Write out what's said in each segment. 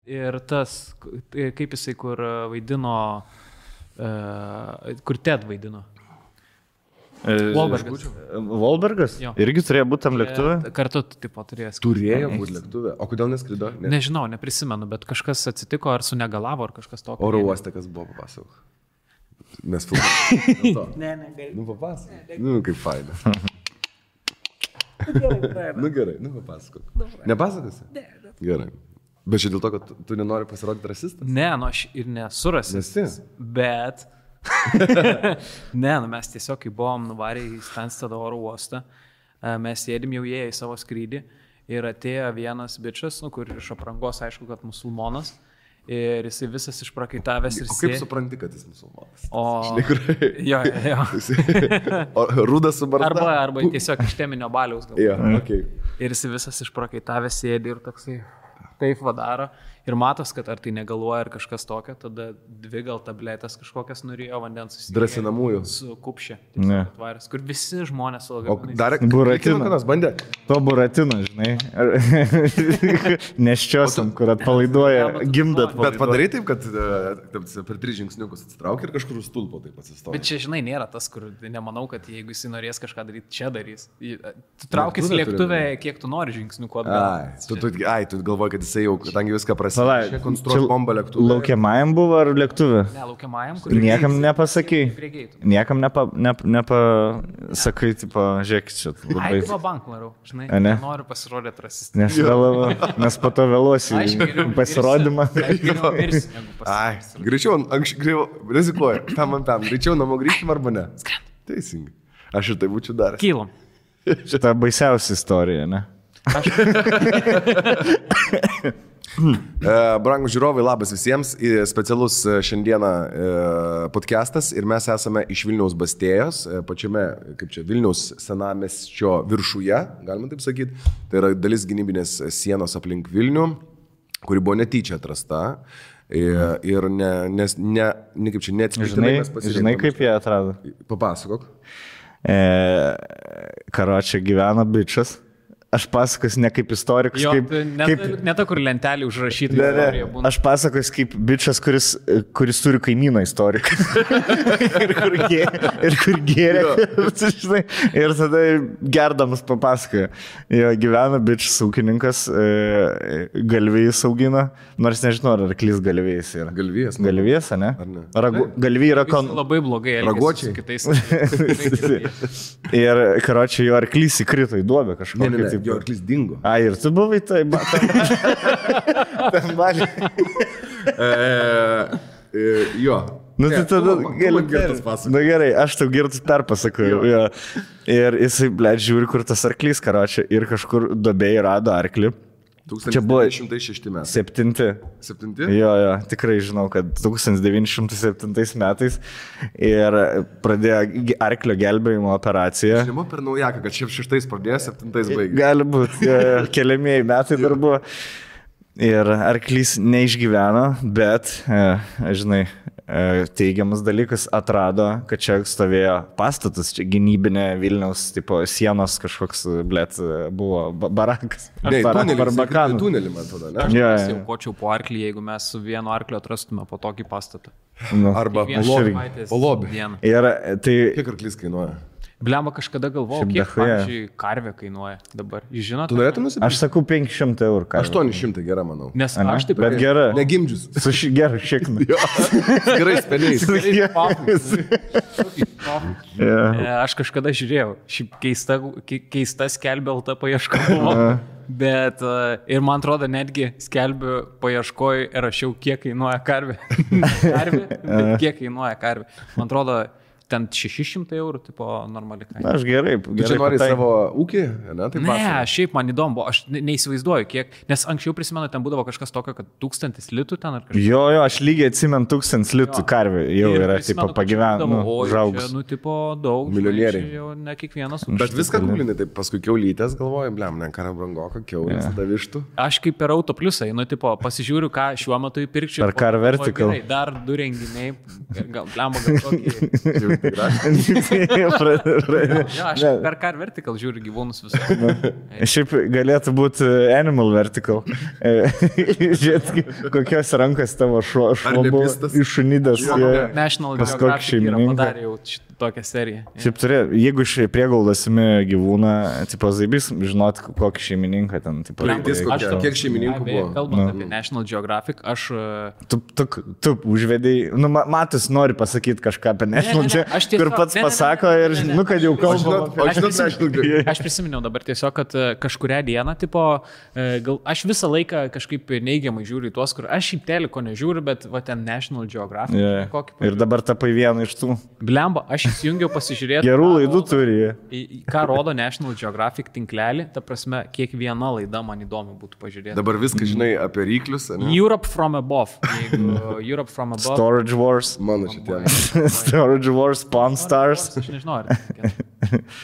Ir tas, kaip jisai, kur vaidino, kur Ted vaidino. Wahlbergas? Irgi turėjo būti tam lėktuvė? Kartu tipo turėjo. Turėjo būti lėktuvė. O kodėl neskrido? Nežinau, neprisimenu, bet kažkas atsitiko, ar sunegalavo, ar kažkas tokio. Oro uoste, kas buvo, papasakok. Mes filmuojame. Ne, gali. Nu, papasakok. Nu, kaip faina. Nu, gerai, papasakok. Nepasakosi? Ne. Gerai. Bet čia dėl to, kad tu nenori pasirodyti rasistas? Ne, aš ir nesu rasistas. Bet... Ne, mes tiesiog, kai buvom nuvarę į Stansted oro uostą, mes sėdim jau į savo skrydį ir atėjo vienas bičas, kur iš aprangos aišku, kad musulmonas, ir jisai visas išprakaitavęs ir kaip supranti, kad jis musulmonas? Jo. O rudas su barda? Arba tiesiog iš teminio baliaus gal. Okay. Ir jisai visas išprakaitavęs sėdi ir toksai taip vadaro. Ir matos, kad ar tai negaluoja ar kažkas tokio, tada 2 gal tabletės kažkokias norėjo vandens susitikti. Drąsinamųjų. Su kupšė. Atvarės, kur visi žmonės su lagaminais. O dar Buratino bandė? To Buratino, žinai. Neščiosiam, kur atpalaiduoja, gimdat. Bet padarai taip, kad per 3 žingsniukus atsitraukia ir kažkur stulpo taip atsistoja. Bet čia, žinai, nėra tas, kur nemanau, kad jeigu jis norės kažką daryti, čia darys. Tu traukis lėktuvę, kiek tu nori žingsniukų atgal. Tu galvoji, kad jisai jau, kadangi viską prasidėjo. Konstruoti bombą lėktuvę. Laukiamajam buvo ar lėktuvė? Ne, laukiamajam, kur niekam nepasakai. Niekam nepasakai, tipo, žiūrėk, čia labai... Ai, va bank varau, žinai, noriu pasirodyti rasistą. Nes po to vėluosi pasirodymą. Ai, greičiau, rizikuoju, tam, greičiau namo grįžtim arba ne? Teisingai. Aš ir tai būčiau daręs. Kylam. Šitą baisiausia istorija, ne? Brangūs žiūrovai, labas visiems. Specialus šiandieną podcastas ir mes esame iš Vilniaus Bastėjos, pačiame, kaip čia, Vilniaus senamiesčio viršuje, galima taip sakyti. Tai yra dalis gynybinės sienos aplink Vilnių, kuri buvo netyčia atrasta. Ir kaip čia neatsitiktinai mes pasirinkome. Žinai, kaip jie atrado? Papasakok. Karočią gyvena bičas. Aš pasakosiu ne kaip istorikas, ne ta, kur lentelį užrašyti. Aš pasakosiu kaip bičas, kuris turi kaimyną istoriką. ir kur gėrė. Ir tada gerdamas papasakoja. Jo gyvena bičas ūkininkas, galvijus augina, nors nežinau, ar arklys galvijais yra. Galvijas? Galvijas, ne? Galvijai yra labai blogai raguočiai kitais. Ir karočiui jo arklys įkrito į duobę kažkokį. Jo arklys dingo. Ir tu buvai tai tam balį. Jo. Nu tai tada gerai, aš tau girtus perpasakoju. Ir jisai, žiūri, kur tas arklys karočiui ir kažkur duobėje rado arklį. 1906 metai. 7? Jo, tikrai žinau, kad 1907 metais ir pradėjo arklio gelbėjimo operaciją. Žinoma per naujaką, kad šiaip 6 pradėjo, 7 baigė. Gali būti, keliamieji metai dar buvo. Ir arklys neišgyveno, bet, žinai, teigiamas dalykas atrado, kad čia stovėjo pastatas, čia gynybinė Vilniaus tipo sienos kažkoks, buvo barakas. Tunelį, man atrodo, ne? Aš aukočiau po arklį, jeigu mes su vienu arkliu atrastume po tokį pastatą. Arba po lobį. Ir tai... Kiek arklys kainuoja? Blemba, kažkada galvojau, kiek, pavyzdžiui, karvė kainuoja dabar. Jūs žinote? Tu norėtum nusipirkti? Aš sakau 500 eurų karvė. 800 gera, manau. Nes aš taip... Bet gera. Negimdžius. Su geru šiknu. Gerai speniais. Aš kažkada žiūrėjau. Šiaip keista skelbė LT paieška buvo. Bet ir man atrodo, netgi skelbiu paieškoj ir rašiau, kiek kainuoja karvė. Bet kiek kainuoja karvė. Man atrodo... Ten 600 eurų, tipo, normali kaina. Na, aš gerai. Tu čia nori savo ūkį? Ne, šiaip man įdomu, aš neįsivaizduoju, kiek, nes anksčiau prisimenu, ten būdavo kažkas tokio, kad 1000 litų ten ar kažkas. Jo, aš lygiai atsimenu 1000 litų karvė, jau yra, tipo, pagyvenu, žaugus. Nu, tipo, daug. Milijonieriai. Jau ne kiekvienas. Bet viską gūlinai, tai paskui kiaulytės galvoju, ne, kara brangoka, kiaulės, tada vištų. Aš kaip per Auto Pliusą, nu, tipo, pasižiūriu, ką šiuo metu įpirkčiau. Ar Car Vertical. Dar 2 renginiai, gal tokį... Aš per Car Vertical žiūriu gyvūnus visus. Šiaip galėtų būti Animal Vertical. Žiūrėt, kokios rankos tavo šuo buvo iššunidas. National Geographic yra padarė jau tokią seriją. Šiaip turė, jeigu iš priegaudasimi gyvūną, tipo Zaibys, žinot, kokį šeimininką ten. Kiek šeimininkų buvo? Kalbant apie National Geographic, aš... Tu užvedėjai, nu, Matus nori pasakyti kažką apie National Geographic, kur pats pasako ir, nu, kad jau kalbama. Aš prisiminiau dabar tiesiog, kad kažkurią dieną, tipo, aš visą laiką kažkaip neigiamai žiūriu į tuos, kur aš šiaip teliko nežiūriu, bet va ten National Geographic. Ir dabar tapai vieną iš tų. Blemba, aš įsijungiau pasižiūrėti. Gerų laidų turi. Ką rodo National Geographic tinklelį, ta prasme, kiekviena laida man įdomu būtų pažiūrėti. Dabar viską žinai apie ryklius, ne? Europe from above. Europe from above. Storage Wars. Mano šitie. Storage Wars, Pawn Stars. Aš nežinau,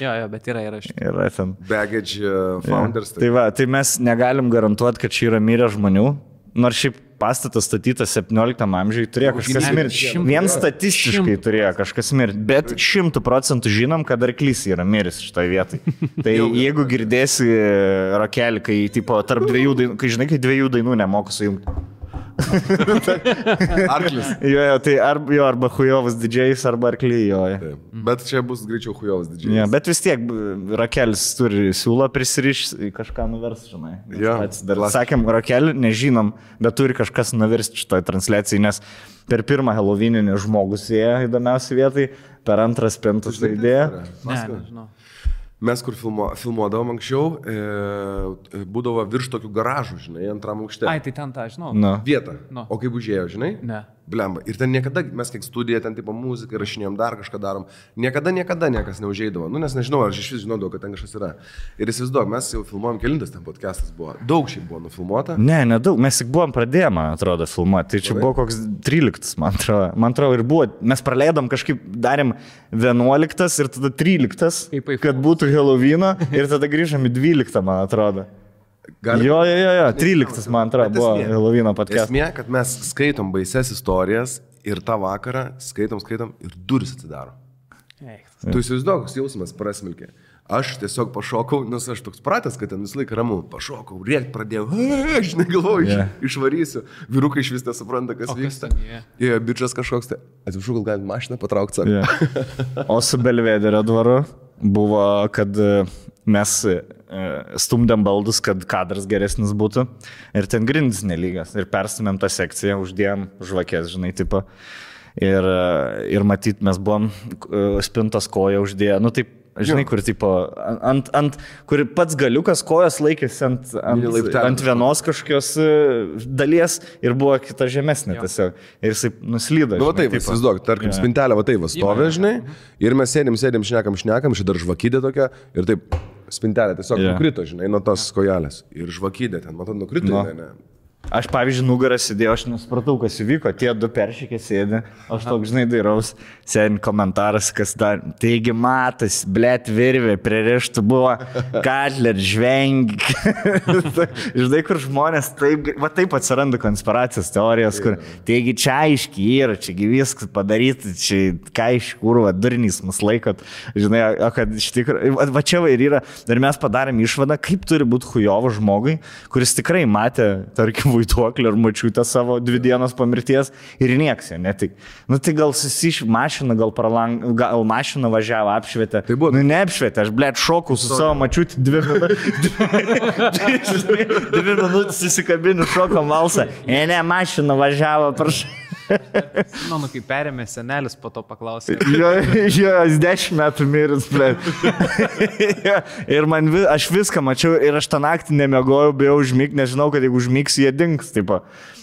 jo, bet yra Yra ten. Baggage Founders. Tai va, tai mes negalim garantuoti, kad čia yra mirę žmonių. Nors šiaip pastatas statytas 17 amžiui turėjo kažkas mirti. Vien statistiškai turėjo kažkas mirti. Bet 100% žinom, kad arklys yra miris šitoj vietai. Tai jeigu girdėsi rakelį, kai tipo, tarp dviejų dainų, kai žinai, kai dviejų dainų nemoku sujungti. Arklis. Tai arba Hujovas didžėjus, arba arkliai joja. Bet čia bus greičiau Hujovas didžėjus. Bet vis tiek rakelis turi siūlą prisirišti, kažką nuvers, žinai. Dar sakėm, rakelį nežinom, bet turi kažkas nuversti šitoj transliacijai, nes per pirmą Halloweeninį žmogus ėjo įdomiausiai vietai, per antrą spintus tai idėja. Nežinau. Mes, kur filmuodavom anksčiau, būdavo virš tokių garažų, žinai, antram aukšte. Ai, tai ten tą, žinau. Vietą. O kaip užėjo, žinai? Ne. Blemba. Ir ten niekada, mes kiek studiją, ten tipo muziką rašinėjom, dar kažką darom, niekada niekas neužeidavo. Nu, nes nežinau, ar aš iš vis žinodavau, kad ten kažkas yra. Ir įsivaizduok, mes jau filmuojam, kelintas ten podcastas buvo. Daug šiaip buvo nufilmuota. Nedaug, mes tik buvom pradėję, man atrodo, filmuoti. Tai čia buvo koks 13, man atrodo, ir buvo. Mes praleidom kažkaip, darėm 11 ir tada 13, kad būtų Halloweeno ir tada grįžom į 12, man atrodo. Jo, 13, man atrodo, buvo Halloweeno podcastas. Esmė, kad mes skaitom baises istorijas ir tą vakarą skaitom ir duris atsidaro. Tu įsivaizduok, koks jausmas prasmilkė. Aš tiesiog pašokau, nes aš toks pratęs, kad ten visą laiką ramu. Pašokau, rėkt pradėjau, aš negalvoju, išvarysiu. Vyrukai iš vis nesupranta, kas vyksta. Bičas kažkoks, tai atsiprašau, gal galim mašiną patraukti. O su Belvederio dvaru buvo, kad mes stumdėm baldus, kad kadras geresnis būtų. Ir ten grindis nelygas. Ir perstumėm tą sekciją, uždėjom žvakės, žinai, tipo. Ir matyt, mes buvom spintos koją uždėję. Nu, taip, žinai, kur tipo, kur pats galiukas kojas laikėsi ant vienos kažkokios dalies ir buvo kita žemesnė tiesiog. Ir jisai nuslydo. Nu, va taip, įsivaizduok, tarkim, spintelė va taip, stovė, žinai, ir mes sėdim, šnekam, ši dar žvakydė tokia, ir taip, spintelė tiesiog nukrito, žinai, nuo tos kojelės. Ir žvakydė ten, matot, nukrito, ne. Aš, pavyzdžiui, nugarą sėdėjau, aš nesupratau, kas įvyko, tie du peršykė sėdė, aš toks, žinai, dairaus, sėdin komentaras, kas dar, taigi matas, blėt virvė, pririštų buvo, Katler, žvengi, žinai, kur žmonės, taip atsiranda konspiracijos teorijos, kur, taigi čia aiškiai yra, čiagi viskas padaryti, čia ką iš kur, durnys mus laikot, žinai, o kad iš tikrųjų, va čia ir yra, ir mes padarėm išvadą, kaip turi būti hujovo žmogui, kuris tikrai matė, tarkim, vaiduoklį ar mačiutę savo 2 dienos po mirties ir nieks jo netik. Nu tai gal susiš mašiną, gal mašiną važiavo, apšvietė. Tai buvo. Nu neapšvietė, aš blėt šokau su savo mačiutį 2 minutės įsikabiniu šoko malsą. Ne, mašiną važiavo, prašau. Nu, kai perėmė senelis, po to paklausė. Jo, 10 metų miris, blėt. Ir aš viską mačiau ir aš tą naktį nemiegojau, bijau užmigti, nežinau, kad jeigu užmigsiu, jie dings, tipo.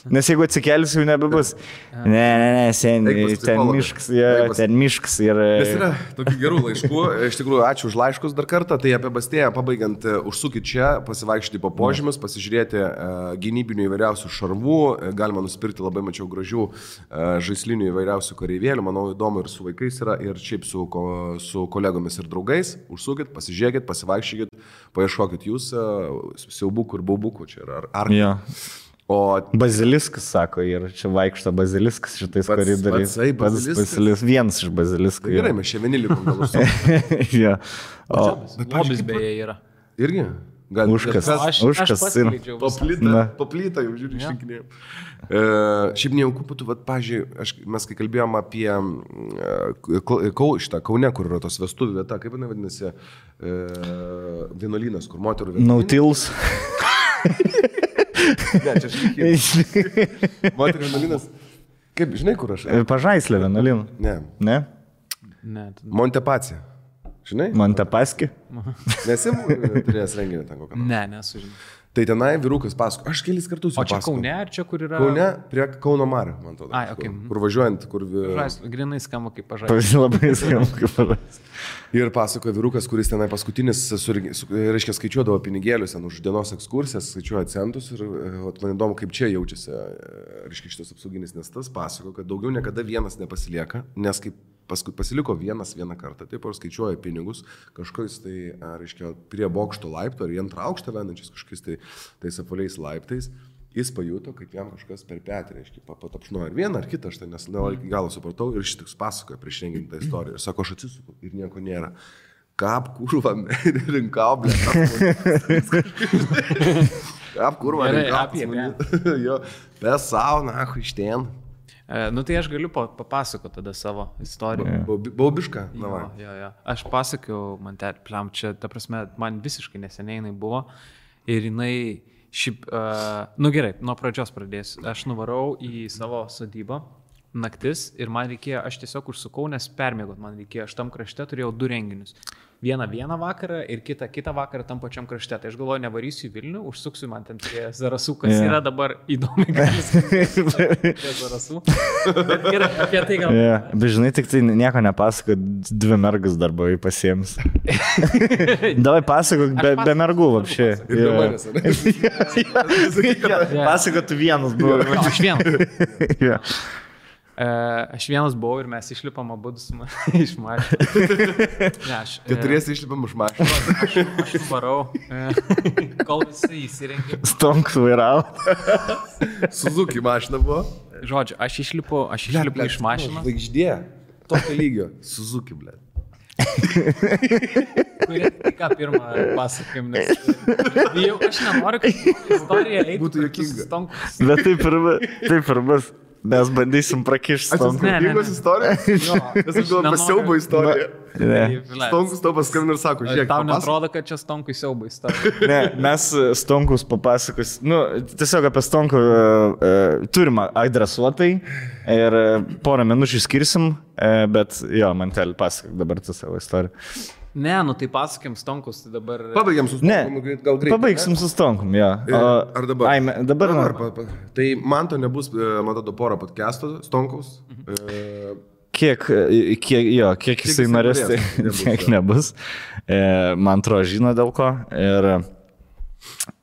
Nes jeigu atsikelsiu, jau nebebus. Ne, seniai, ten miškas. Nes yra tokių gerų laiškų. Iš tikrųjų, ačiū už laiškus dar kartą. Tai apie Bastėją pabaigiant, užsukit čia, pasivaikščioti po požymius, pasižiūrėti gynybinių įvairiausių šarvų. Galima nusipirkti, labai mačiau gražių žaislinių įvairiausių kareivėlių. Manau, įdomu ir su vaikais yra, ir šiaip su kolegomis ir draugais. Užsukit, pasižiūrėkit, pasivaikščiokit, paieškokit jūs siaubukų ir baubukų. Čia yra Baziliskas, sako, ir čia vaikšto baziliskas šitais koridoriais. Pats baziliskas. Vienas iš baziliskų. Gerai, mes čia vieni likom gal užsu. Ja. Lobis beje yra. Irgi? Užkas. Aš paskleidžiau. Paplytą jau žiūrėjau, išrinkinėjau. Šiaip nejauku būtų, pažiūrėjau, mes kai kalbėjom apie šitą Kaune, kur yra tos vestuvių vieta, kaip jinai vadinasi, vienuolynas, kur moterų vienuolynas. Nautils. Ne, čia šlikiai. Moterų vienuolynas. Kaip, žinai, kur aš? Pažaislė vienuolynų. Ne. Ne. Montepacija. Žinai? Montepaski? Nesi turėjęs renginį ten kokią? Ne, nesužinau. Tai tenai vyrukas pasako, aš kelis kartus jau pasakau. O čia pasakau. Kaune, ar čia kur yra? Kaune, prie Kauno Marių, man atrodo. Ai, okay. Kur važiuojant, kur... Grinai skamba kaip pažaislė. Labai skamba kaip pažaislė. Ir pasako vyrukas, kuris tenai paskutinis, reiškia, skaičiuodavo pinigėlius ten už dienos ekskursijas, skaičiuoja centus ir man įdomu, kaip čia jaučiasi, reiškia, šitas apsauginis, nes tas pasako, kad daugiau niekada vienas nepasilieka, nes kaip paskui pasiliko vieną kartą, taip ir skaičiuoja pinigus, kažkokiais tai, reiškia, prie bokšto laipto ar į antrą aukštą vendančiais kažkokiais tai tais apvaliais laiptais, jis pajuto, kad jam kažkas per petį, reiškia, patapšnuoja ar vieną ar kitą, aš tai nes iki galo supratau ir šitiks pasakoja prieš renginį tą istoriją ir sako, aš atsisuku ir nieko nėra. Kap kurva, rinkau, kap kurva, rinkau. Jo, be sauna, iš ten. Nu tai aš galiu papasakoti tada savo istoriją. Baubišką? Jo. Aš pasakiau, man pliam, čia, ta prasme, man visiškai neseniai jinai buvo ir jinai šiaip, nu gerai, nuo pradžios pradėsiu. Aš nuvarau į savo sodybą naktis ir man reikėjo, aš tiesiog užsukau, nes permėgot man reikėjo, aš tam krašte turėjau 2 renginius. Vieną vakarą ir kitą vakarą tam pačiam krašte. Tai aš galvoju, nevarysiu į Vilnių, užsuksiu man ten prie Zarasų, kas yra dabar įdomi galis. Prie Zarasų. Bet gerai, apie tai gal... Bet žinai, tik tai nieko nepasako, 2 mergus dar buvai pasiems. Davai pasako, be mergų vapšė. Pasako, tu vienas buvai. Aš vienas. Aš vienas buvau ir mes išlipam abudu iš mašinos. Keturiesi išlipam iš mašinos. Aš varau, kol visi įsirengė. Stonks vairavo. Suzuki mašina buvo. Žodžiu, aš išlipu iš mašinos. Žvaigždė, tokio lygio. Suzuki, blė. Kurie tik ką pirmą pasakym, nes jau aš nenoriu, kad istorija eitų. Būtų juokinga. Bet taip ir bus. Mes bandysim prakišti Stonkus. Juokingos istorija? Jo. Mes galvojame siaubo istoriją. Stonkus tau paskambina ir sako, žiūrėk. Tau netrodo, kad čia Stonkui siaubo istorija. Ne, mes Stonkus papasakos. Nu, tiesiog apie Stonkų turim adresuotai ir porą minučių skirsim, bet jo, man teli pasakok dabar tu savo istoriją. Ne, nu tai pasakėm Stonkus, tai dabar... Pabaigiam su Stonkum, gal greitai. Pabaigsim su Stonkum, jo. Ar dabar? Dabar. Tai man to nebus, man tada porą podcastų Stonkaus. Kiek jisai norės, tai kiek nebus. Man atrodo, žino dėl ko. Ir...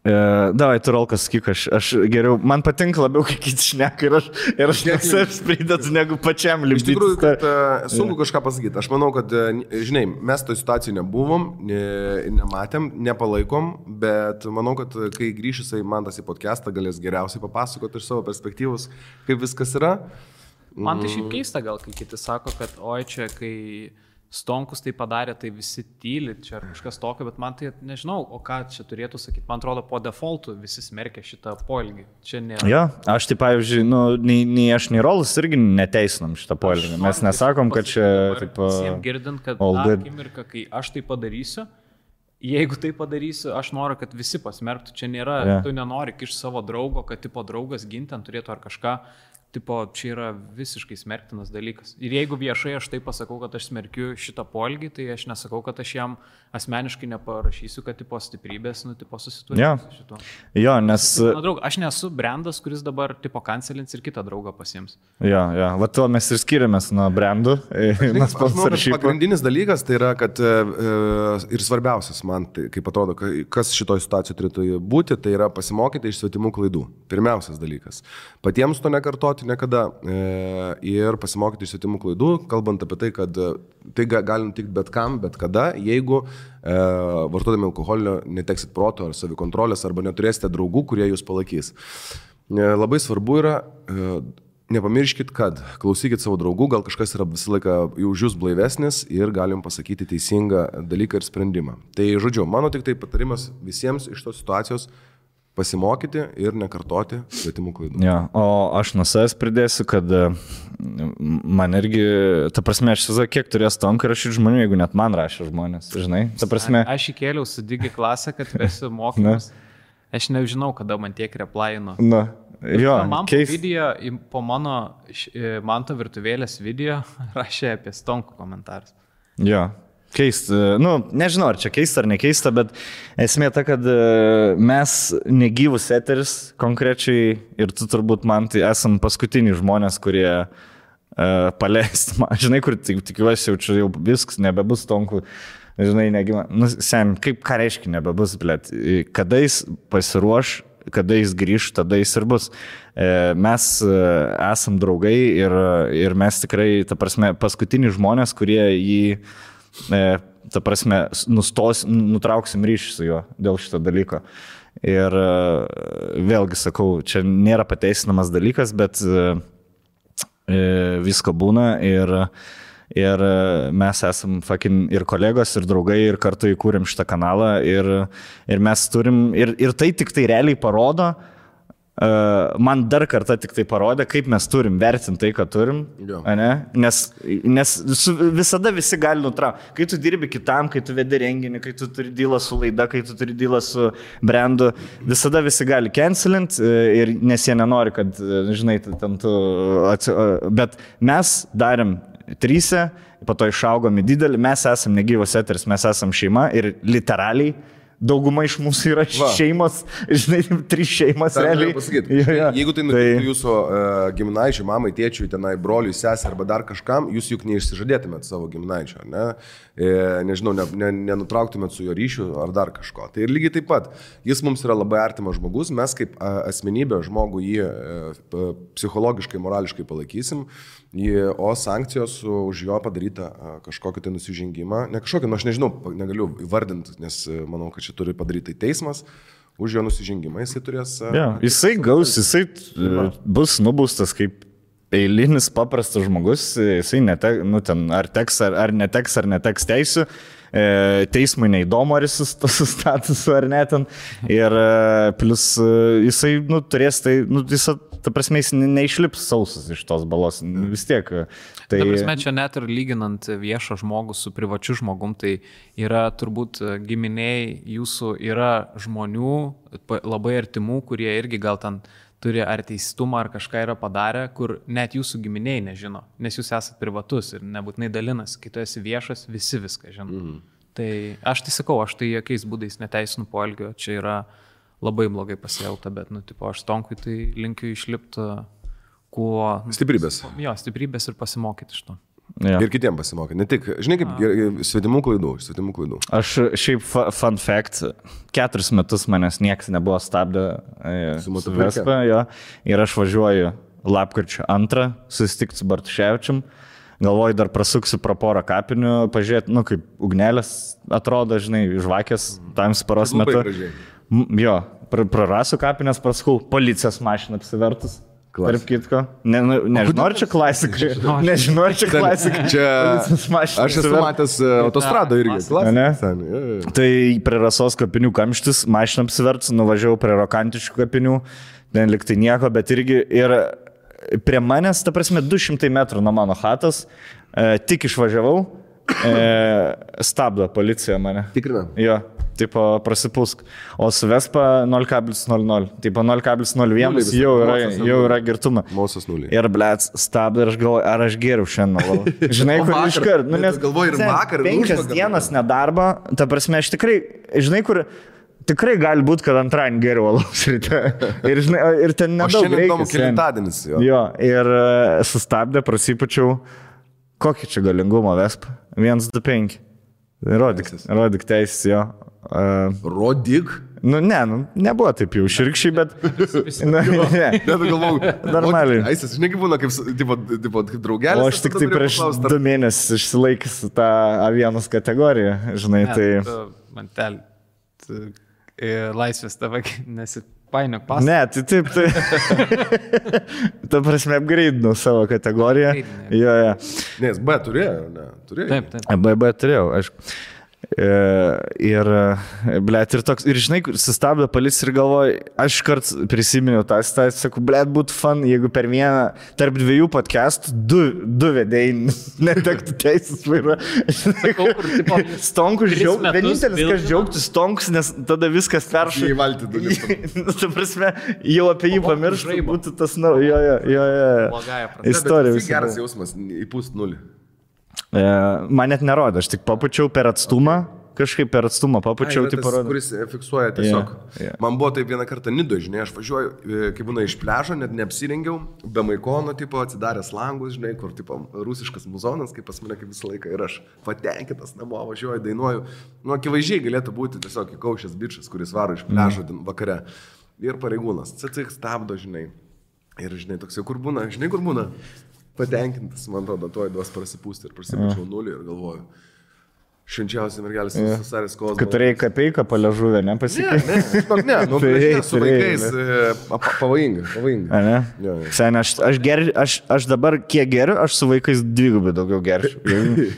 Davai, tu Rolkas, sakyk, aš geriau, man patinka labiau, kai kiti šneka ir aš nesavs pridedu, negu pačiam lipdyti. Iš tikrųjų, kad sunku kažką pasakyti. Aš manau, kad, žinai, mes toj situacijai nebuvom, nematėm, nepalaikom, bet manau, kad kai grįš jisai man tas į podcastą, galės geriausiai papasakoti iš savo perspektyvos, kaip viskas yra. Man tai šiaip keista gal, kai kiti sako, kad oi čia, kai... Stonkus tai padarė, tai visi tyli, čia kažkas tokio, bet man tai nežinau, o ką čia turėtų sakyti. Man atrodo, po defaultų visi smerkia šitą poelgį. Čia nėra. Jo, aš tai pavyzdžiui, nei aš, nei Rolas irgi neteisinam šitą poelgį. Mes nesakom, kad čia... Visiems girdint, kad akimirka, kai aš tai padarysiu, jeigu tai padarysiu, aš noriu, kad visi pasmerktų. Čia nėra, tu nenori kišti savo draugo, kad tipo draugas gintent turėtų ar kažką. Tipo, čia yra visiškai smerktinas dalykas. Ir jeigu viešai aš tai pasakau, kad aš smerkiu šitą poelgį, tai aš nesakau, kad aš jam asmeniškai neparašysiu, kad tipo stiprybės, tipo susitvarkysiu su šituo. Jo, nes... Draug, aš nesu brandas, kuris dabar tipo kancelins ir kitą draugą pasiims. Jo, va to mes ir skiriamės nuo brandų. Pagrindinis dalykas tai yra, kad ir svarbiausias man, tai, kaip atrodo, kas šitoj situacijoje turėtų būti, tai yra pasimokyti iš svetimų klaidų. Pirmiausias dalykas. Patiems to nekartoti niekada ir pasimokyti iš svetimų klaidų, kalbant apie tai, kad tai gali nutikti bet kam, bet kada, jeigu vartodami alkoholio neteksit proto ar savikontrolės arba neturėsite draugų, kurie jūs palaikys. Labai svarbu yra, nepamirškit, kad klausykit savo draugų, gal kažkas yra visą laiką už jūs blaivesnis ir galim pasakyti teisingą dalyką ir sprendimą. Tai žodžiu, mano tik tai patarimas visiems iš tos situacijos pasimokyti ir nekartoti svetimų klaidų. Ja, o aš nuo savęs pridėsiu, kad man irgi, ta prasme, aš įsivaizduoju, kiek turės tonkai rašyti žmonių, jeigu net man rašė žmonės, žinai. Ta prasme... Aš įkėliau su Digi klasę, kad vesi mokymus. Aš nežinau, kada man tiek replaino. Na, jo, man po video, po mano Manto virtuvėlės video rašė apie stonkų komentarus. Jo. Keista, nežinau, ar čia keista ar nekeista, bet esmė ta, kad mes negyvus eteris konkrečiai ir tu turbūt man tai esam paskutiniai žmonės, kurie paleisti, žinai, kur tikiuosi jau čia viskas, nebebus tonkų, žinai, negyva. Kaip ką reiškia nebebus, blėt, kada jis pasiruoš, kada jis grįž, tada jis ir bus. Mes esam draugai ir mes tikrai, ta prasme, paskutiniai žmonės, kurie jį ta prasme, nutrauksim ryšį su juo dėl šito dalyko. Ir vėlgi sakau, čia nėra pateisinamas dalykas, bet visko būna ir mes esam fucking ir kolegos, ir draugai, ir kartu įkūrėm šitą kanalą ir mes turim, ir tai tik tai realiai parodo, man dar kartą tik tai parodė, kaip mes turim vertinti tai, ką turim, nes visada visi gali nutraukti. Kai tu dirbi kitam, kai tu vedi renginį, kai tu turi dylą su laida, kai tu turi dylą su brandu, visada visi gali cancelint, nes jie nenori, kad, žinai, ten tu... Bet mes darėm 3, po to išaugom į didelį, mes esam negyvos eteris, mes esam šeima ir literaliai dauguma iš mūsų yra šeimos, žinai, 3 šeimas realiai. Jeigu tai nutiktų jūsų giminaičiui, mamai, tėčiui, tenai, broliui, sesė arba dar kažkam, jūs juk neišsižadėtumėt savo giminaičio, ne? Nežinau, nenutrauktumėt su jo ryšiu ar dar kažko. Tai ir lygiai taip pat, jis mums yra labai artimas žmogus, mes kaip asmenybė žmogų jį psichologiškai, morališkai palaikysim, o sankcijos už jo padarytą kažkokį tai nusižengimą, ne kažkokį, aš nežinau, negaliu įvardinti, nes manau, kad čia turi padaryti teismas, už jo nusižengimą jisai turės... Jisai gaus, jisai bus nubaustas kaip eilinis paprastas žmogus, jisai ar teks ar neteks teisių, teismui neįdomu, ar jis su statusu ar ne ten, ir plus jisai turės tai, ta prasme, jis neišlips sausas iš tos balos, vis tiek. Ta prasme, čia net ir lyginant viešą žmogų su privačiu žmogum, tai yra turbūt giminiai jūsų, yra žmonių labai artimų, kurie irgi gal ten turi ar teistumą, ar kažką yra padarę, kur net jūsų giminiai nežino, nes jūs esate privatus ir nebūtinai dalinas, kai tu esi viešas, visi viską žino. Tai aš tai sakau, aš tai jokiais būdais neteisinu poelgio, čia yra labai blogai pasielgta, bet, aš Tonkui tai linkiu išlipti kuo... Stiprybės. Jo, stiprybės ir pasimokyti iš to. Ja. Ir kitiem pasimokyti. Ne tik, žinai, kaip svetimų klaidų. Aš šiaip fun fact, 4 metus manęs niekas nebuvo stabdę su Vespa, ir aš važiuoju lapkričio 2, susitikti su Bartuševičium. Galvoju, dar prasuksiu pro porą kapinių, pažiūrėti, kaip ugnelės atrodo, žinai, žvakės tam sparos metu. Jo, prarasiu kapinės, prasukau, policijos mašiną apsivertus. Tarp kitko. Nežinau, ar čia klasika. Nežinau, ar čia klasika. Aš esu matęs autostradą irgi. Tai prie Rasos kapinių kamštis, mašiną apsivertus, nuvažiavau prie Rokantiškų kapinių, ten liktai nieko, bet irgi ir prie manęs, ta prasme, 200 metrų nuo mano chatos, tik išvažiavau, stabdo policija mane. Tikrina? Jo, tipo prasipūsk. O su Vespa 0,00. Tipo 0,01 jau yra girtuma. Mausas 0. Ir blėt, stabdo ir aš galvoju, ar aš geriau šiandien. Žinai, kur iškart. Nes galvoju ir vakar. 5 dienas nedarbo, ta prasme, aš tikrai, žinai, kur... Tikrai gali būti, kad antradienį geriau alaus ryte. Ir, žinai, ir ten nedaug reikia. O šiandien įdomu kelintadienis. Jo, ir sustabdė, prasipačiau, kokį čia galingumą Vespa. 125. Rodyk teisės, jo. Rodyk? Nebuvo taip jau širkščiai, bet... Normaliai. Aisas, žinai, kaip būna, kaip draugelis. O aš tik tai prieš 2 mėnesius išsilaikęs tą A1 kategoriją, žinai, tai... Mantel. Laisvės tava, painiok pasą. Ne, tai taip, tai. Ta prasme, apgreidinau savo kategoriją. Jo. Nes B turėjo, ne? Turėjo. Taip. B turėjau, aišku. Ir, blėt, ir toks, ir žinai, sustabdė policija ir galvoju, aš kart prisiminiau tą situaciją, sakau, blėt, būtų fun, jeigu per vieną, tarp dviejų podcastų, du vedėjai netektų teisės vairuoti. Stonkus džiaugtų, vienintelis, kas džiaugtų Stonkus, nes tada viskas peršai. Į valtį dalykų. Ta prasme, jau apie jį pamirštų, būtų tas, jo. Istorija. Tai geras jausmas, įpūst nulį. Man net nerodė, aš tik papučiau per atstumą, kažkaip per atstumą papučiau, tai parodė. Kuris fiksuoja tiesiog. Man buvo taip vieną kartą Nido, žinai, aš važiuoju, kai būna iš pliažo, net neapsirengiau, be maikono, tipo, atsidaręs langus, žinai, kur, tipo, rusiškas muzonas, kaip pas mane kaip visą laiką, ir aš patenkintas namo važiuoju, dainuoju. Nu, akivaizdžiai galėtų būti tiesiog įkaušęs bičas, kuris varo iš pliažo vakare. Ir pareigūnas, CC stabdo, žinai. Ir, žinai, toks jau kur būna, patenkintas, man atrodo, tuoj duos prasipūsti ir prasipučiau nulį ir galvoju, švenčiausiai mergelis susarės kovos. Kad turėjai kapeiką paležuvę, nepasikeitė? Ne, nu, su vaikais pavojinga. Ne? Sen, aš dabar kiek geriu, aš su vaikais dvigubai daugiau gerčiau,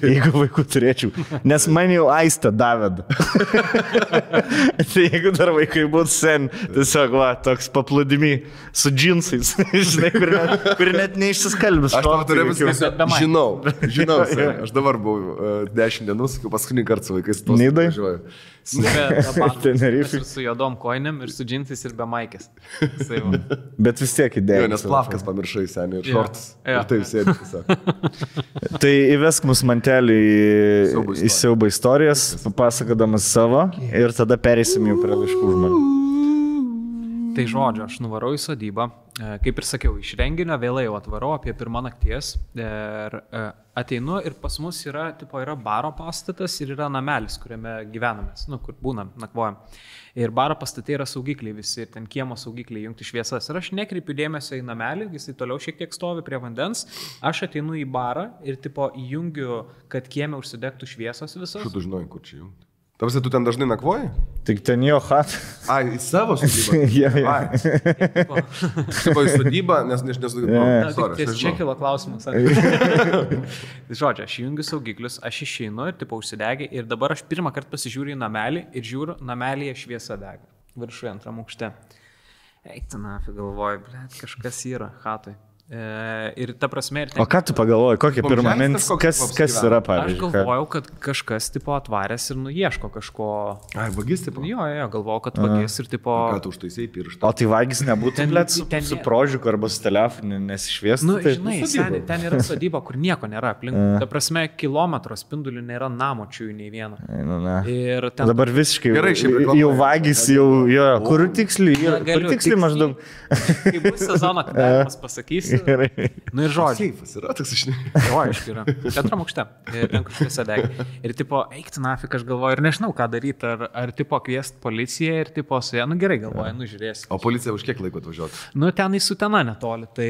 jeigu vaikų turėčiau, nes man jau aistą davėda. Tai jeigu dar vaikai būtų sen, tiesiog, va, toks paplūdimi su džinsais, žinai, kur net neišsiskalbis. Aš tau turiu viską, žinau, aš dabar buvau 10 dienų, paskutinį kartą su vaikais tos važiuoju. Ir su juodom koinėm, ir su džinsais, ir be maikės. Bet vis tiek idėja. Nes plavkas pamiršai seniai ir šortus. Ir taip sėdė tiesiog. Tai įvesk mus mantelį į siaubo istorijas, papasakodamas savo, ir tada pereisim jau prie laiškų žmonių. Tai žodžiu, aš nuvarau į sodybą, kaip ir sakiau, iš renginio vėlai jau atvarau apie 1 nakties ir ateinu ir pas mus yra baro pastatas ir yra namelis, kuriame gyvenamės, kur būnam, nakvojam. Ir baro pastate yra saugikliai visi, ir ten kiemo saugikliai jungti šviesas. Ir aš nekreipiu dėmesio į namelį, jisai toliau šiek tiek stovi prie vandens, aš ateinu į barą ir įjungiu, kad kieme užsidegtų šviesos visos. Štai tu žinai, kur čia jungti. Tavasi, tu ten dažnai nakvoji? Tik ten jo hat. Ai, į savo sodybą? Tipo į sodybą, nes čia kilo klausimas. Žodžiu, aš įjungiu saugiklius, aš išeinu ir užsidegi ir dabar aš pirmą kartą pasižiūriu į namelį ir žiūriu, namelyje šviesa dega. Viršuje 2 aukšte. Eik, galvoju, blėt, kažkas yra hatoj. Ir ta prasme... O ką tu pagalvoji, kokia pirma mintis, kas yra, pavyzdžiui? Aš galvojau, kad kažkas atvaręs ir nuieško kažko... Ai, vagis, tipo? Jo, galvojau, kad vagis ir tipo... Ką tu užtaisai pirštą? O tai vagis nebūtų, blėt, su prožiuku arba su telefonu nesišviestų? Nu, žinai, seniai, ten yra sodyba, kur nieko nėra aplink. Ta prasme, kilometro spindulių nėra namočių nei vieno. Ir ten... Dabar visiškai jau vagis, jau... Kur tiksliai maždaug? Kai bus sezono, kada mes pasakysiu. Nu ir žodžiu. Seifas yra toks išnai. Jo, aišku yra. 2 aukšte. Ten kur šviesa dega. Ir tipo, eikti nafik, aš galvoju, ir nežinau, ką daryti. Ar tipo kviest policiją ir tipo su ja, gerai galvoju, žiūrėsi. O policija už kiek laiko atvažiuoti? Ten į Sutena netoli, tai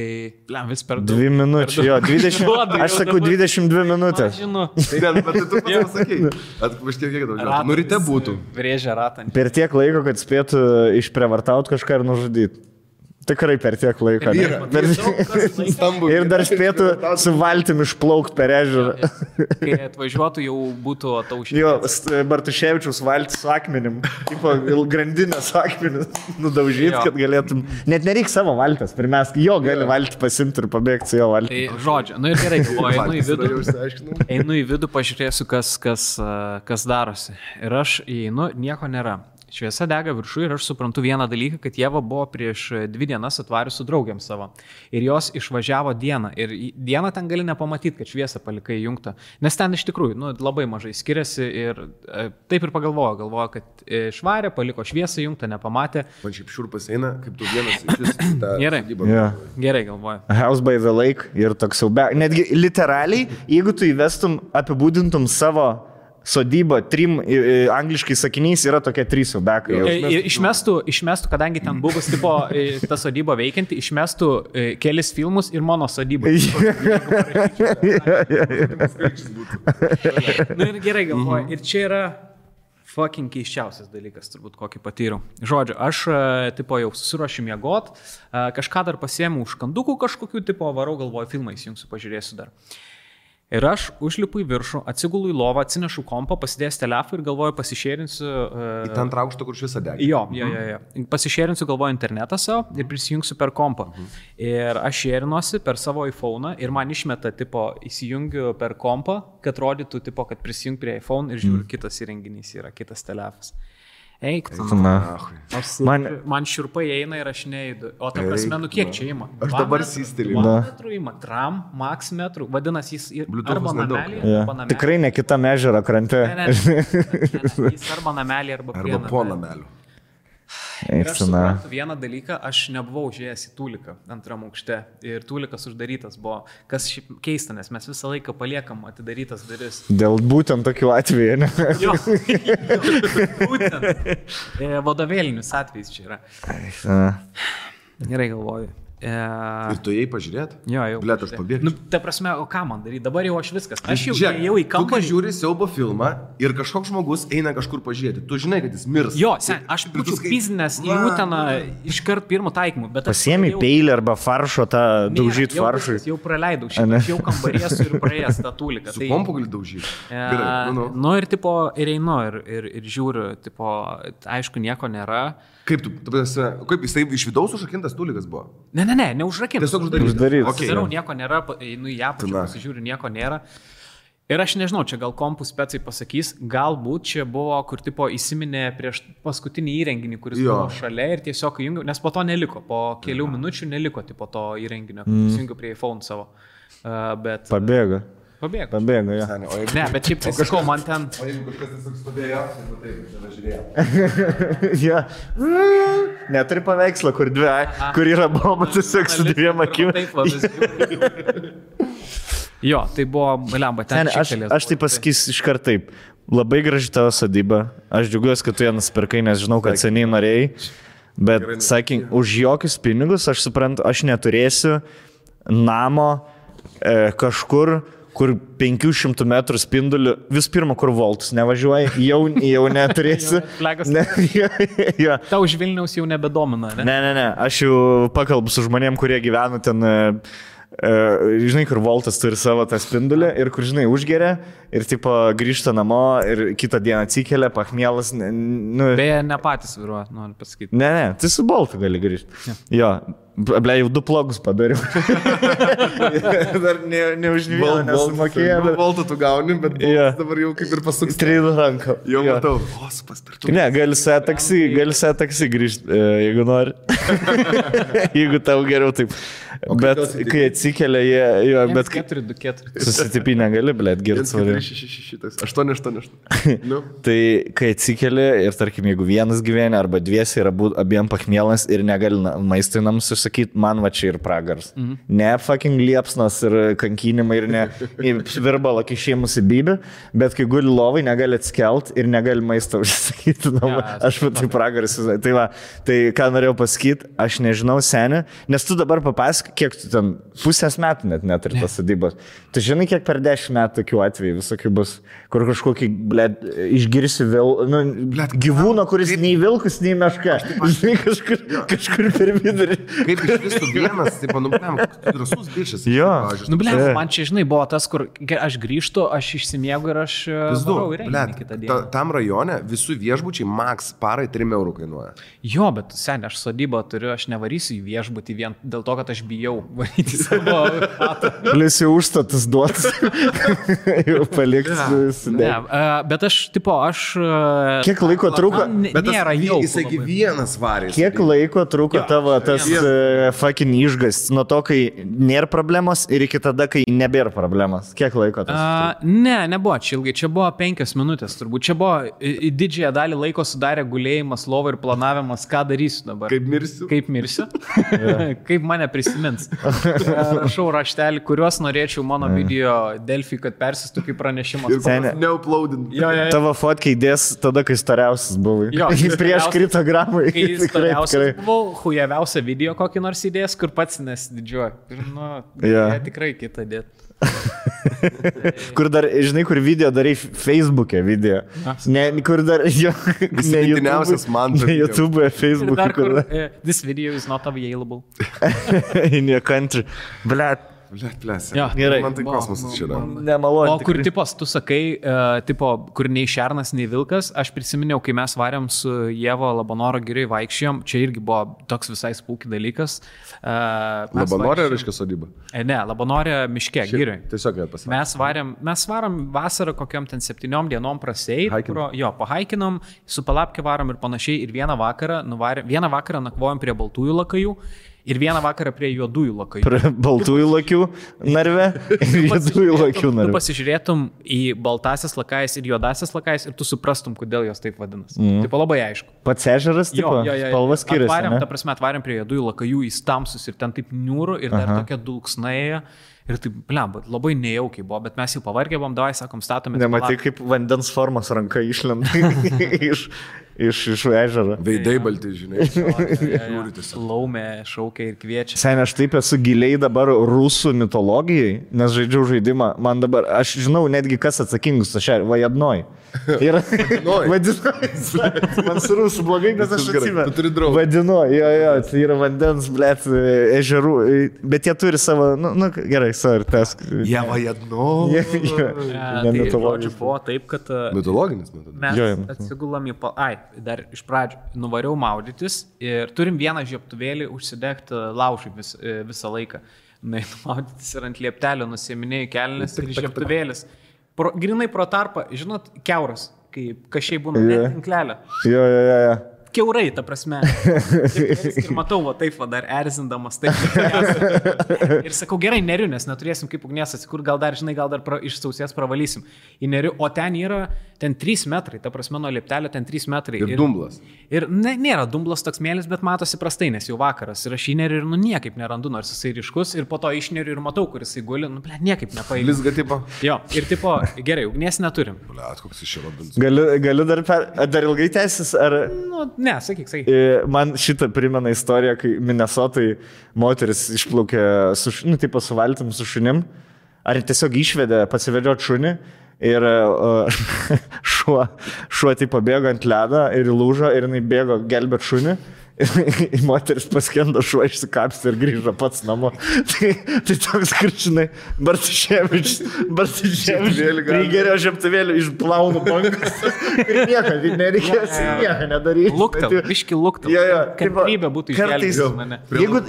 vis per 2 minučių, jo, 20, aš sakau 22 minutės. Aš žinau. Bet tu pasakei. Už kiek atvažiuoti? Nu ryte būtų. Vrėžia ratą. Per tiek laiko, kad spėtų išprievartauti kažką ir nužudyti. Tikrai per tiek laiko. Ir dar spėtų su valtim išplaukti per ežerą. Kai atvažiuotų, jau būtų ataušęs. Jo, Bartuševičiaus valtis su akmenim. Tipo, grandinės akmenis nudaužyti, kad galėtum. Net nereik savo valtės. Pirmiausia, jo gali valtį pasimti ir pabėgti su jo valtį. Tai žodžiu, ir gerai, galvoju, einu į vidų, pažiūrėsiu, kas darosi. Ir aš įeinu, nieko nėra. Šviesa dega viršų ir aš suprantu vieną dalyką, kad Ieva buvo prieš 2 dienas atvarius su draugiam savo. Ir jos išvažiavo dieną. Ir dieną ten gali nepamatyti, kad šviesą palikai įjungtą. Nes ten iš tikrųjų labai mažai skiriasi ir taip ir pagalvojo, kad švarė, paliko šviesą įjungtą, nepamatė. Man šiaip šiurpas eina, kaip tu vienas iš tą sodybą. Gerai galvoju. House by the lake ir toks siaubė. Netgi literaliai, jeigu tu įvestum, apibūdintum savo sodyba 3 angliškai sakiniais yra tokie 3 siaubekai. Išmestų, kadangi ten buvus tipo ta sodyba veikianti, išmestų kelis filmus ir mano sodybą. Nu ir gerai galvoju. Ir čia yra fucking keiščiausias dalykas, turbūt kokį patyriau. Žodžiu, aš tipo jau susiruošiu miegot, kažką dar pasiėmiau užkandukų kažkokių, tipo varau, galvoju, filmą įsijungsiu, pažiūrėsiu dar. Ir aš užlipu į viršų, atsigulu į lovą, atsinešu kompą, pasidėjęs telefą ir galvoju, pasišėrinsiu... Į tą antrą aukštą, kur šis adegė. Jo. Pasišėrinsiu, galvoju, internetą savo ir prisijungsiu per kompą. Ir aš šėrinuosi per savo iPhone ir man išmeta, tipo, įsijungiu per kompą, kad rodytų, tipo, kad prisijung prie iPhone ir žiūriu, kitas įrenginys yra, kitas telefas. Eik, man šiurpai eina ir aš neįdu. O ta prasme, kiek čia ima? Aš dabar sisteliu. 1 metrų ima, tram, max metrų. Vadinasi, jis arba namelį, arba namelį. Tikrai ne kita ežero krante. Ne, jis arba namelį, arba prie namelį. Arba po namelį. Ir aš suprantu vieną dalyką, aš nebuvau užėjęs į Tūliką antram aukšte ir Tūlikas uždarytas buvo, kas šiaip keista, nes mes visą laiką paliekam atidarytas duris. Dėl būtent tokių atvejų, ne? Jo, būtent. Vadovėlinius atvejus čia yra. Gerai galvoju. Ir tu jai pažiūrėt? Jo, jau. Blet, aš pabėgčiau. Ta prasme, o ką man daryti? Dabar jau aš viskas. Aš jau į kampą. Tu, kai žiūri siaubo filmą ir kažkoks žmogus eina kažkur pažiūrėti, tu žinai, kad jis mirs. Jo, aš būčiau pizinęs į Uteną iškart pirmų taikymų. Pasiemi peilį arba faršo tą daužyti faršui. Jau praleidau šitą, aš jau kambarėsiu ir praėjęs tą Tūliką. Su kompu gali daužyti. Nu ir tipo, ir einu ir žiūriu, tipo, aišku, nieko nėra. Kaip jisai iš vidaus užrakintas Tūlikas buvo? Ne, neužrakintas. Tiesiog uždarytas. Darau, nieko nėra, einu į apačią, pasižiūriu, nieko nėra. Ir aš nežinau, čia gal kompų specai pasakys, galbūt čia buvo, kur tipo įsiminė prieš paskutinį įrenginį, kuris buvo šalia ir tiesiog įjungiau, nes po to neliko, po kelių minučių neliko tipo to įrenginio, įsijungiau prie iPhone savo. Bet... Pabėgo, jo. Ne, bet šiaip tai sakau, man ten... O jeigu kažkas tiesiog stovėjo, tai žiūrėjo. Neturi paveikslą, kur yra bomba tiesiog su 2 akim. Jo, tai buvo, lemba, ten šiktelės. Aš tai pasakysiu iškart taip. Labai graži tavo sodyba. Aš džiaugiuosi, kad tu ją nusipirkai, nes žinau, kad seniai norėjai. Bet, sakyk, už jokius pinigus, aš suprantu, aš neturėsiu namo kažkur, kur 500 metrų spinduliu, vis pirma, kur voltus nevažiuoji, jau neturėsiu. Tau už Vilniaus jau nebedomina, ne? Ne, aš jau pakalbu su žmonėm, kurie gyvena ten, žinai, kur voltas turi savo tą spindulį ir kur, žinai, užgeria ir tipo grįžta namo ir kitą dieną atsikelia, pachmielas. Beje, ne patys vairuoja, noriu pasakyti. Ne, tai su boltu gali grįžti. Jo. Ble, jau 2 plogus padariau. Dar ne už vieną nesumokėjau. Voltą tu gauni, bet dabar jau kaip ir pasuks. Strėlų ranką. Jau matau. O, supaspirtų. Ne, gali su taksi grįžti, jeigu nori. Jeigu tau geriau taip. Bet kai atsikelia, jo, bet... 4-2-4. Susitipinę gali, blėt, girti svarį. 8. Tai kai atsikelia ir, tarkim, jeigu vienas gyvena arba dviesi yra abiem pachmielas ir negali maistui namus užsakyti, man va čia ir pragars. Ne fucking liepsnas ir kankinimai ir ne virbalo kišėjimus į bybį, bet kai guli lovai, negali atskelt ir negali maistą užsakyti. Aš va tai pragaras. Tai va, tai ką norėjau pasakyti, aš nežinau seni, nes tu dabar papasak, kiek tu ten pusės metų net neturi tos sodybos. Tu žinai, kiek per 10 metų tokių atvejų visokių bus, kur kažkokį, blėt, išgirsi gyvūną, kuris nei vilkus, nei meška. Žinai, kažkur per vidurį. Kaip iš visų vienas, taip, drąsus bičias. Jo. Man čia, žinai, buvo tas, kur aš grįžtu, aš išsimiegu ir aš varau į renginį kitą dieną. Tam rajone visų viešbučiai max parai 3 eurų kainuoja. Jo, bet seniai, aš sodybą turiu, aš nevarysiu į viešbutį vien dėl to, kad aš bijau varyti savo patą. Plius jau užstatus duotas. Jau palikti. Bet aš, tipo, Kiek laiko truko? Nėra jau. Jisai vienas varys. Kiek laiko truko tavo tas fucking išgas? Nuo to, kai nėra problemos ir iki tada, kai nebėra problemos. Kiek laiko tas? Nebuvo čia ilgai. Čia buvo 5 minutės turbūt. Čia buvo didžiąją dalį laiko sudarė gulėjimas, lova ir planavimas, ką darysiu dabar. Kaip mirsiu. Kaip mane prisimins atsimins. Rašau raštelį, kuriuos norėčiau mano video Delfi, kad persistų kaip pranešimas. Neuploadint. Tavo fotkiai dės tada, kai storiausias buvai. Jo, prieš kritogramą. Kai storiausias buvau, hujaviausią video kokį nors įdės, kur pats nesididžiuoju. Nu, tikrai kitą dėt. Kur dar, žinai, kur video darai Facebook'e video. Ne, kur dar, jo, ne YouTube'e, Facebook'e. Kur this video is not available. In your country. Blet. Gerai. Man tai kosmosas čia yra. Nemalonu. O kur tipos, tu sakai, kur nei šernas, nei vilkas, aš prisiminiau, kai mes varėm su Jevo Labanoro giriai vaikščiojom, čia irgi buvo toks visai spūki dalykas. Labanorė reiškia sodyba? Ne, Labanorė miške, giriai. Tiesiog pasakė. Mes varom vasarą kokiam ten 7 dienom praseit, pahaikinom, su palapke varom ir panašiai, ir vieną vakarą nakvojom prie baltųjų lakajų. Ir vieną vakarą prie juodųjų lakajų. Prie baltųjų lakių narve ir juodųjų lakių narve. Tu pasižiūrėtum į baltasias lakais ir juodasias lakais ir tu suprastum, kodėl jos taip vadinas. Taip labai aišku. Pats ežeras, tipo, spalvas skiriasi. Atvarėm prie juodųjų lakajų, jis tamsus ir ten taip niūrų ir dar tokia dulksnaja. Ir taip, blemba, labai nejaukiai buvo, bet mes jau pavargę buvom, davai, sakom, statome. Nematai, kaip vandens formos ranka išlenda iš ežero. Veidai balti, žinai. Laumė šaukia ir kviečia. Seniai, aš taip esu giliai dabar rusų mitologijai, nes žaidžiau žaidimą. Man dabar, aš žinau netgi, kas atsakingus, aš Vajadnoj. Ir man su rusų blogai, nes aš atsimenu. Vadinu, tai yra vandens, blet, ežerų, bet jie turi savo, gerai, sorry, tas. Jie Vajadno. Žodžiu, buvo taip, kad mitologinis mes atsigulam į dar iš pradžių nuvariau maudytis ir turim vieną žiebtuvėlį užsidegti laužui visą laiką. Maudytis ir ant lieptelio nusiminėjai kelnes ir žiebtuvėlis. Grinai pro tarpą, žinot, keuras, kai kašiai būna net tinklelio. Keurai, ta prasme. Ir matau, taip dar erzindamas. Taip, ir sakau, gerai, neriu, nes neturėsim kaip ugnies atsikur, gal dar iš sausės pravalysim. Į neriu, o ten yra, ten 3 metrai, ta prasme, nuo lieptelio ten 3 metrai. Ir dumblas. Ir nėra dumblas toks mėlis, bet matosi prastai, nes jau vakaras. Ir aš į neriu ir niekaip nerandu, nors jisai ryškus. Ir po to išneriu ir matau, kur jisai guli, niekaip nepaėgiu. Lizga tipo. Jo, ir tipo, gerai, ugnies neturim. Koks iš Robins. Galiu dar ilgai tęsis, ar... Ne, sakyk. Man šitą primena istoriją, kai Minnesotai moteris išplaukė su valtim, su šunim, ar tiesiog išvedė pasivedžioti šunį ir šuo tai pabėgo ant ledą ir įlūžo ir jinai bėgo gelbėt šunį. Moteris paskendo, šuo išsikapstė ir grįžo pats namo. Tai toks krčinai, Bartuševičius prigerio žiebtuvėlį išplaunu bankas ir nereikės nieko nedaryti. Luktam, biški luktam. Kantrybė būtų išgelbėti mane.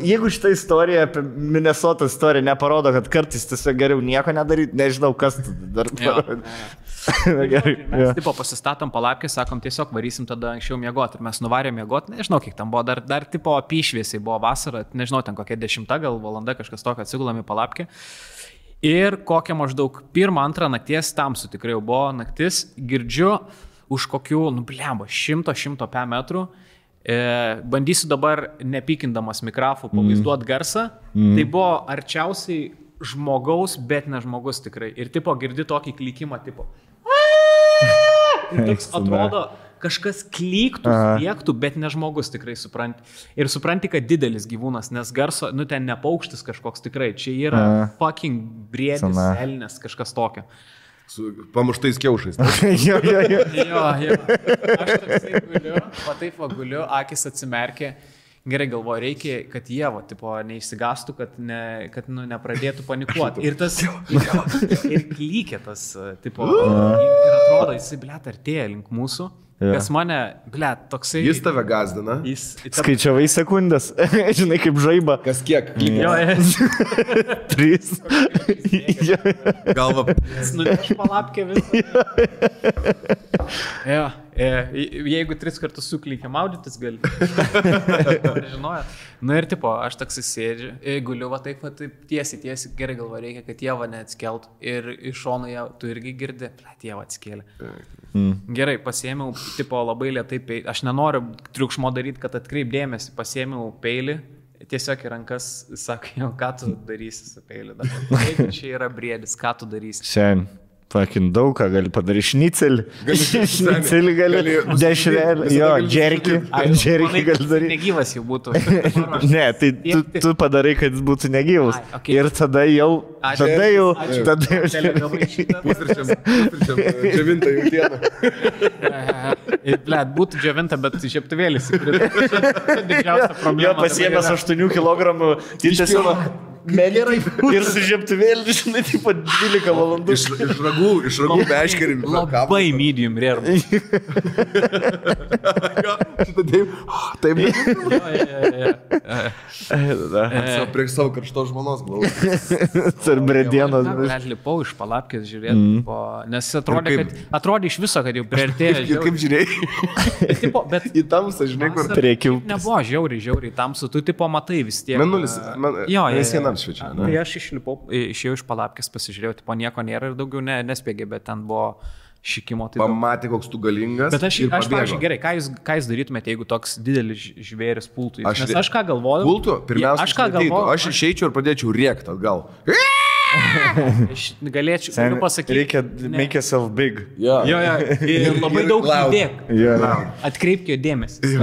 Jeigu šitą istoriją apie Minnesotos istoriją neparodo, kad kartais tiesiog geriau nieko nedaryti, nežinau, kas dar parodė. Mes tipo pasistatom palapkę, sakom, tiesiog varysim tada anksčiau miegoti. Ir mes nuvarėm miegoti, nežinau, kiek tam buvo, dar tipo apyšviesiai buvo vasara, nežinau, ten kokia 10 gal valanda kažkas tokio, atsigulam į palapkę. Ir kokią maždaug 1-2 nakties, tamsu tikrai jau buvo naktis, girdžiu už kokių, 100-100 metrų. Bandysiu dabar nepykindamas mikrofų pavaizduoti garsą. Tai buvo arčiausiai žmogaus, bet ne žmogus tikrai. Ir tipo girdi tokį klikimą tipo. Ir toks atrodo, kažkas klyktų, spiektų, bet ne žmogus tikrai supranti. Ir supranti, kad didelis gyvūnas, nes garso, ten ne paukštis kažkoks tikrai. Čia yra fucking briedis, elnės, kažkas tokio. Su pamuštais kiaušais. Jo. Aš toksai guliu, guliu, akis atsimerkė. Gerai galvoju, reikia, kad jie, neišsigastų, kad nepradėtų panikuoti. Ir tas, ir klykė tas, ir atrodo, jisai, artėja link mūsų. Kas mane, toksai... Jis tave gazdina. Skaičiavai sekundės, žinai, kaip žaiba. Kas kiek? Jo, 3. Galva. Jis nuneš palapkę visą. Jo. Jeigu 3 kartus suklykia maudytis, gali. Žinojat. Ir tipo, aš toks sėdžiu, guliu, taip tiesiai, gerai galvo, reikia, kad jie neatskeltų. Ir iš šono tu irgi girdi, jie atskėlė. Gerai, pasiėmiau, tipo, labai lėtai peilį. Aš nenoriu triukšmo daryti, kad atkreip dėmesį. Pasiėmiau peilį, tiesiog į rankas, sako, ką tu darysi su peiliu dabar. Jeigu čia yra briedis, ką tu darysi? Sen. Pakin daug ką gali padaryti. Šnicelį. Šnicelį gali. Dešrelį. Jo, džerkį. Džerkį gali daryti. Negyvas jau būtų. Ne, tai tu padarai, kad jis būtų negyvas. Ir tada jau. Tada jau. Pusryčiam džiavinta jau dieną. Blet, būtų džiavinta, bet žieptuvėlis. Didžiausia problema. Jo, pasiėmęs 8 kg. Tiesiog. Gerai. Ir su žieptuvėliu, žinai, taip pat 12 valandų. Iš ragų beškerim. Labai medium rare. Taip. Prieš savo karšto žmonos glaudžiu. Tarp bredienos. Net lipau iš palapkės žiūrėti, nes atrodė iš viso, kad jau priartėjo. Ir kaip žiūrėjai? Bet į tamsą, žinai, kur reikia. Nebuvo žiauriai tamsu, tu tipo matai vis tiek. Menulis, šviečia. Tai aš išėjau iš palapkės, pasižiūrėjau, tipo nieko nėra ir daugiau nespėgė, bet ten buvo šikimo. Tai pamatė, koks tu galingas. Bet aš pavyzdžiui, gerai, ką jūs darytumėte, jeigu toks didelis žvėris pultų? Nes aš ką galvoju? Pultų? Pirmiausia, aš išeičiau ir pradėčiau rėkti atgal. Aš galėčiau pasakyti. Reikia make yourself big. Jo. Ir labai daug įdėk. Atkreipkio dėmesį.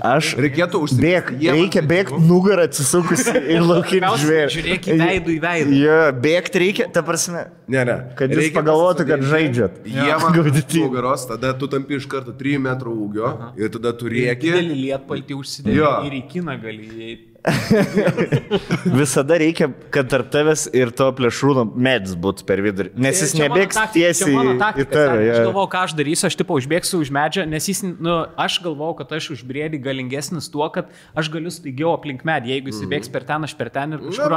Aš reikėtų užsibėgti. Reikia bėgti nugarą atsisukus į laukinį žvėrį. Žiūrėk į veidų į veidą. Jo, bėgti reikia, ta prasme. Ne. Kad jūs pagalvotų, kad žaidžiat. Jie man nugaros, tada tu tampi iš karto 3 metrų ūgio ir tada tu rėki. Didelį lietpaltį užsidėti ir į kiną gali įeiti. Visada reikia, kad tarp tavęs ir to plėšrūno medis būtų per vidurį, nes jis nebėgs tiesiai į tave. Aš galvau, ką aš darysiu, aš tipo užbėgsiu už medžio, nes jis, aš galvau, kad aš už briedį galingesnis tuo, kad aš galiu staigiau aplink medį, jeigu jis bėgs per ten, aš per ten ir kažkur.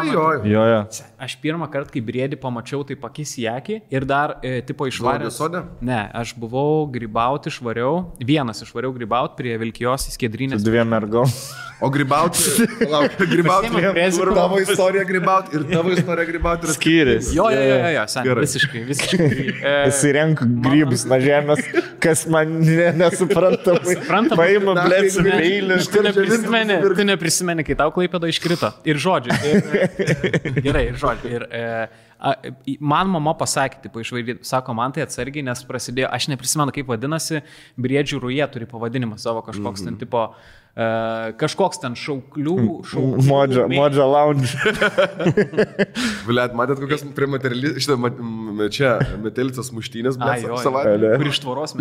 Aš pirmą kartą, kai briedį pamačiau, tai pakis į akį ir dar tipo išvaręs. Ne, aš buvau grybauti, vienas išvariau grybauti prie Vilkijos į Skiedrinės. Su 2 mergom. O grybauti, tavo istorija grybauti ir tavo istorija grybauti yra skiriasi. Jo, visiškai. Įsirenku grybus nuo žemės, kas man nesuprantama. Paima blėtsi peilį. Tu neprisimeni, kai tau Klaipėda iškrito. Ir žodžiu. Gerai, ir žodžiu. Ir man mama pasakė, sako, man tai atsargiai, nes prasidėjo, aš neprisimenu, kaip vadinasi, briedžių rūjė turi pavadinimą savo kažkoks ten tipo, kažkoks ten šauklių. Modža lounge. Blet, matėt, kokias prie čia metelicas muštynės, blet, savaitę. Kur iš tvoros.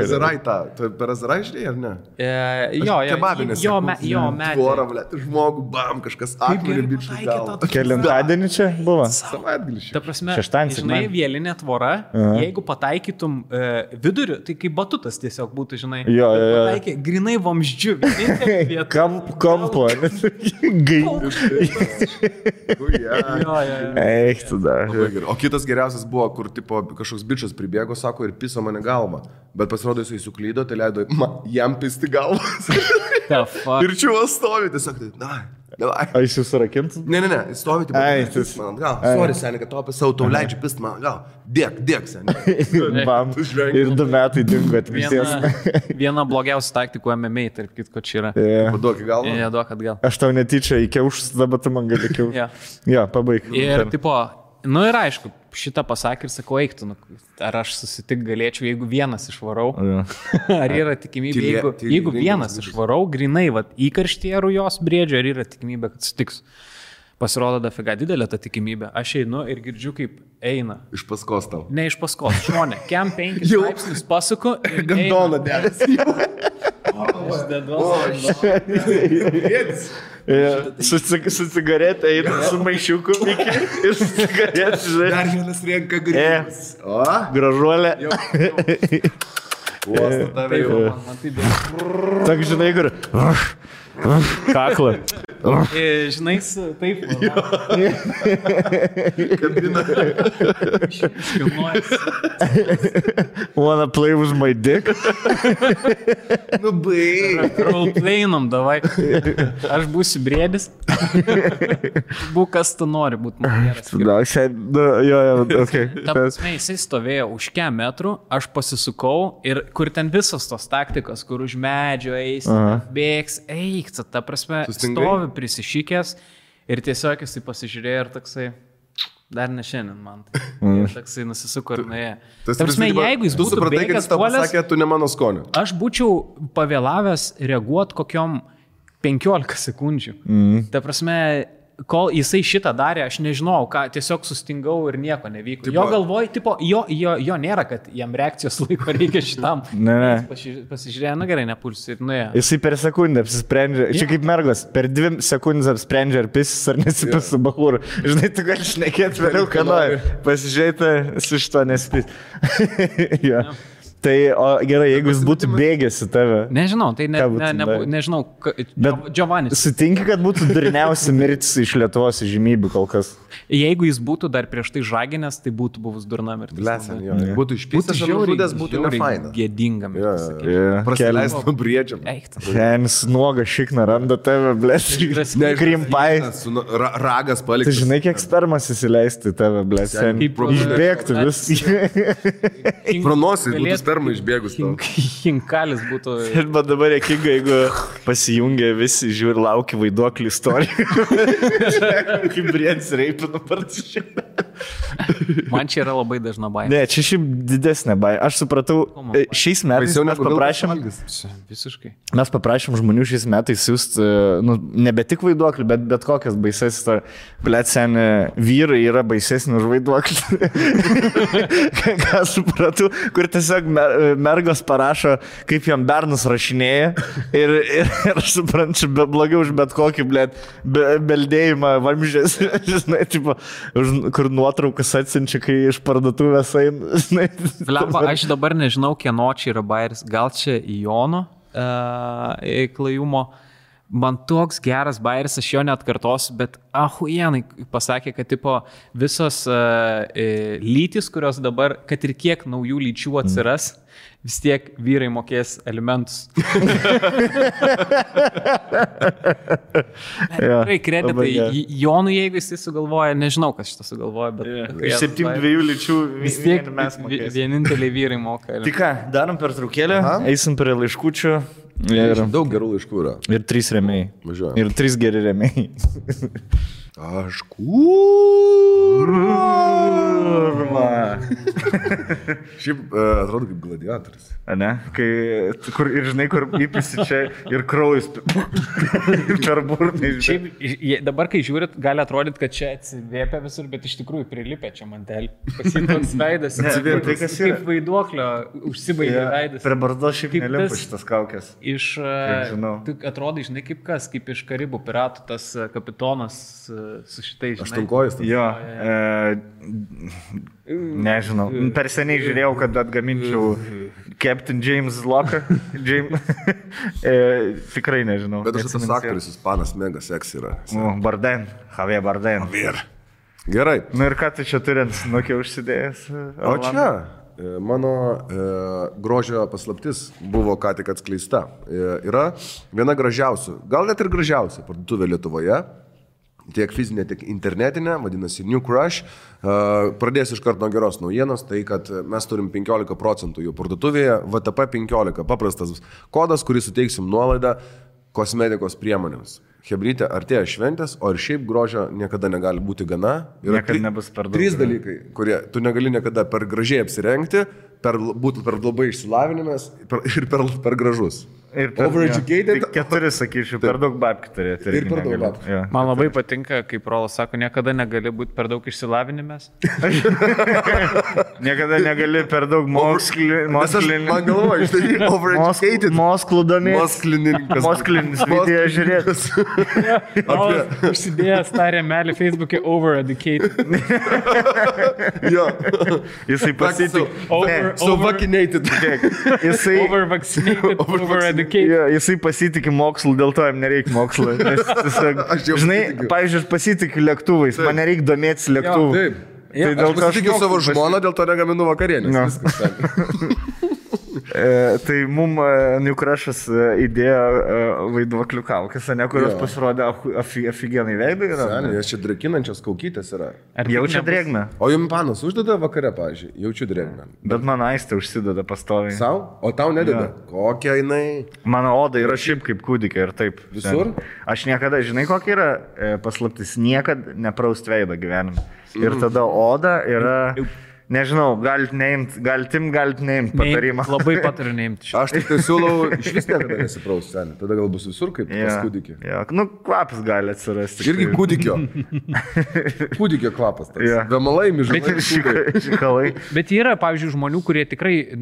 Azarai tą. Per Azarai žinai, ar ne? Jo, kebabinės. Jo, tvorą, blet, žmogų, bam, kažkas akmenį bičių gal. Kelintadienį čia buvo? Savaitgalį. Ta prasme, žinai, vielinė tvora, jeigu pataikytum viduriu, tai kaip batutas tiesiog būtų, žinai. Jo. Grinai vamzdžių. Kampo. Eik, tada. O kitas geriausias buvo, kur tipo kažkoks bičas pribėgo, sako, ir piso mane galvą. Bet pasirodo, jisai suklydo, tai leido jam pisti galvą. Ir čiuvas stovi, tiesiog tai, A jis jūs rakintų? Ne, jis stovi, tipo, pist man gal. Sorry, seniai, kad tau leidžiu pist man gal. Dėk, seniai. Bam. Ir 2 metai dingo atvisės. Viena blogiausia taktikų MMA, tarp kitko čia yra. Paduok į galvą. Duok atgal. Aš tau netyčia įkiaušus, dabar tu man gali kiaušus. Jo, pabaig. Ir tipo, ir aišku, šitą pasakė ir sakau, eiktų, ar aš susitik galėčiau, jeigu vienas išvarau. Ar yra tikimybė, jeigu vienas išvarau, grinai, įkarštyje rujos briedžio, ar yra tikimybė, kad sutiks. Pasirodo dafiga didelė ta tikimybė. Aš einu ir girdžiu, kaip eina. Iš paskos tau. Ne iš paskos, žmonė. Kem 5 laipsnius pasuku. Gandoną dėlės. Su cigaretė eina su maišiuku ir su cigaretė, žinai. Dar vienas renka grybus. Gražuolė. Uosta tave jau. Tak, žinai, kur. Kakla. Žinai, taip. Kabina. Wanna play with my dick? Baig. Roleplayinam, davai. Aš būsiu briedis. Būk, kas tu nori būti geras. Ta prasme, jisai stovėjo už kem metrų, aš pasisukau ir kur ten visos tos taktikos, kur už medžio eis, bėgs, eik pyksta, ta prasme, stovi prisišykęs ir tiesiog jisai pasižiūrėjo ir toksai, dar ne šiandien man. Ir toksai nusisuko ir nuėjo. Ta prasme, jeigu jis būtų bėgęs puolęs, sakė, tu ne mano skonio. Aš būčiau pavėlavęs reaguoti kokiom 15 sekundžių. Ta prasme, kol jisai šitą darė, aš nežinau, ką, tiesiog sustingau ir nieko nevyko. Jo galvoj, tipo, jo nėra, kad jam reakcijos laiko reikia šitam. Ne. Pasižiūrėjo, gerai, nepulsi ir nuėjo. Jisai per sekundę apsisprendžia, čia kaip mergos, per 2 sekundės apsprendžia ar pisis ar nesipis su bahūru. Žinai, tu gali šnekėti vėliau, ką nori. Pasižiūrėti, su šito nespis. Ja. Tai, o gerai, jeigu jis būtų bėgęs į tave. Nežinau, tai nežinau, Giovannis. Sutinki, kad būtų durniausia mirtis iš Lietuvos žymybių kol kas. Jeigu jis būtų dar prieš tai žaginęs, tai būtų buvus durna mirtis. Blesen, jo. Būtų išpystas ar nužudęs, būtų nefaina. Gėdinga mirtis. Prasileist nuo briedžiam. Senis nuoga šikna randa tave, blesen. Krimpai. Ragas paliktas. Tai žinai, kiek spermas įsileisti tave, blesen. Išbėgtų vis. Pronosi, būtų sperma išbėgus. Hinkalis būtų. Bet dabar jėkinga, jeigu pasijungia visi, žiūri, laukia vaiduoklį istorijų. Kaip briedis reipina partiškai. Man čia yra labai dažna baimė. Ne, čia šiaip didesnė baimė. Aš supratau, šiais metais mes paprašėm žmonių šiais metais siūsti, nebe tik vaiduoklį, bet kokias baises. Blet, seni, vyrai yra baisesni už vaiduoklį. Ką supratau, kur tiesiog mergos parašo, kaip jam bernus rašinėja ir aš suprantu, blogiau už bet kokį, blet, beldėjimą vamžės, žinai, tipo, kur nuotraukas atsinčia, kai iš parduotuvės eina. Flemba, aš dabar nežinau, kieno čia yra bairis. Gal čia Jono klajumo. Man toks geras bairis, aš jo neatkartosiu, bet ahuienai pasakė, kad tipo, visos lytis, kurios dabar, kad ir kiek naujų lyčių atsiras, vis tiek vyrai mokės alimentus. Tikrai kreditai Jonui, jeigu jis sugalvoja, nežinau, kas šitą sugalvoja, bet... Iš 7-2 lyčių vis tiek mes mokės. Vieninteliai vyrai moka. Tai ką, darom per traukėlę, eisim prie laiškučių. Daug gerų laiškų yra. Ir 3 rėmėjai. Ir 3 geri rėmėjai. Aš kurva. Šiaip atrodo kaip gladiatoris. Ne? Kur, ir žinai, kur įpisi čia ir kraujas ir per burnį. Šiaip dabar, kai žiūrit, gali atrodyti, kad čia atsivėpia visur, bet iš tikrųjų prilipė čia mantelį. Pasitoks veidas. Tai kas yra? Kaip vaiduoklio užsibaigė veidas. Per barzdo šiaip nelimpa šitas kaukės. Atrodai, žinai, kaip kas, kaip iš Karibų piratų tas kapitonas su šitais, žinai. Aštunkojus. Jo. Nežinau. Per seniai žiūrėjau, kad atgaminčiau Captain James Locker. Tikrai nežinau. Bet aš tas aktorius, ispanas, mega seks yra. Bardem. Javier Bardem. Gerai. Nu ir ką tu čia turint, nukiau užsidėjęs? O čia mano grožio paslaptis buvo ką tik atskleista. Yra viena gražiausių, gal net ir gražiausia parduotuvė Lietuvoje. Tiek fizinė, tiek internetinė, vadinasi New Crush. Pradėsiu iš karto nuo geros naujienos, tai kad mes turim 15% jų parduotuvėje, VTP 15, paprastas kodas, kurį suteiksim nuolaidą kosmetikos priemonėms. Hebrytė, artėja šventės, o ir šiaip grožio niekada negali būti gana. Niekada nebus per daug. 3 dalykai, kurie tu negali niekada per gražiai apsirengti, būti per labai išsilavinimės ir per gražus. Overeducated. 4, sakyčiau, per daug babkių turėti. Ir per daug babkių. Man labai patinka, kaip Rolas sako, niekada negali būti per daug išsilavinimės. Niekada negali per daug mokslininkas. Man galvoju, štai overeducated. Mosklų domės. Mosklinis video žiūrėtas. Užsidėjęs tą rėmelį Facebook'e overeducated. Jo. Jisai pasitikė. So vaccinated. Over-vaccinated, over-educated. Ja, jisai pasitikė mokslu, dėl to jam nereikia mokslo. Žinai, pavyzdžiui, aš pasitikiu lėktuvais, man nereikia domėtis lėktuvų. Taip. Aš pasitikiu savo žmoną, dėl to negaminu vakarienės. Tai mum New Crush'as įdėjo vaiduoklių kaukės, ne, kurios pasirodė afigenai veidai. Seniai, nes čia drekinančios kaukytės yra. Jaučia drėgmę. O jums panas uždeda vakare, pavyzdžiui, jaučiu drėgmę. Bet man aistė užsideda pastoviai. Sau? O tau nededa? Kokia jinai? Mano oda yra šiaip kaip kūdikė ir taip. Visur? Aš niekada, žinai, kokia yra paslaptis, niekada nepraust veidą gyvenime. Ir tada oda yra... Nežinau, galit neimt patarimą. Labai patariu neimti. Aš tik tai siūlau iš vis niekada nesipraust, seniai. Tada gal bus visur kaip pas kūdikį. Nu, kvapas gali atsirasti. Irgi kūdikio. Kūdikio kvapas. Vemalai, mižalai. Bet yra, pavyzdžiui, žmonių, kurie tikrai,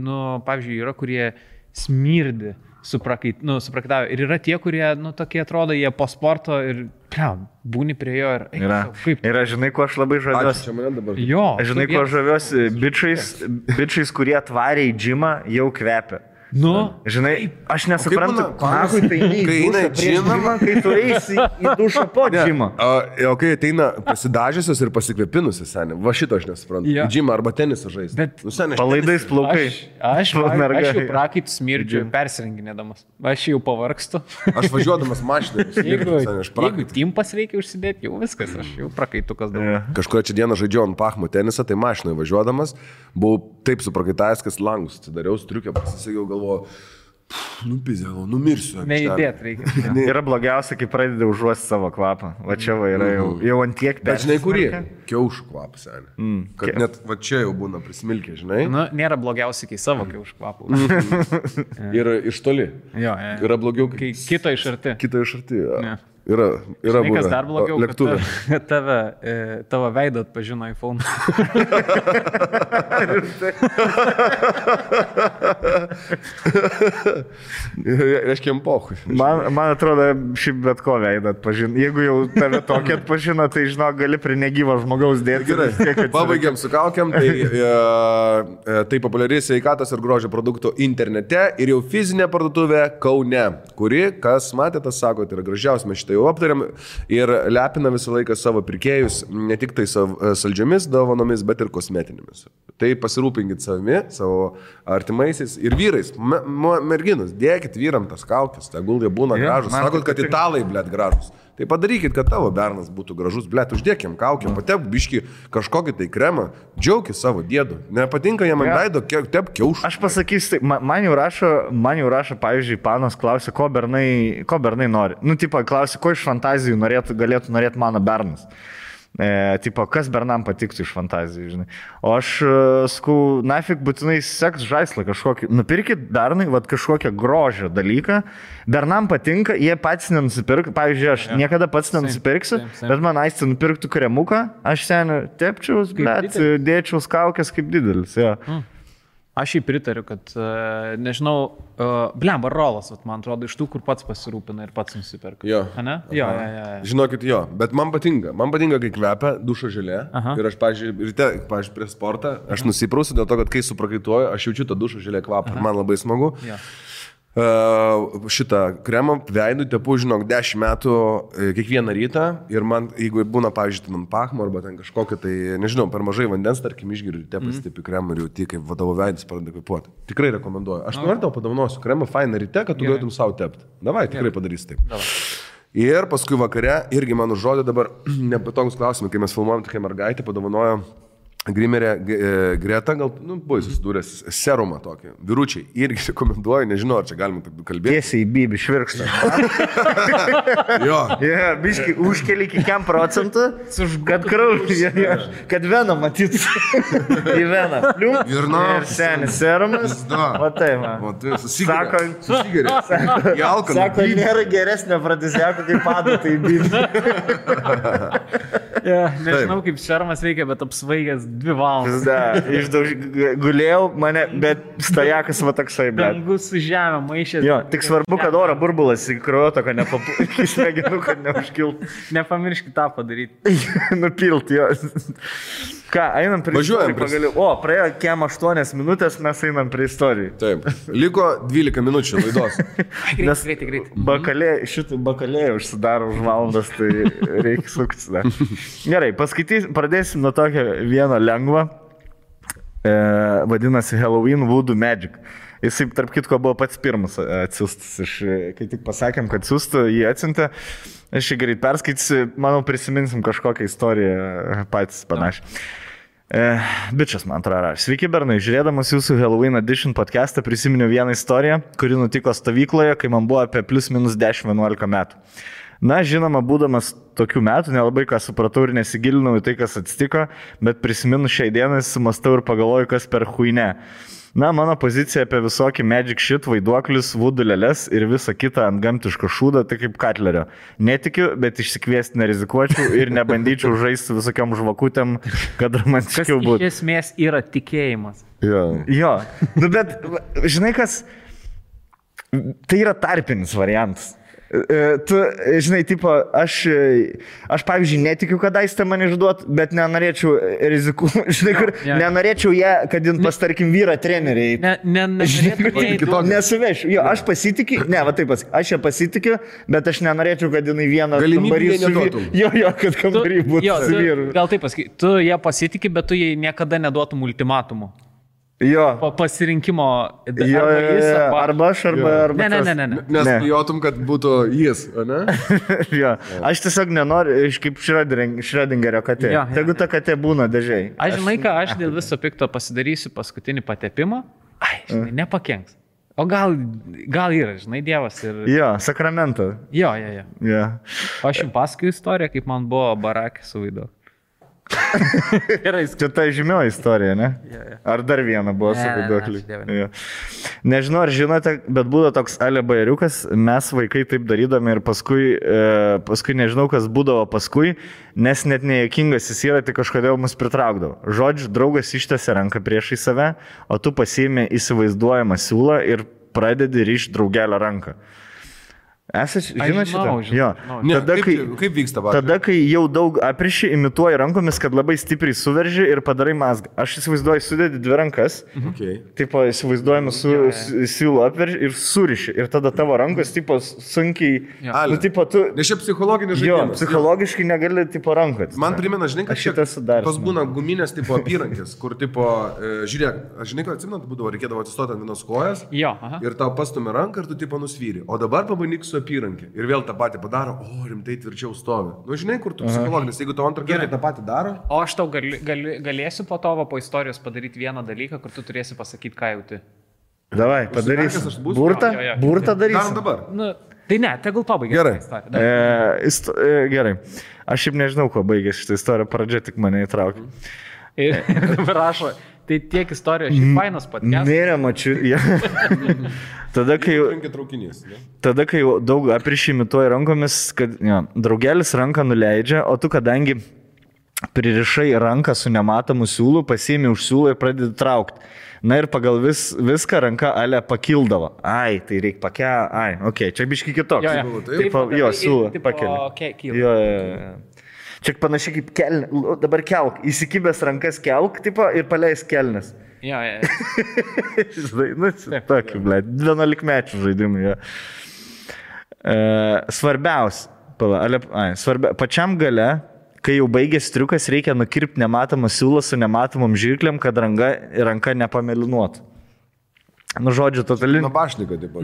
pavyzdžiui, yra, kurie smirdi. Suprakitavę. Ir yra tie, kurie, tokie atrodo, jie po sporto ir, būni prie jo ir... Yra, žinai, kuo aš labai žaviuosi. Čia mane dabar. Jo. Žinai, kuo aš žaviuosi bičiais, kurie atvarė į džimą, jau kvepia. Žinai, aš nesuprantu, kai eina į džimą, kai tu eisi į dušą po džimą. O kai ateina pasidažysios ir pasikvepinusios, seniai, va šito aš nesuprantu. Į džimą arba tenisą žaisti. Palaidais plaukai. Aš jau prakaitų smirdžiu persirenginėdamas. Aš jau pavargstu. Aš važiuodamas mašiną. Jeigu timpas reikia užsidėti, jau viskas, aš jau prakaitukas dabar. Kažkurį čia dieną žaidžiau ant pachmo tenisą, tai mašinoje važiuodamas, buvau taip suprakaitavęs, kad langus atsidariau, striukę pasisakiau, galvoju, nupizėlau, numirsiu. Neįdėt reikia. Yra blogiausia, kai pradedi užuosti savo kvapą. Va čia va yra jau ant tiek persismarkę. Bet žinai, kurie? Kiaušų kvapas, seniai. Kad net va čia jau būna prismilkė, žinai. Nėra blogiausia, kai savo kiaušų kvapą. Ir iš toli. Jo. Yra blogiau, kai kito iš arti. Kito iš arti, jo. Yra būna. Kas dar blogiau, lėktuvė. Tavo veidą atpažino iPhone. Reiškia, pohui. Man atrodo, šiaip bet ko veidą atpažino. Jeigu jau tave tokį atpažino, tai žinok, gali prie negyvo žmogaus dėti. Gerai, pabaigiam su kaukiam. Tai populiari sveikatos ir grožio produktų internete ir jau fizinė parduotuvė Kaune, kuri, kas matėte, sako, tai yra gražiausia, mes šitą jau aptariam ir lepina visą laiką savo pirkėjus ne tik tai saldžiomis dovanomis, bet ir kosmetinėmis. Tai pasirūpinkit savimi, savo artimaisiais ir vyrais. Merginos, dėkit vyram tas kaukės, tegul jie būna gražus. Sakot, kad italai, blėt, gražus. Tai padarykit, kad tavo bernas būtų gražus, blėt, uždėkim kaukę, patep biškį kažkokį tai kremą, džiaukis savo dėdu. Nepatinka jam ant veido, tep kiaušų. Aš pasakysiu, tai man jau rašo, pavyzdžiui, panas klausia, ko bernai nori. Tipo, klausia, ko iš fantazijų galėtų norėti mano bernas. Tipo, kas bernam patiktų iš fantazijų, žinai. O aš sakau, nafik būtinai seks žaislą kažkokį. Nupirkit bernai, kažkokią grožio dalyką. Bernam patinka, jie patys nenusipirk. Pavyzdžiui, aš niekada pats nenusipirksiu, bet man aistė nupirktų kremuką, aš seniai tepčiaus, bet dėčiaus kaukės kaip didelis. Ja. Aš jį pritariu, kad, nežinau, blemba rolas, man atrodo, iš tų, kur pats pasirūpina ir pats nusipirka. Jo. Ne? Jo. Žinokit, jo, bet man patinka, kai kvepia dušo želė. Ir aš, pavyzdžiui, prie sportą, aš nusiprausiu dėl to, kad kai suprakaituoju, aš jaučiu tą dušo želė kvapą ir man labai smagu. Jo. Šitą kremą veidų tepu, žinok, 10 metų kiekvieną rytą ir man, jeigu būna, pavyzdžiui, ant pachmo arba ten kažkokia, tai, nežinau, per mažai vandens, tarkim, išgeriu ryte pasitipi kremą ir jauti, kaip vadavo veidas pradeda kvepuoti. Tikrai rekomenduoju. Aš noriu tau padovanosiu kremą fainą ryte, kad tu galėtum savo tepti. Davai, tikrai padarys taip. Davai. Ir paskui vakare, irgi man užrodė dabar nepatogus klausimai, kai mes filmuojam tokia mergaitė, padovanojo Grimerė Greta, gal, buvai susidūręs serumą tokį. Vyručiai, irgi rekomenduoju, nežinau, ar čia galima taip kalbėti. Tiesiai į bibį švirkštą. Jo. Biškai užkeli iki 5%, kad kraujas, kad veną matyt. Į veną. Ir senis serumas. O tai, man. O tai susigeria. Sako, nėra geresnio pradėsiako, kaip adatai į bibį. Nežinau, kaip serumas veikia, bet apsvaigęs 2 valandas. Gulėjau mane, bet stajakas va toksai, bet. Dangus su žemė, maišės. Jo, tik svarbu, kad oro burbulas į kraujotaką nepapūtų, kad neužkiltų. Nepamirškit tą padaryti. Nupilti, jo. Ką, einam prie istorijų pagaliau. O, praėjo kiem 8 minutės, mes einam prie istorijų. Taip. Liko 12 minučių laidos. Greitai. Šitų bakalėjų užsidaro už valandas, tai reikia suktis dar. Gerai, pradėsim nuo tokio vieno lengvo. Vadinasi Halloween Voodoo Magic. Jisai, tarp kitko, buvo pats pirmas atsiustas. Kai tik pasakėm, kad siūstų, jį atsiuntė. Aš jį greit perskaitysiu, manau, prisiminsim kažkokią istoriją patys panašiai. Bičias, man atrodo. Sveiki, bernai. Žiūrėdamas jūsų Halloween Edition podcastą prisiminiau vieną istoriją, kuri nutiko stovykloje, kai man buvo apie +- 10-11 metų. Na, žinoma, būdamas tokių metų, nelabai ką supratau ir nesigilinau į tai, kas atsitiko, bet prisiminu šiai dienai, sumastau ir pagalvoju, kas per huine. Na, mano pozicija apie visokį magic shit, vaiduoklius, vudulėlės ir visą kitą antgamtišką šūdą, tai kaip Katlerio. Netikiu, bet išsikviesti nerizikuočiau ir nebandyčiau žaisti visokiam žvakutėm, kad romantiškiau būtų. Iš esmės yra tikėjimas. Jo. Nu, bet, žinai kas, tai yra tarpinis variantas. Tu, žinai, tipo, aš pavyzdžiui, netikiu, kad aistė man išduot, bet nenorėčiau rizikuoti, žinai, kur, nenorėčiau ją, kad jin pas, tarkim, vyrą treneriai. Nesuvešiu. Jo, aš pasitikiu, va taip pas, aš ją pasitikiu, bet aš nenorėčiau, kad jinai vieną kambarį su vyru. Jo, kad kambarį būtų su vyru. Gal taip pasakai, tu ją pasitikiu, bet tu jai niekada neduotum ultimatumų. Jo. Pasirinkimo. Arba aš, arba Ne. Nes bijotum, kad būtų jis, ne? Jo. Aš tiesiog nenoriu, kaip Schrödingerio katė. Tegu ta katė būna dažiai. Aš žinai, ką aš dėl viso pikto pasidarysiu paskutinį patepimą. Žinai, nepakenks. O gal yra, žinai, Dievas ir... Jo, sakramento. Jo. Aš jums pasakoju istoriją, kaip man buvo barakė su Vaidu. Čia ta žymioji istorija, ne? Ar dar viena buvo su vaiduokliu? Nežinau, ar žinote, bet būdavo toks Ale bajeriukas, mes vaikai taip darydami ir paskui nežinau, kas būdavo paskui, nes net nejuokingas jis yra, tai kažkodėl mus pritraukdavo. Žodžiu, draugas ištėsi ranką priešai save, o tu pasiėmė įsivaizduojamą siūlą ir pradedi ryšti draugelio ranką. Žinot šitą? Jo. Kaip vyksta vakar? Tada, kai jau daug apriši, imituoji rankomis, kad labai stipriai suverži ir padarai mazgą. Aš įsivaizduoju, sudėdi dvi rankas, tipo įsivaizduojame siūlų apverži ir suriši. Ir tada tavo rankos, tipo, sunkiai... Nu, tipo, tu... Nes čia psichologinis žaidimas. Jo, psichologiškai negali, tipo, rankot. Man primena, žinai, kad šitas sudarys. Tos būna guminės, tipo, apyrankės, kur, tipo, žiūrėk, aš žinai, kad atsimenu, būdavo, reikėdavo atsistoti ant vienos kojas ir tau pastumė ranką ir tu, tipo, nusvyri. O dabar pabandyk su apyrankė. Ir vėl tą patį padaro, rimtai tvirčiau stovi. Nu, žinai, kur tu psichologinis, jeigu tau antrą kartą tą patį daro. O aš tau galėsiu po to, po istorijos padaryti vieną dalyką, kur tu turėsi pasakyti, ką jauti. Davai, padarysi. Burtą darysi. Darom dabar. Nu, tai ne, tegul pabaigia. Gerai. Gerai. Aš šiaip nežinau, kuo baigėsi šitą istoriją, pradžia tik mane įtraukė. Ir dabar rašo, tai tiek istorijos, šiaip fainas podcast. Nėra, mačiu. Tada, kai daug aprišimituoji rankomis, kad draugelis ranką nuleidžia, o tu, kadangi pririšai ranką su nematomu siūlu, pasiimi už siūlą ir pradedi traukti. Na ir pagal viską ranka Ale pakildavo. Tai reikia pakelti. Čia biški kitoks. Jo, siūlą pakeli. Jo. Čia panašiai kaip kelnė. Dabar kelk. Įsikibęs rankas kelk, tipo, ir paleis kelnes. Jo. Tokį, ble, 11 mečių žaidimų. Svarbiausia. Pačiam gale, kai jau baigės triukas, reikia nukirpti nematomą siūlą su nematomom žirklėm, kad ranka nepamelinuotų. Nu, žodžiu, totali... Nabašniką, taip pat.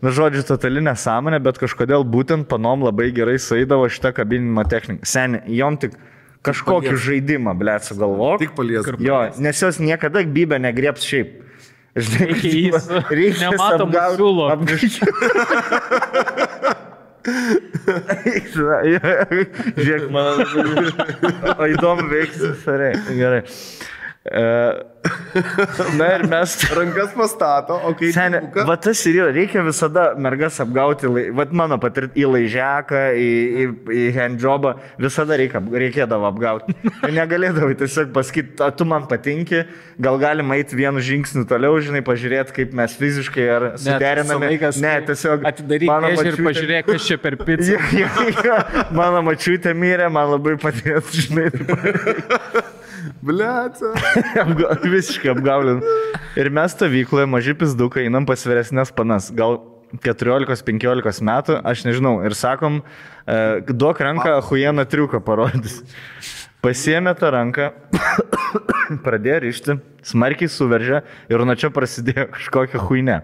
Nu, žodžiu, totali nesąmonė, bet kažkodėl būtent panom labai gerai sueidavo šitą kabinimo techniką. Seni, jom tik kažkokį žaidimą, blėt, sugalvok. Tik palies. Jo, nes jos niekada bybę negrieps šiaip. Reikia nematomų siūlų. Žiūrėk, man... O įdomu veiksis, gerai. Na ir mes... Rankas pastato, o kai... Seni, va tas ir yra, reikia visada mergas apgauti, va mano patirti į laižeką, į handjobą, visada reikėdavo apgauti. Negalėdavai tiesiog pasakyti, tu man patinki, gal galim eiti vienu žingsniu toliau, žinai, pažiūrėti, kaip mes fiziškai ar suderiname. Ne, tiesiog... Atidaryk ir pažiūrėk, kas čia per pizzą. Mano mačiutė mirė, man labai patės, žinai. Bliaca. Visiškai apgaulin. Ir mes stovykloje maži pizdukai einam pas vyresnės panas, gal 14-15 metų, aš nežinau, ir sakom, duok ranką, achujeną triuką parodys. Pasiėmė tą ranką pradėjo rišti, smarkiai suveržė ir nuo čia prasidėjo kažkokia huinė.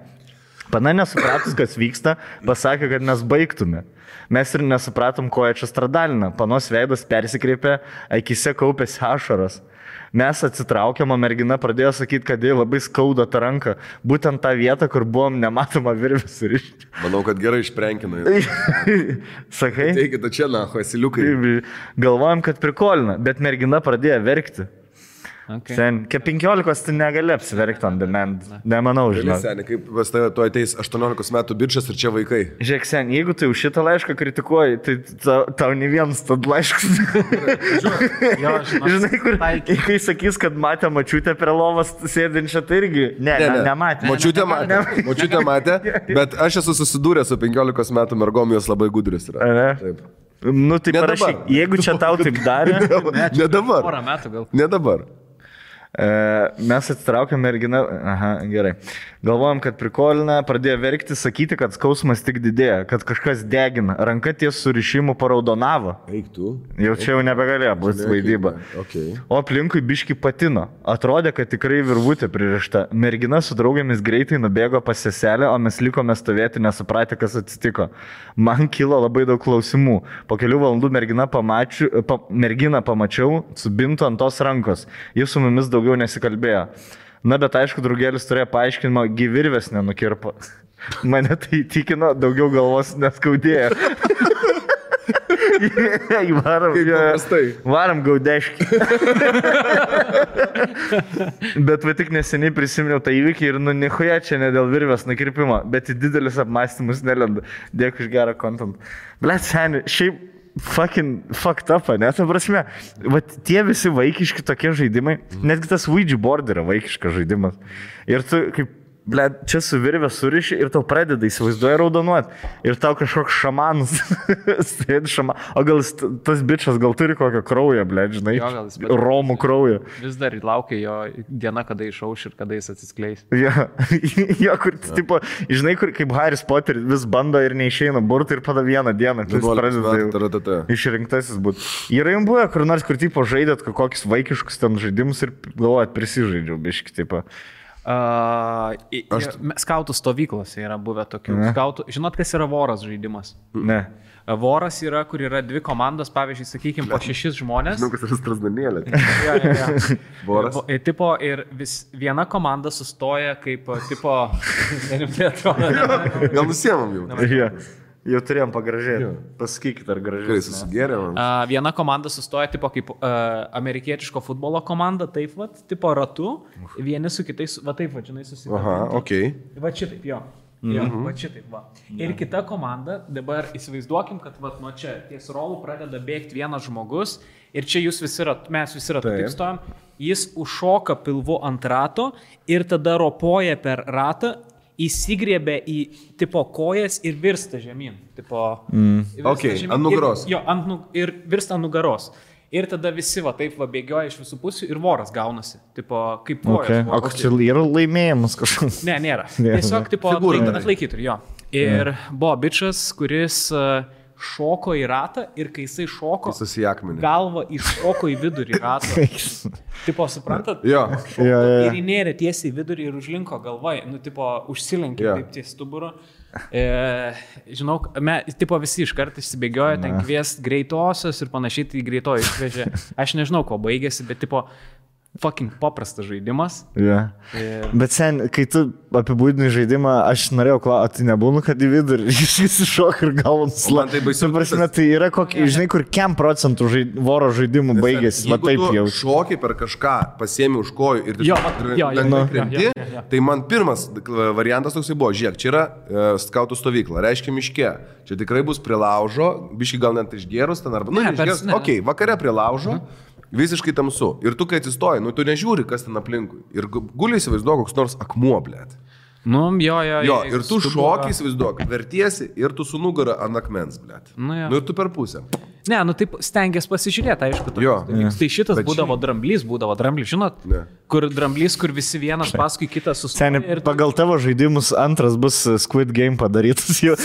Pana nesupratus, kas vyksta, pasakė, kad mes baigtume. Mes ir nesupratom, ko jie čia stradalina. Panos veidas persikreipė, akise kaupėsi ašaros. Mes atsitraukėm, o mergina pradėjo sakyti, kad jai labai skauda tą ranką. Būtent tą vietą, kur buvom nematoma virvė surišti. Manau, kad gerai išprenkina. Sakai? Teikite čia, naho, esiliukai. Galvojom, kad prikolina, bet mergina pradėjo verkti. Okay. Sen, 15 tu negali apsiverkti on demand. Nemanau, žinau. Seniai, kaip pas tave tu ateis 18 metų bičias ir čia vaikai. Žiūrėk, sen, jeigu tu už šitą laišką kritikuoji, tai tau ne vienas tad laiškas. Žinai, kur, kai sakys, kad matė mačiutę prie lovas sėdinčią, tai irgi nematė. Mačiutė matė, bet aš esu susidūręs su 15 metų mergom, jos labai gudrius yra. Taip. Nu, tai parašyk, jeigu čia tau taip darė. Ne dabar. Porą metų gal. Ne dabar. Mes atsitraukėm merginą, gerai. Galvojom, kad prikolina, pradėjo verkti, sakyti, kad skausmas tik didėja, kad kažkas degina. Ranka ties surišimu paraudonavo. Eik tu. Jau čia jau nebegalėjo būti vaidyba. Okay. O aplinkui biški patino. Atrodė, kad tikrai virvutė pririšta. Mergina su draugėmis greitai nubėgo pas seselę, o mes likome stovėti nesupratę, kas atsitiko. Man kilo labai daug klausimų. Po kelių valandų merginą pamačiau su bintu ant tos rankos. Jis su mumis daugiau nesikalbėjo. Na, bet aišku, draugelis turėjo paaiškinimą, gyvirvės nenukirpo. Mane tai įtikino, daugiau galvos neskaudėjo. Varam gaudeškį. Bet va tik neseniai prisiminiau tą įvykį ir nichuja čia ne dėl virvės nukirpimo, bet į didelis apmąstymus nelenda. Dėkui už gerą kontentą. Blet, seniai, šiaip fucked up, ne, ta prasme. Vat tie visi vaikiški tokie žaidimai, netgi tas Ouija board yra vaikiškas žaidimas. Ir tu kaip, ble, čia su virvė suriši ir tau pradeda įsivaizduoja raudonuoti. Ir tau kažkoks šamanas sėdi šamanas. O gal tas bičas gal turi kokią kraują, ble, žinai, romų kraują. Vis dar laukia jo diena, kada išauš ir kada jis atsiskleis. Jo, kur, tipo, žinai, kur kaip Harris Potter vis bando ir neišeina burti ir pada vieną dieną. Tai jis pradeda išrinktasis būti. Yra jums buvę, kur nors, kur tipo žaidėt kokius vaikiškus ten žaidimus ir galvojat, prisižaidžiau biški, tipo. Skautų stovyklose yra buvę tokių. Žinot, kas yra voras žaidimas? Ne. Voras yra, kur yra dvi komandos, pavyzdžiui, sakykime, po 6 žmonės. Žinau, kas yra Strasdanėlė. Voras. Tipo, ir viena komanda sustoja kaip, tipo, gal nusiemam jau. Jau turėjom pagražėti. Pasakykit, ar gražiai. Kai susigėrėm. Viena komanda sustoja tipo kaip amerikietiško futbolo komanda, taip vat, tipo ratu, vieni su kitais, va taip, va, žinai, susidėti. Aha, okei. Va šitaip, jo. Va šitaip, va. Ir kita komanda, dabar įsivaizduokim, kad va nuo čia ties rolų pradeda bėgti vienas žmogus ir čia jūs visi mes visi ratu taip stojam, jis užšoka pilvu ant rato ir tada ropoja per ratą, įsigriebė į tipo kojas ir virsta žemyn. Tipo, ant nugaros. Ir virsta ant nugaros. Ir tada visi va taip va bėgioja iš visų pusių ir voras gaunasi. Tipo, kaip kojas. O čia yra laimėjimas kažkoks? Ne, nėra. Tiesiog tipo atlaikytų, jo. Ir buvo bičas, kuris šoko į ratą ir kai jisai šoko, galva iššoko į vidurį rato. Tipo, suprantat? Jo. Ir įnėrė tiesiai į vidurį ir užlinko galvai. Nu, tipo, užsilenkė taip ties stuburo. Žinau, tipo visi iškart išsibėgiojo, ten kviest greitosios ir panašiai, tai greitoji išvežė. Aš nežinau, ko baigėsi, bet tipo, fucking paprastas žaidimas. Yeah. Bet sen, kai tu apibūdinai žaidimą, aš norėjau klausti, tai nebūna, kad į vidurį jis iššok ir galvom slapti. Tai baisu. Prasme, tai yra kokie, žinai, kur 100% voro žaidimų baigėsi. Va taip jau. Šokiai per kažką, pasiemi už kojų ir krenti, tai man pirmas variantas toksai buvo, žiūrėk, čia yra skautų stovykla, reiškia miške. Čia tikrai bus prie laužo, biškai gal net išgėrus ten arba, išgėrus. Ok, vakare prie laužo. Visiškai tamsu. Ir tu, kai atsistoji, tu nežiūri, kas ten aplinkui. Ir guliai įsivaizduok, koks nors akmuo, blėt. Nu, jo. Ir tu šokiai įsivaizduok, vertiesi ir tu su nugara ant akmens, blėt. Nu, ir tu per pusę. Ne, nu taip stengiasi pasižiūrėti, aišku. Tai šitas būdavo dramblys, žinot? Ne. Kur dramblys, kur visi vienas paskui kitą sustoja. Ir pagal tavo žaidimus antras bus Squid Game padarytas jau.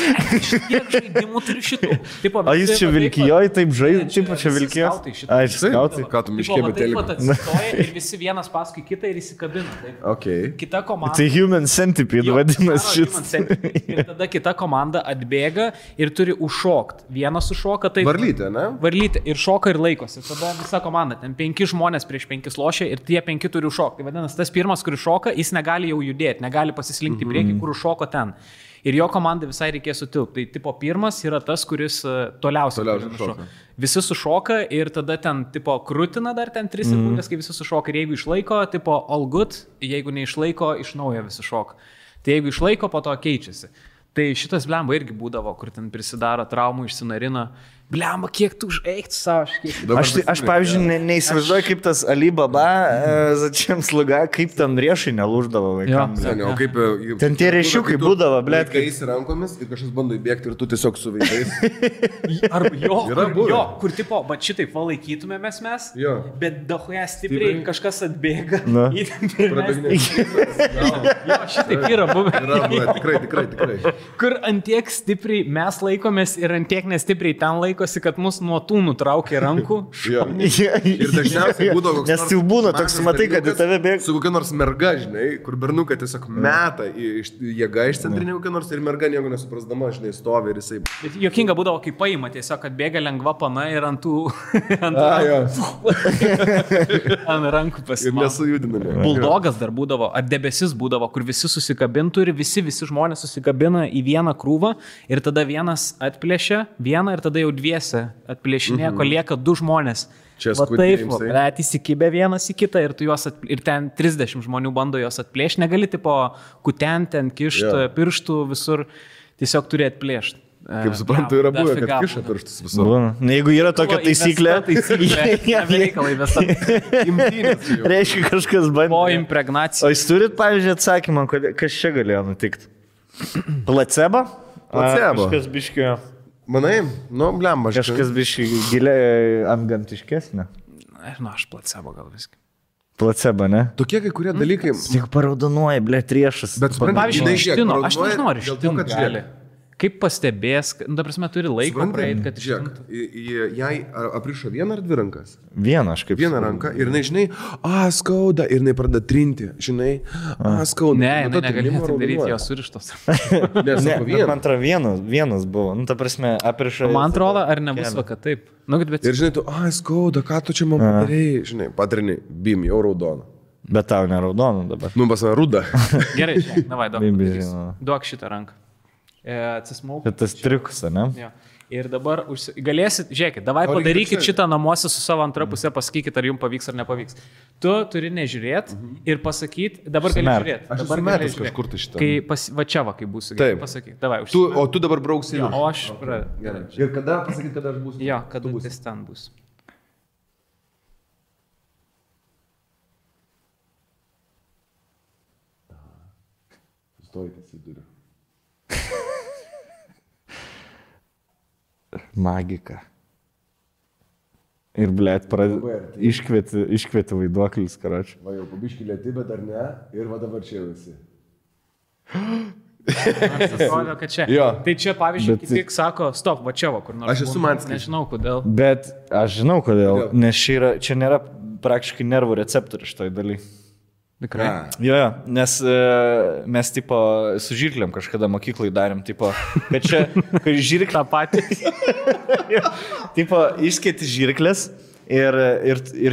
Kiek žaidimų turi šitų? O jis čia vilkijoje taip žaidė, taip čia vilkijo? Ai, skautai. Ką tu miškė betelį? Atsistoja ir visi vienas paskui kitą ir įsikabina. Okay. Kita komanda. Tai Human Centipede vadinasi šis. Ir tada kita komanda atbėga ir turi užšokti. Vienas užšoka, tai... Varlytė, ne? Varlytė ir šoka ir laikosi. Tada visa komanda, ten 5 žmonės prieš 5 lošia ir tie 5 turi užšokti. Tai vadinasi, tas pirmas, kuris šoka, jis negali jau judėti, negali pasislinkti prieki, kur užšoko ten. Ir jo komandai visai reikės sutilpti. Tai tipo pirmas yra tas, kuris toliausiai šoka. Visi sušoka ir tada ten tipo krūtina dar ten 3 sekundės, kai visi sušoka. Ir jeigu išlaiko, tipo all good, jeigu neišlaiko, iš naujo visi šoka. Tai jeigu išlaiko, po to keičiasi. Tai šitas blemba irgi būdavo, kur ten prisidaro traumų, išsinarina. Blemba, kiek tu užeikti savo. Aš pavyzdžiui, neįsivaizduoju, kaip tas Alibaba, Začiam Sluga, kaip ten riešai nelūždavo vaikams. Ten tie riešiukai būdavo, blėt. Kai jis rankomis ir kažkas bando įbėgti ir tu tiesiog su veidais. Arba kur tipo, bet šitaip valaikytumėmės mes, bet dahoje stipriai kažkas atbėga. Šitaip yra buvę. Tikrai. Kur antiek stipriai mes laikomės ir antiek nestipriai ten laiko. Kad mus nuo tų nutraukė rankų. Ir dažniausiai būdavo koks nors... Nes jau būna toks, matai, kad į tave bėga. Su kokia nors merga, žinai, kur bernukai tiesiog meta jėga iš centrinė kokia nors ir merga nieko nesuprasdama, žinai, stovi ir jisai... Jokinga būdavo, kai paima tiesiog, kad bėga lengva pana ir ant tų... ant rankų pasimą. Ir nesujudinami. Buldogas dar būdavo, ar debesis būdavo, kur visi susikabintų ir visi žmonės susikabina į vieną krūvą ir tada vienas atplėšia vieną ir tada jau atplėšinė, kol lieka 2 žmonės. Čia taip, bet įsikibė vienas į kitą ir, ir ten 30 žmonių bando jos atplėšti. Negali tipo kutenti, ten kišti pirštų visur, tiesiog turi atplėšti. Kaip suprantu, yra buvę, kad kiša pirštus visur. Jeigu yra tokia taisyklė, reiškia kažkas bandė. Po impregnacijos. O jūs turit, pavyzdžiui, atsakymą, kas čia galėjo nutikti? Placebo? Kažkas biškio... Manai, blemba. Kažkas biškai giliai antgamtiškesnė. Aš placebo gal viskai. Placebo, ne? Tokie kai kurie dalykai... Tik paraudonuoja, riešas. Bet pavyzdžiui, ištino, aš nežinau, ar ištino gali. Kaip pastebės, ta prasme, turi laiko praeit, kad ištintų. Jai aprišo 1 ar 2 rankas? Vieną, aš kaip... Vieną ranką ir žinai, skauda, ir pradeda trinti, žinai, skauda. Ne, negalėtų daryti, jos surištos. Ne, man atrodo, vienas buvo. Ta prasme, aprišo... Man atrodo, ar nebus vaka taip. Ir žinai, tu, skauda, ką tu čia man padarėjai, žinai, patrini, bim, jau raudona. Bet tau neraudona dabar. Pasana, ruda. Gerai, davai, duok šitą ranką. Atsismauk. Tas triukas, ne? Ja. Ir dabar galėsit, žiūrėkit, davai padarykit šitą namuose su savo antra pusė, pasakykit, ar jums pavyks ar nepavyks. Tu turi nežiūrėti ir pasakyti, dabar gali žiūrėti. Aš dabar metęs kažkur tai šitą. Va čia va, kai būsiu, pasakyk. Davai, o tu dabar brauksi. Ja, o aš... Gerai. Ir kada pasakyti, kada aš būsiu? Jo, kada jis ten bus. Stojitės į durį. Magika. Ir, blėt, iškvieti vaiduoklis, karoči. Va jau pabiškį lėti, bet ar ne? Ir va dabar čia visi. Aš atrodo, kad čia. Tai čia, pavyzdžiui, tik sako, stop, va čia va, kur nors. Aš esu Manskis. Nežinau, kodėl. Bet aš žinau, kodėl. Nes čia nėra praktiškai nervų receptorių šitoj daly. Tikrai. Jo, nes mes tipo su žirklėm kažkada mokyklai darėm, tipo, kad čia, kai žirklė... Ta pati. Tipo, išskėti žirklės ir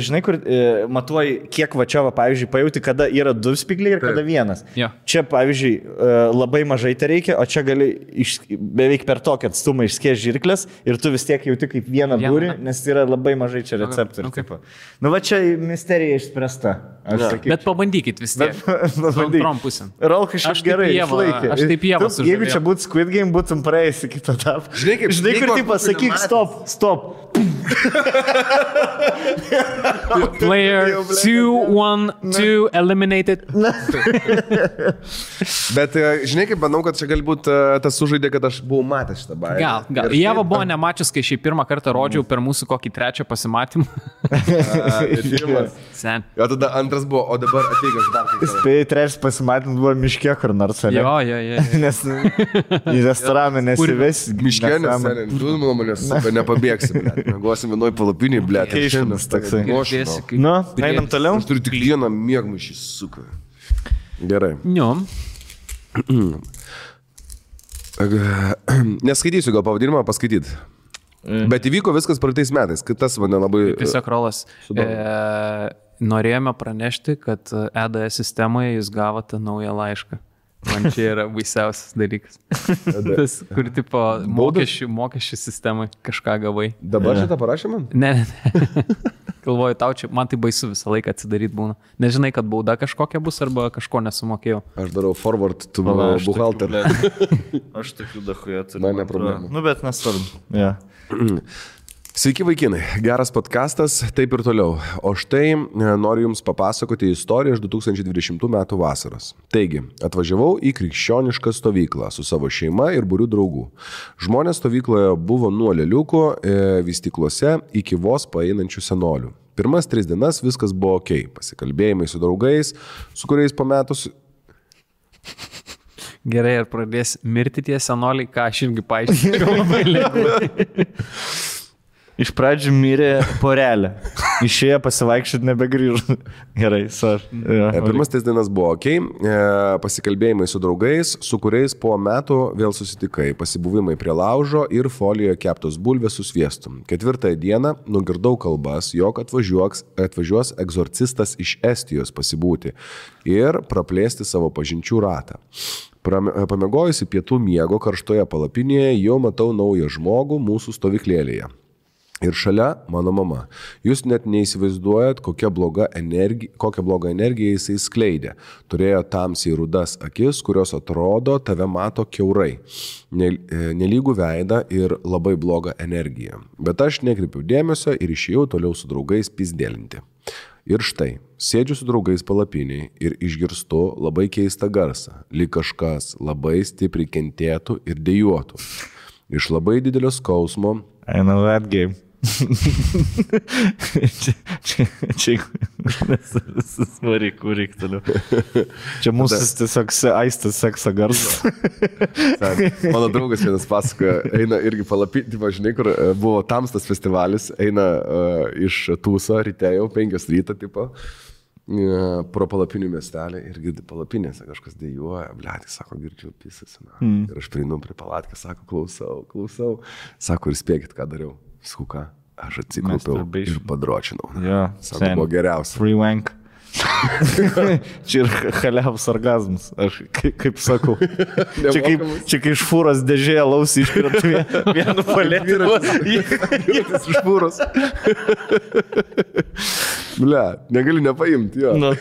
žinai, kur matuoji, kiek va čia, va, pavyzdžiui, pajauti, kada yra 2 spygliai ir kada 1. Ja. Čia, pavyzdžiui, labai mažai tai reikia, o čia gali beveik per tokį atstumą išskėsti žirklės ir tu vis tiek jauti kaip vieną dūrį, nes yra labai mažai čia receptorių. Okay. Nu va čia misterija išspręsta. Bet pabandykit vis tiek. Antrom pusėm. Rolka šiaip gerai išlaikė. Aš taip jėvą sužavėjau. Jeigu čia būtų Squid Game, būtum praėjęs į kitą etapą. Žinai, kur tipo sakyk stop. Player 2-1-2 eliminated. Bet žinai, kaip manau, kad čia galbūt tas sužaidė, kad aš buvau matęs šitą bairį. Gal. Ieva buvo nemačius, kai šį pirmą kartą rodžiau per mūsų kokį trečią pasimatymą. Sen. Jo, tada antras buvo, o dabar ateik aš dar. Spėjai, trečias pasimatymas buvo miške kur nors, ne? Jo. Nes į restoraną nesives. Miške, nes tu nuo manęs nepabėgsi, mėgosim vienoj palapinėj, blėt. Keišinas toksai. Nu, einam toliau. Aš turiu tik vieną mėgmaišį, suka. Gerai. Jo. Neskaitysiu gal pavadinimą, paskaityt. Bet įvyko viskas praeitais metais, kad tas mane labai... Tiesiog Rolas. Norėjome pranešti, kad EDS sistemoje jūs gavote naują laišką. Man čia yra baisiausias dalykas. Tas, kur tipo mokesčių sistemai kažką gavai. Dabar šitą parašė man? Ne. Galvoju, tau čia, man tai baisu visą laiką atsidaryti būna. Nežinai, kad bauda kažkokia bus arba kažko nesumokėjau. Aš darau forward to buhalter. Aš tokių dachuje turiu. Man ne problema. Nu, bet nesvarbu. Ja. Sveiki vaikinai, geras podcastas, taip ir toliau. O štai noriu Jums papasakoti istoriją iš 2020 metų vasaros. Taigi, atvažiavau į krikščionišką stovyklą su savo šeima ir būriu draugų. Žmonės stovykloje buvo nuo leliukų vystyklose iki vos paeinančių senolių. Pirmas 3 dienas viskas buvo ok, pasikalbėjimai su draugais, su kuriais po metus... Gerai, ar pradės mirti tie senoliai, ką aš irgi paaiškinau labai lengvai. Iš pradžių mirė porelė. Išėjo pasivaikščioti, nebegrįžo. Gerai, Pirmas 3 dienas buvo ok, pasikalbėjimai su draugais, su kuriais po metų vėl susitikai, pasibuvimai prie laužo ir folijoje keptos bulvės su sviestu. 4 dieną nugirdau kalbas, jog atvažiuos egzorcistas iš Estijos pasibūti ir praplėsti savo pažinčių ratą. Pamiegojusi pietų miego karštoje palapinėje, jau matau naują žmogų mūsų stovyklėlėje. Ir šalia mano mama. Jūs net neįsivaizduojat, kokią blogą energiją jisai skleidė. Turėjo tamsiai rudas akis, kurios atrodo tave mato kiaurai. Nelygų veidą ir labai blogą energiją. Bet aš nekreipiau dėmesio ir išėjau toliau su draugais pizdėlinti. Ir štai, sėdžiu su draugais palapiniai ir išgirstu labai keistą garsą, lyg kažkas labai stipriai kentėtų ir dejuotų. Iš labai didelio skausmo. I know that game. Čia svarik, kurik toliau. Čia mūsų tiesiog aistas sekso garsas. Mano draugas vienas pasakoja, eina irgi palapinti, žinai, kur buvo tamstas festivalis, eina iš Tūso ryte jau 5 ryto tipo. Pro palapinių miestelį ir girdi palapinėse kažkas dejuoja, blėti, sako, girdžiu pisas. Ir aš prieinu prie palatkę, sako, klausau. Sako, ir spėkit, ką dariau. Sakau, ką? Aš atsikaupiau ir padročinau. Ja, sako, buvo geriausia. Free wank. Čia ir chaliavus orgazmas, aš kaip sakau. Čia kai iš fūros dėžėje lausi iškrenta vienu palėtį. Jėtis iš fūros. Ble, negali nepaimti, jo. Nu,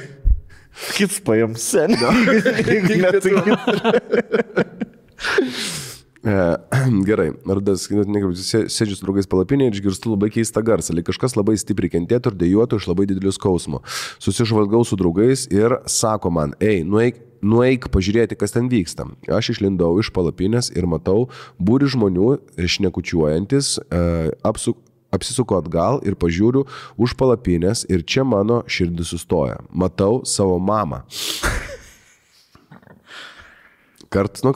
kits paim sen. Gerai, sėdžiu su draugais palapinėje ir išgirstu labai keistą garsą, lyg kažkas labai stipriai kentėtų ir dejuotų iš labai didelio skausmo. Susižvalgau su draugais ir sako man, nueik pažiūrėti, kas ten vyksta. Aš išlindau iš palapinės ir matau būrį žmonių šnekučiuojantis, apsisuku atgal ir pažiūriu už palapinės ir čia mano širdis sustoja. Matau savo mamą. Kartas nuo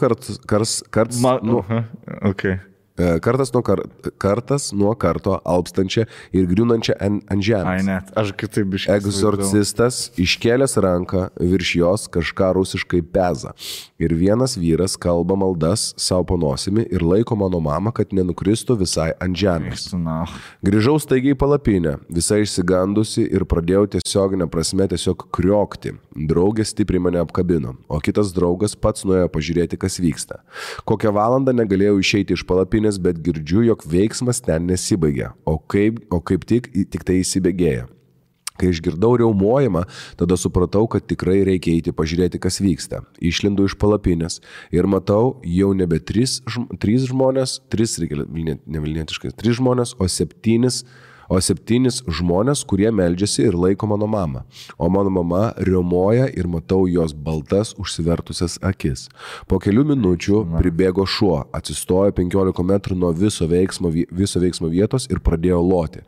karto alpstančią ir griūnančią ant žemės. Ai net, aš kitaip iškėliau. Egzorcistas iškėlęs ranką virš jos kažką rusiškai peza. Ir vienas vyras kalba maldas savo po nosimi ir laiko mano mamą, kad nenukristų visai ant žemės. Grįžau staigiai į palapinę, visai išsigandusi ir pradėjau tiesioginę prasme tiesiog kriokti. Draugė stipriai mane apkabino, o kitas draugas pats nuėjo pažiūrėti, kas vyksta. Kokią valandą negalėjau išeiti iš palapinės, bet girdžiu, jog veiksmas ten nesibaigia, o kaip tik tai įsibėgėja. Kai išgirdau riaumojimą, tada supratau, kad tikrai reikia eiti pažiūrėti, kas vyksta. Išlindu iš palapinės ir matau jau nebe 3 žmonės, 3 žmonės, o 7 žmonės, kurie meldžiasi ir laiko mano mamą. O mano mama riaumoja ir matau jos baltas užsivertusias akis. Po kelių minučių pribėgo šuo, atsistojo 15 metrų nuo viso veiksmo vietos ir pradėjo loti.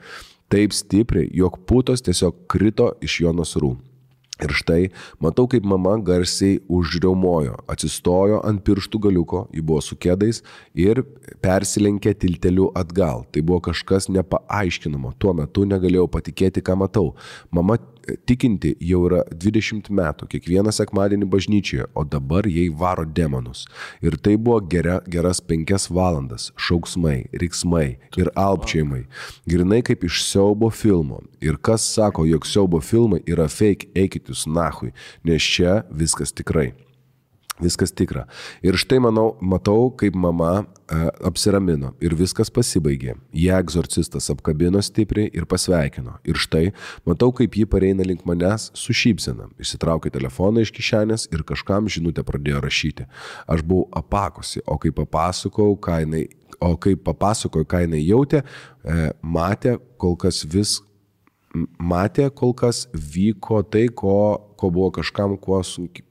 Taip stipriai, jog putos tiesiog krito iš jo nasrų. Ir štai, matau, kaip mama garsiai užriaumojo, atsistojo ant pirštų galiuko, ji buvo su kėdais ir persilenkė tilteliu atgal. Tai buvo kažkas nepaaiškinamo, tuo metu negalėjau patikėti, ką matau. Mama tikinti jau yra 20 metų, kiekvieną sekmadienį bažnyčioje, o dabar jai varo demonus. Ir tai buvo geras 5 valandas, šauksmai, riksmai ir alpčiojimai. Grinai kaip iš siaubo filmo. Ir kas sako, jog siaubo filmai yra fake, eikit jūs nahui, nes čia viskas tikrai. Viskas tikra. Ir štai matau, kaip mama apsiramino ir viskas pasibaigė. Ją egzorcistas apkabino stipriai ir pasveikino. Ir štai matau, kaip ji pareina link manęs su šypsena. Išsitraukė telefoną iš kišenės ir kažkam žinutę pradėjo rašyti. Aš buvau apakusi, o kai papasakojau, ką jinai jautė, matė, kol kas vyko tai, ko buvo kažkam, kuo sunkiai.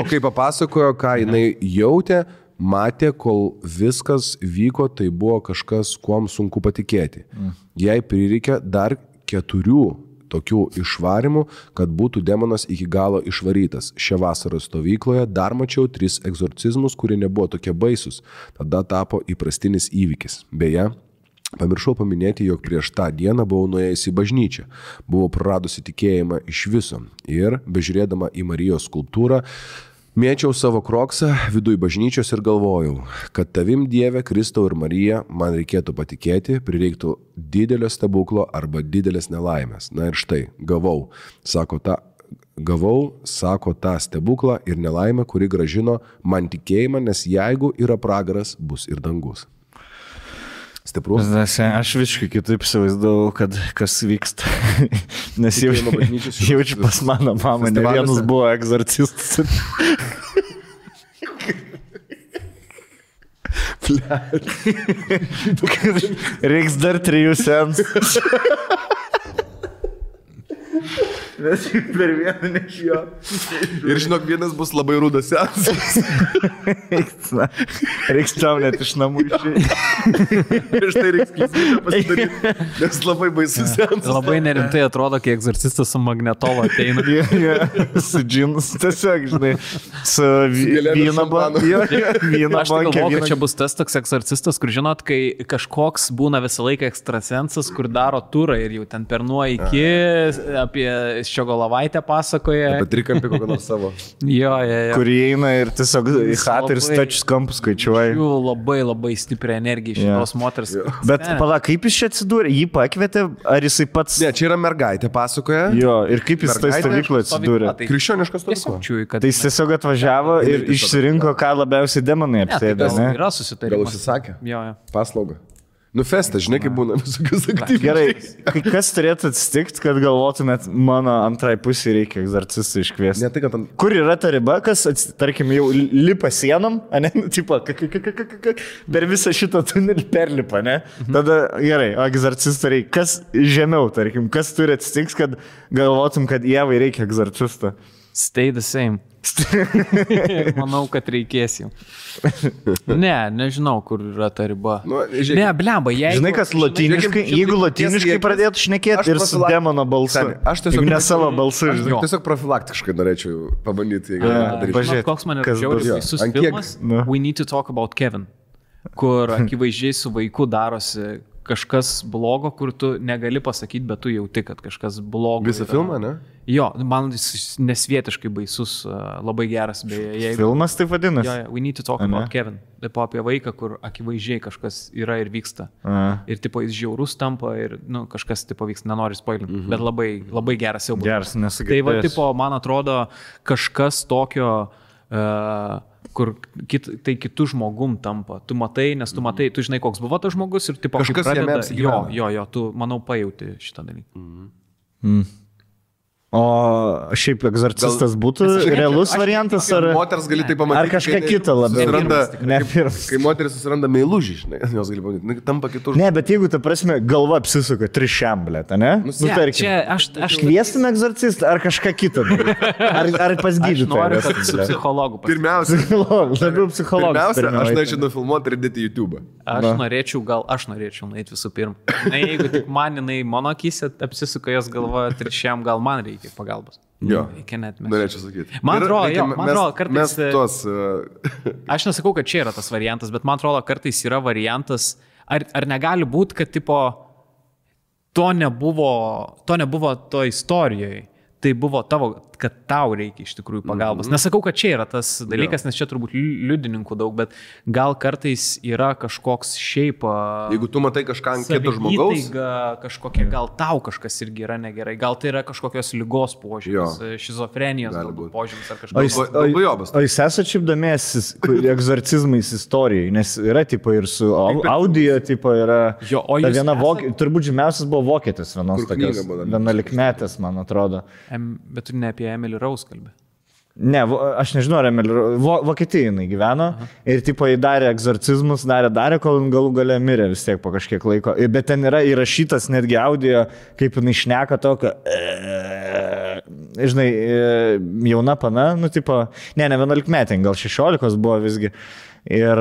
O kai papasakojo, ką jinai jautė, matė, kol viskas vyko, tai buvo kažkas, kuom sunku patikėti. Jai prireikė dar 4 tokių išvarimų, kad būtų demonas iki galo išvarytas. Šią vasarą stovykloje dar mačiau 3 egzorcizmus, kurie nebuvo tokie baisus. Tada tapo įprastinis įvykis. Beje, pamiršau paminėti, jog prieš tą dieną buvau nuėjusi į bažnyčią. Buvau praradusi tikėjimą iš viso ir, bežiūrėdama į Marijos skulptūrą, mėčiau savo kroksą viduj bažnyčios ir galvojau, kad tavim Dieve, Kristau ir Marija man reikėtų patikėti, prireiktų didelio stebuklo arba didelės nelaimės. Na ir štai, gavau, sako tą stebuklą ir nelaimę, kuri gražino man tikėjimą, nes jeigu yra pragaras, bus ir dangus. Stiprus. Aš visiškai kitaip įsivaizdavau, kad kas vyksta. Nes jaučiu pas mano mamą, ne vienas buvo egzorcistas. Reiks dar 3 seansų. Nes per vieną nešijo. Ir žinok, vienas bus labai rudas seansas. Reiks tau net iš namų išėjti. Ir štai reiks klysmybę pasidaryti, nes labai baisus seansas. Labai nerimtai atrodo, kai egzorcistas su magnetolo ateina. Su džinus, tiesiog, žinai, su vyno banku. Aš tai galvoju, kad čia bus tas toks egzorcistas, kur žinot, kai kažkoks būna visą laiką ekstrasensas, kur daro turą ir jau ten per nuo iki apie Ščiogolevaitę pasakoja. Apie trikampį kokį nors savo. Jo. Kur įeina ir tiesiog į chatą ir stačius kampus skaičiuoja. Labai stiprią energiją iš šitos moters. Bet pala, kaip jis čia atsidūrė? Jį pakvietė, ar jisai pats... Ne, čia yra mergaitė pasakoja. Jo, ir kaip jis tai stovykloje atsidūrė? Krikščioniškas stovykla. Tai jis tiesiog atvažiavo ir išsirinko, ką labiausiai demonai apsėdė, ne? Yra susitarimas. Gal užsisakė? Jo. Paslaugą. Festą, žinai, kaip būna visokius aktyvius. Gerai, kas turėtų atsitikti, kad galvotumėt, mano antrai pusė reikia egzorcistų iškviesti? Ne, tai, kad Kur yra ta riba, kas, tarkim, jau lipa sienom, ne, tipo, per visą šitą tunelį perlipa, ne? Tada, gerai, o egzorcistų reikia. Kas žemiau, tarkim, kas turi atsitikti, kad galvotum, kad Ievai reikia egzorcisto? Stay the same. Manau, kad reikės jau. Nežinau, kur yra ta riba. Ne, blemba, jeigu... Žinai, kas latiniškai, jeigu latiniškai pradėtų šnekėti ir su demono balsu. Aš tiesiog ne savo balsu. Tiesiog profilaktiškai norėčiau pabandyti. Koks man yra žiauriai visus filmas We Need to Talk About Kevin, kur akivaizdžiai su vaiku darosi kažkas blogo, kur tu negali pasakyti, bet tu jauti, kad kažkas blogo. Visą filmą, ne? Jo, man jis nesvietiškai baisus, labai geras. Filmas taip vadinasi? Jo, We Need to Talk About Kevin. Taip apie vaiką, kur akivaizdžiai kažkas yra ir vyksta. Ir tipo jis žiaurus tampa ir kažkas tipo vyksta, nenori spoilinti. Bet labai geras jau buvo. Geras, nesakytas. Tai va, tipo, man atrodo, kažkas tokio... kur tai kitų žmogum tampa. Tu matai, nes tu matai, tu žinai, koks buvo tas žmogus ir tipo, kažkas jame apsigyvena. Jo, tu, manau, pajauti šitą dalyką. O šiaip egzorcistas būtų realus variantas, ar... Moters gali tai pamatyti. Ar kažką kitą labiau? Kai moteris susiranda meilužį, žinai, jos gali pamatyti, tampa kitur. Ne, bet jeigu, ta prasme, galva apsisuka trišiamblė, ne? Čia aš kviestume egzorcistą ar kažką kitą? Ar pas gydytoją? Noriu, kad su psichologu Pirmiausia, labiau psichologas. aš norėčiau nufilmuoti ir dėti YouTube. Aš norėčiau nueiti visų pirma. Na, jeigu tik man jinai mano akise apsisuka jos galva trišiam, gal man reikia pagalbos. Jo, net norėčiau sakyti. Man atrodo, kartais... Aš nesakau, kad čia yra tas variantas, bet man atrodo, kartais yra variantas, ar negali būti, kad tipo, to nebuvo to istorijoje. Tai buvo tavo, kad tau reikia iš tikrųjų pagalbos. Nesakau, kad čia yra tas dalykas, nes čia turbūt liudininkų daug, bet gal kartais yra kažkoks šiaip... Jeigu tu matai kažką ant kito žmogaus... Kažkokia, gal tau kažkas irgi yra negerai, gal tai yra kažkokios ligos požymis, šizofrenijos požymis ar kažkas. O jūs esate šiaip domėjęs egzorcizmais istorijai, nes yra tipo ir su audio, tipo yra... Ta viena turbūt žymiausias buvo vokietis vienos tokios, 11-metės, man atrodo. Bet tu ne apie Emily Rose kalbė. Ne, aš nežinau, ar Emily Rose. Vokietijai jinai gyveno ir tipo įdarė egzorcizmus, darė, kol galų gale mirė vis tiek po kažkiek laiko. Bet ten yra įrašytas netgi audio, kaip jinai šneka tokio, žinai, jauna pana, nu tipo, ne 11-metė, gal 16 buvo visgi. Ir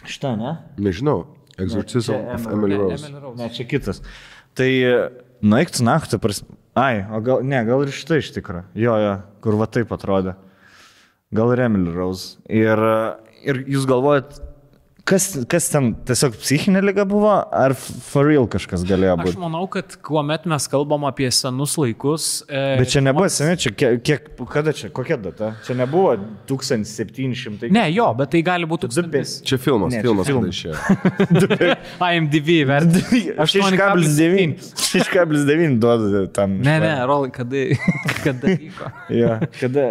šitą, ne? Nežinau, Exorcism of Emily Rose. Ne, čia kitas. Tai, eik tu naktį, o gal ir šitą iš tikrą. Jo, kur va taip atrodė. Gal ir Emily Rose. Ir jūs galvojat, kas ten tiesiog psichinė liga buvo, ar for real kažkas galėjo būti? Aš manau, kad kuomet mes kalbam apie senus laikus... Bet čia nebuvo seniai, čia kada čia, kokia data? Čia nebuvo 1700... Ne, jo, bet tai gali būti... Čia filmas. IMDb vertinti. 6,9 duoda tam. Ne, Rolai, kada vyko? Kada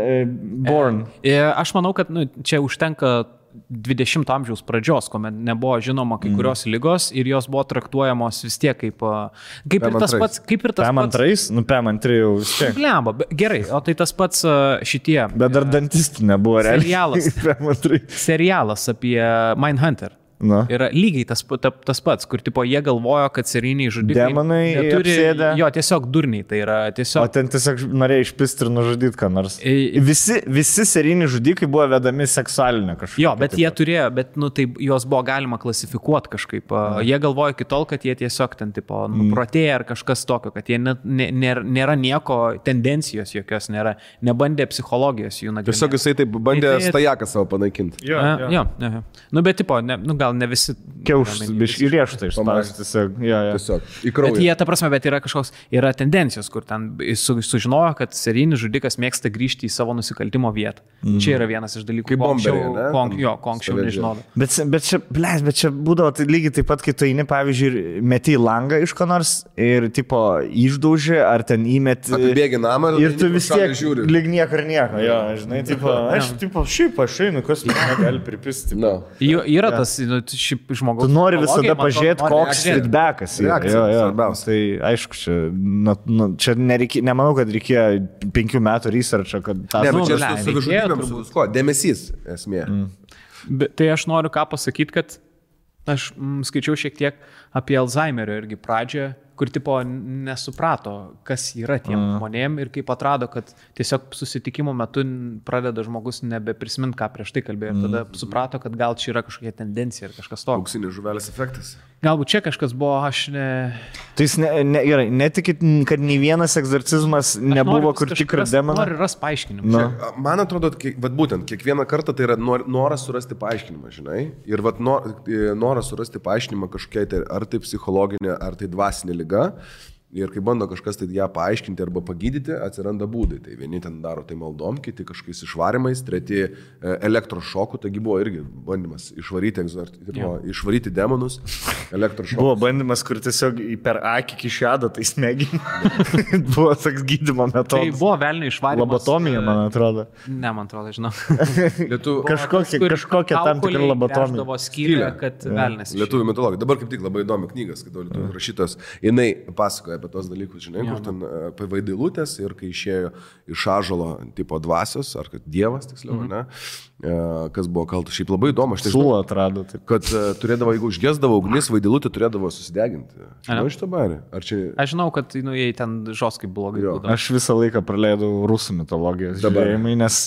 Born. Aš manau, kad čia užtenka 20 amžiaus pradžios, kuomet nebuvo žinoma kai kurios ligos ir jos buvo traktuojamos vis tiek kaip ir tas pats. PM2? PM2 jau vis tiek. Blemba, gerai, o tai tas pats šitie. Bet dar dantistų nebuvo realiai. Serialas apie Mindhunter. Yra lygiai tas pats, kur tipo jie galvojo, kad seriniai žudikai demonai apsėdę. Jo, tiesiog durniai, tai yra tiesiog... O ten tiesiog norėjo išpisti ir nužudyti ką nors. Visi seriniai žudikai buvo vedami seksualinę kažkokią. Jo, bet jie turėjo, tai juos buvo galima klasifikuoti kažkaip. Jie galvojo iki tol, kad jie tiesiog ten tipo nuprotėja ar kažkas tokio, kad jie nėra nieko, tendencijos jokios nėra, nebandė psichologijos jų nagrinėti. Tiesiog jisai taip bandė stajaką savo panaikinti. Jo. Bet tipo, gal ne visi... Kiauštas, biškai rieštai išspausti tiesiog. Į kraują. Bet jie, ta prasme, yra tendencijos, kur ten sužinojo, kad serijinis žudikas mėgsta grįžti į savo nusikaltimo vietą. Čia yra vienas iš dalykų. Kaip bomberiai, ko anksčiau nežinodavo. Bet čia būdavo tai lygiai taip pat, kai tu eini, pavyzdžiui, meti į langą iš ko nors ir tipo išdauži, ar ten įmeti... Apibėgi namą ir tu vis tiek lyg nieko ir nieko. Jo, žinai, šiaip aš einu, kas man gali pripisti. Yra tas žmogus. Tu nori visada pažiūrėti, koks feedbackas yra. Tai aišku, čia nemanau, kad reikėjo 5 metų researcho, kad tą... Ne, bet čia su savižudybėm su dėmesys esmė. Tai aš noriu ką pasakyti, kad aš skaičiau šiek tiek apie Alzheimerio irgi pradžią, kur tipo nesuprato, kas yra tiem žmonėm ir kaip atrado, kad tiesiog susitikimo metu pradeda žmogus nebeprisimint, ką prieš tai kalbėjo ir tada suprato, kad gal čia yra kažkokia tendencija ir kažkas to. Auksinės žuvelės efektas. Galbūt čia kažkas buvo, aš ne... Tai jis netikit, kad nei vienas egzorcizmas nebuvo, kur tikras demonas. Noriu rasti paaiškinimą. Man atrodo, būtent kiekvieną kartą tai yra noras surasti paaiškinimą, žinai. Ir noras surasti paaiškinimą kažkokiai, ar tai psichologinė, ar tai dvasinė liga. Ir kai bando kažkas tai ją paaiškinti arba pagydyti, atsiranda būdai. Tai vieni ten daro tai maldom, kiti kažkokiais išvarimais, treti elektrošokų, taigi buvo irgi bandymas išvaryti demonus, elektrošokus. Buvo bandymas, kur tiesiog per akį kišado, tai smeginį. Buvo toks gydymo metodas. Tai buvo velnio išvarimas. Lobotomija, man atrodo. Ne, man atrodo, žinau. Kažkokia tam tikra lobotomija. Skylė, kad velnės. Lietuvių mitologija. Dabar kaip tik labai įdomi knygas, kad lietuvių rašytos, jinai pasakoja apie tos dalykus, žinai, kur ten apie vaidilutės ir kai išėjo iš ąžuolo tipo dvasios, ar kad dievas, tiksliau, ne, kas buvo kaltas. Šiaip labai įdomu, aš tai Sulą atrado. Taip. Kad turėdavo, jeigu užgesdavo ugnis, vaidilutė turėdavo susideginti. Žinau iš to barį? Aš žinau, kad jei ten žoskai blogai būdavo. Aš visą laiką praleidau rusų mitologijos žiūrėjimai, nes,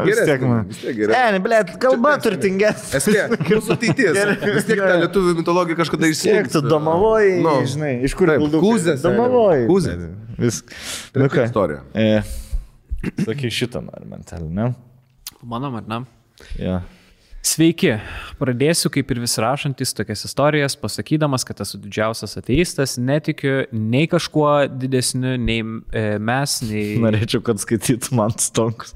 vis tiek man... Ne, blėt, kalba turtingesnė. Esmė, mūsų ateitis. Vis tiek ta lietuvių mitologija kažkada išsieks. Tu domavoji, žinai, iš kur Kūzės. Domavoji. Kūzės. Vis. Tai yra istorija. Sakai šitą nori mentalį, ne? Mano, ar ne? Ja. Sveiki, pradėsiu kaip ir vis rašantis tokias istorijas, pasakydamas, kad esu didžiausias ateistas, netikiu nei kažkuo didesniu, nei mes, nei... Norėčiau, kad skaitytų man stonkus.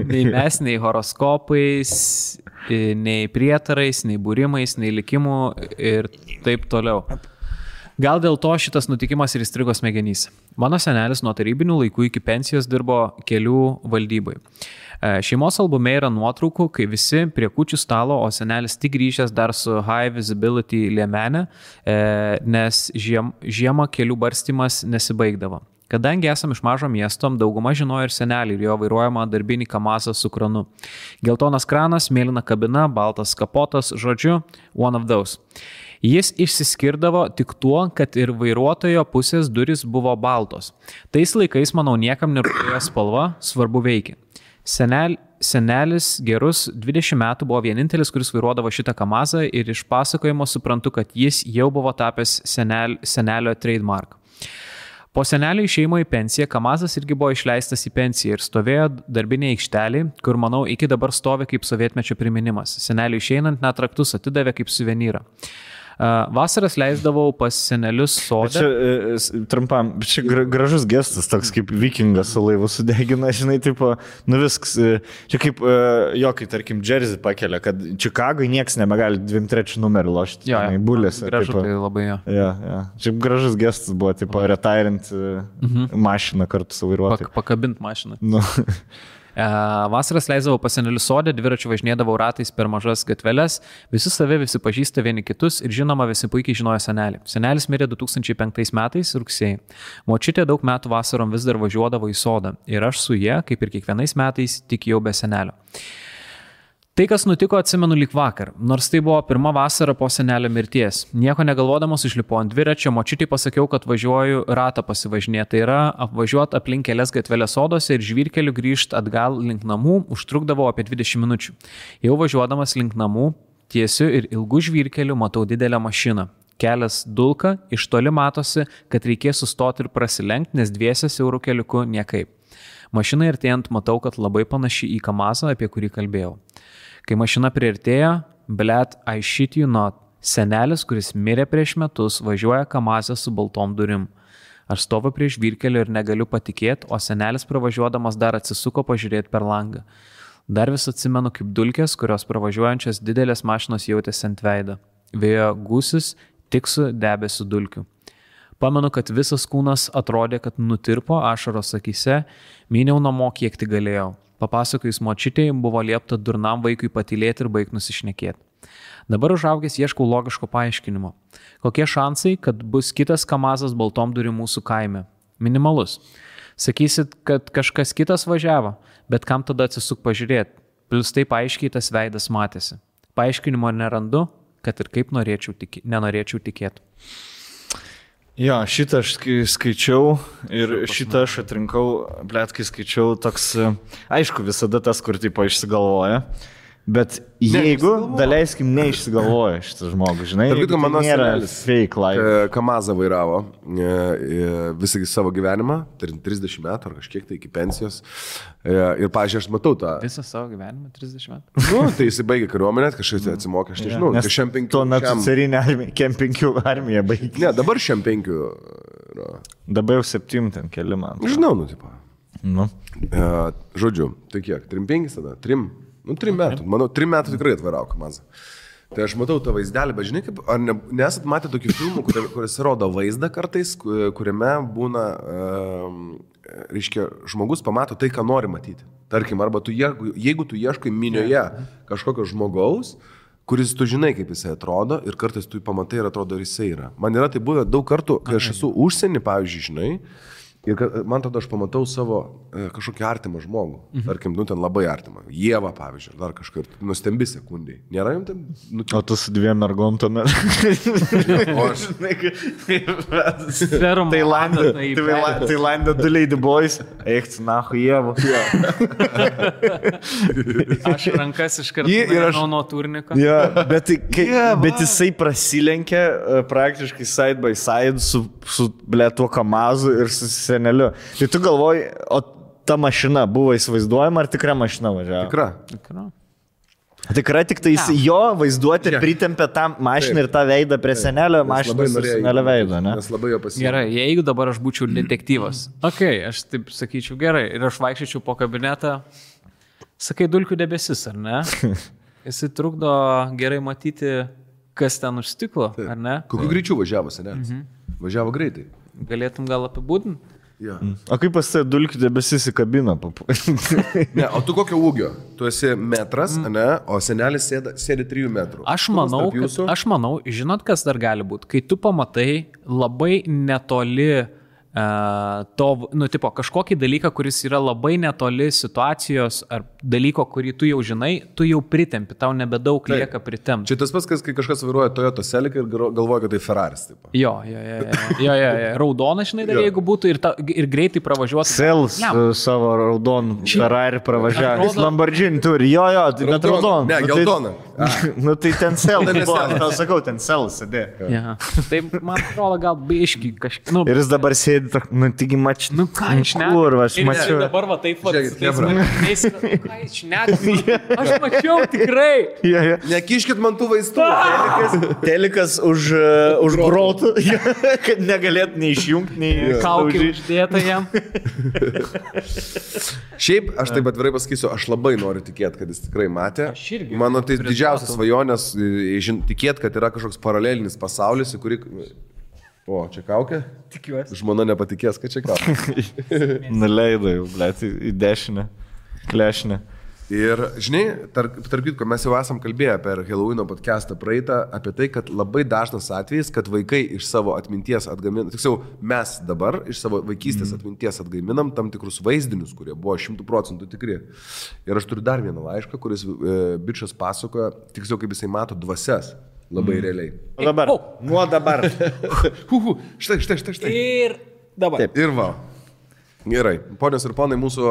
Nei mes, nei horoskopais, nei prietarais, nei būrimais, nei likimų ir taip toliau. Gal dėl to šitas nutikimas ir įstrigo smegenyse. Mano senelis nuo tarybinių laikų iki pensijos dirbo kelių valdybai. Šeimos albume yra nuotraukų, kai visi prie kūčių stalo, o senelis tik grįžęs dar su high visibility liemenė, nes žiemą kelių barstymas nesibaigdavo. Kadangi esam iš mažo miesto, dauguma žinojo ir senelį ir jo vairuojamą darbinį kamazą su kranu. Geltonas kranas, mėlyna kabina, baltas kapotas, žodžiu, one of those. Jis išsiskirdavo tik tuo, kad ir vairuotojo pusės durys buvo baltos. Tais laikais, manau, niekam nerūpėjo spalva, svarbu veikia. Senelis gerus 20 metų buvo vienintelis, kuris vairuodavo šitą kamazą ir iš pasakojimo suprantu, kad jis jau buvo tapęs senelio trademark. Po senelio išėjimo į pensiją, kamazas irgi buvo išleistas į pensiją ir stovėjo darbinė aikštelė, kur, manau, iki dabar stovi kaip sovietmečio priminimas. Senelio išeinant net raktus atidavė kaip suvenyrą. Vasaras leisdavau pas senelius sode. Čia trumpam, čia gražus gestas, toks kaip vikingas su laivu sudegina, žinai, tipo, nu viskas, čia kaip kai tarkim Jersey pakelia, kad Čikagoj nieks nebegali 2-3 numerį lošti, bulėse. Gražu, tai labai jo. Ja. Čia gražus gestas buvo, tipo, retirint mašiną kartu su vairuotoju. Pakabint mašiną. Nu. Vasaras leisdavau pas senelių sodę, dviračiu važinėdavau ratais per mažas gatveles, visi save, visi pažįsta vieni kitus ir žinoma, visi puikiai žinojo senelį. Senelis mirė 2005 metais rugsėjai. Močiutė daug metų vasarom vis dar važiuodavo į sodą ir aš su ja, kaip ir kiekvienais metais, tik jau be senelio. Tai, kas nutiko, atsimenu lyg vakar, nors tai buvo pirma vasara po senelio mirties. Nieko negalvodamas užlipau ant dviračio, močiutei pasakiau, kad važiuoju ratą pasivažinėti, tai yra apvažiuoti aplink kelias gatvelės sodose ir žvyrkeliu grįžti atgal link namų užtrukdavo apie 20 minučių. Jau važiuodamas link namų, tiesiu ir ilgų žvyrkelių matau didelę mašiną. Kelias dulka, iš toli matosi, kad reikės sustoti ir prasilenkti, nes dviese siaurų keliuku niekaip. Mašina artėjant matau, kad labai panaši į kamazą, apie kurį kalbėjau. Kai mašina priartėjo, blet, I shit you not, senelis, kuris mirė prieš metus, važiuoja kamazę su baltom durim. Aš stoviu prie žvyrkelio ir negaliu patikėti, o senelis pravažiuodamas dar atsisuko pažiūrėti per langą. Dar vis atsimenu kaip dulkės, kurios pravažiuojančios didelės mašinos jautėsi ant veido. Vėjo gūsis tik su debesiu dulkių. Pamenu, kad visas kūnas atrodė, kad nutirpo ašaros akyse, myniau namo kiek tik galėjau. Papasakojus močiutei, buvo liepta durnam vaikui patylėti ir baigt nusišnekėti. Dabar užaugęs ieškau logiško paaiškinimo. Kokie šansai, kad bus kitas kamazas baltom durim mūsų kaime? Minimalus. Sakysit, kad kažkas kitas važiavo, bet kam tada atsisuk pažiūrėti? Plius taip aiškiai tas veidas matėsi. Paaiškinimo nerandu, kad ir kaip nenorėčiau tikėti. Jo, šitą aš skaičiau ir šitą aš atrinkau, blet, kai skaičiau toks, aišku, visada tas, kur tipo išsigalvoja, bet jeigu, daleiskim, neišsigalvoja šitas žmogus, žinai, tai nėra fake life. Kamazą vairavo visą savo gyvenimą, 30 metų ar kažkiek tai iki pensijos. Ir, pažiūrėjau, aš matau tą... Visą savo gyvenimą, 30 metų? Nu, tai jis baigė kariuomenę, kažkas atsimokė, aš nežinau. Nes tuo metu carinė armija, KM5 armija baigė. Ne, dabar KM5 yra. Dabar jau 7 ten keli man. Žinau, nu, tipo. Nu. Žodžiu, tai kiek? 3-5 tada? 3 metų. Manau, 3 metų tikrai atvairau kamazą. Tai aš matau tą vaizdelį, bet žinai, kaip, ar nesat matę tokių filmų, kuris rodo vaizdą kartais, kuriame būna, reiškia, žmogus pamato tai, ką nori matyti. Tarkim, arba jeigu tu ieškai minioje kažkokio žmogaus, kuris tu žinai, kaip jisai atrodo ir kartais tu jį pamatai ir atrodo, ar jisai yra. Man yra tai buvę daug kartų, kai aš esu užsienį, pavyzdžiui, žinai, ir man tada aš pamatau savo kažkokį artimą žmogų. Tarkim, ten labai artimą. Ieva, pavyzdžiui, dar kažkur. Nustembi sekundai. Nėra jums ten? O tu su 2 mergom tuomet. O aš. Tailande 2 Lady Boys. Eik, nahu, Ieva. Aš rankas iš karto nuo turniko. Ja, bet jisai prasilenkė praktiškai side by side su tuo Kamazu ir su seneliu. Tai tu galvoji, o ta mašina buvo įsivaizduojama, ar tikra mašina važiavo? Tikra, tik tai jo vaizduoti pritempė tą mašiną ir tą veidą prie senelio mašinos ir senelio veido, ne? Nes labai jo pasiekė. Gerai, jeigu dabar aš būčiau detektyvas. Aš taip sakyčiau, gerai, ir aš vaikščiau po kabinetą, sakai, dulkių debesis, ar ne? Jisai trukdo gerai matyti, kas ten už stiklo, ar ne? Kokiu greičiu važiavo senelis? Važiavo greitai. Galėtum gal apibūdinti? Ja. O kaip pas tai dulkių debesis į kabiną? Ne, o tu kokio ūgio? Tu esi metras, ne, o senelis sėdi 3 metrų. Aš manau, žinot, kas dar gali būti? Kai tu pamatai labai netoli kažkokį dalyką, kuris yra labai netoli situacijos ar dalyko, kurį tu jau žinai, tu jau pritempi, tau nebedaug lieka pritempi. Čia tas pats, kai kažkas vairuoja Toyota Celica ir galvoja, kad tai Ferraris. Taip. Jo. Raudona, žinai, dar jeigu būtų ir greitai pravažiuotų. Sels savo raudonų Ferrari pravažiavęs. Lamborghini turi, bet raudona. Ne, geltona. Nu tai ten Sels. Tau sakau, ten Sels sėdė. Tai man atrodo gal biški kažkaip. Ir jis dabar sėdi, taigi mačiu. Nu ką, aš mačiau. Dabar va taip pat. Aš mačiau tikrai. Nekiškit man tų vaistų. Telikas už grotų, kad negalėt nei išjungti, nei kaukį uždėta jam. Šiaip, aš taip atvirai pasakysiu, aš labai noriu tikėti, kad jis tikrai matė. Mano tai didžiausias svajonės tikėti, kad yra kažkoks paralelinis pasaulis, į kurį... O, čia kaukė? Tikiuosi. Žmona nepatikės, kad čia kaukė. Nuleidai, blėt, į dešinę, klešinę. Ir, žinai, tarp kitko, mes jau esam kalbėję per Halloween podcastą praeitą apie tai, kad labai dažnas atvejis, kad vaikai iš savo atminties atgaminam, tiksliau, mes dabar iš savo vaikystės atminties atgaminam tam tikrus vaizdinius, kurie buvo 100% tikri. Ir aš turiu dar vieną laišką, kuris bičas pasakoja, tiksliau, kaip jisai mato dvasias. Labai realiai. Nuo dabar. Štai. Ir dabar. Taip. Ir va. Gerai. Ponios ir ponai, mūsų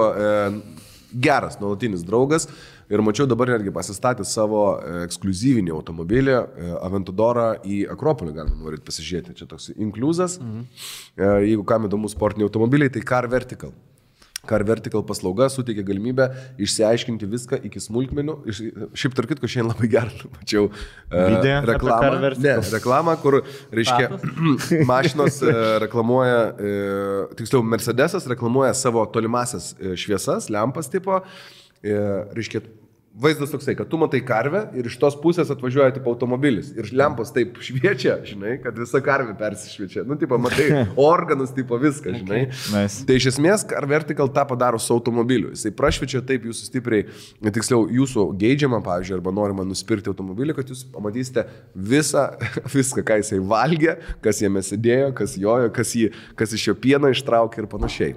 geras nuolatinis draugas. Ir mačiau dabar netgi pasistatė savo ekskluzyvinį automobilį Aventadorą į Akropolį, galima norit pasižiūrėti. Čia toks inkliuzas. Jeigu kam įdomu sportiniai automobiliai, tai Car Vertical. Car Vertical paslauga suteikia galimybę išsiaiškinti viską iki smulkmenų. Šiaip tarp kitko šiandien labai gerą mačiau reklamą, kur, reiškia, mašinos reklamuoja, tiksliau, Mercedesas reklamuoja savo tolimasias šviesas, lempas tipo, reiškia, vaizdas toksai, kad tu matai karvę ir iš tos pusės atvažiuoja tipo automobilis. Ir lempos taip šviečia, žinai, kad visa karvė persišviečia. Nu, tipo, matai organus, tipo viską, žinai. Nice. Tai iš esmės Car Vertical tą padaro su automobiliu. Jisai prašviečia taip jūsų stipriai, tiksliau, jūsų geidžiamą, pavyzdžiui, arba norima nusipirkti automobilį, kad jūs pamatysite viską, ką jisai valgė, kas jame sėdėjo, kas jojo, kas iš jo pieno ištraukė ir panašiai.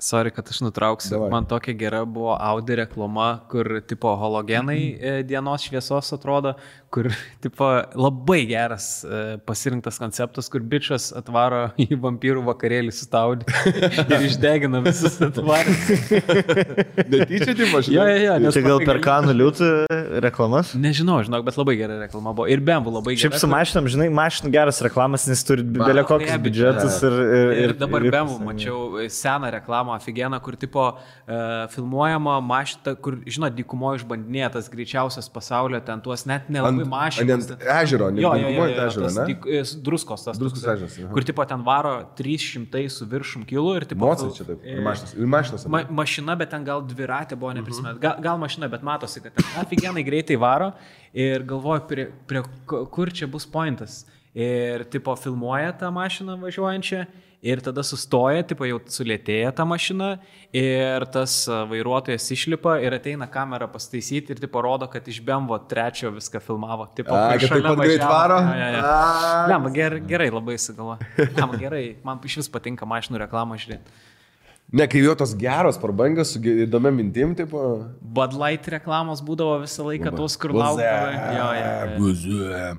Sorry, kad aš nutrauksiu. Davai. Man tokia gera buvo Audi reklama, kur tipo halogenai dienos šviesos atrodo, kur tipo labai geras pasirinktas konceptas, kur bičas atvaro į vampyrų vakarėlį su Audi ir išdegina visus atvarus. Netyčia, tipo, žinai? Jo. Tai gal per Kanų liūtų reklamas? Nežinau, bet labai gera reklama buvo. Ir BMW labai gera. Šiaip su mašinam, žinai, mašinų geras reklamas, nes turi belė kokius biudžetus. Ir dabar BMW mačiau seną reklamą aфиgeną, kur tipo filmuojama mašina, kur, žinot, dykumoje išbandinėtas greičiausias pasaulio, ten tuos net nelabai mašinas. Ant ežero, druskos tas. Druskos ežeras. Kur tipo ten varo 300 su viršum kilų ir tipo... Mocai čia taip. Ir mašinas. Mašina, bet ten gal dviratė buvo neprisimėt. Gal mašina, bet matosi, kad ten aфиgenai greitai varo ir galvoju, kur čia bus pointas. ir tipo filmuoja tą mašiną važiuojančią ir tada sustoja, tipo jau sulėtėja ta mašina ir tas vairuotojas išlipa ir ateina kamerą pastaisyti ir tipo rodo, kad iš BMW 3 viską filmavo. Tipo, kad taip pat greit varo? Lemba, gerai labai įsigalo. Lemba, gerai, man iš vis patinka mašinų reklamą žiūrėti. Ne, kai jo tos geros prabangos su įdomia mintim, tipo... Bud Light reklamos būdavo visą laiką tos, kur laukdavo. Buzė.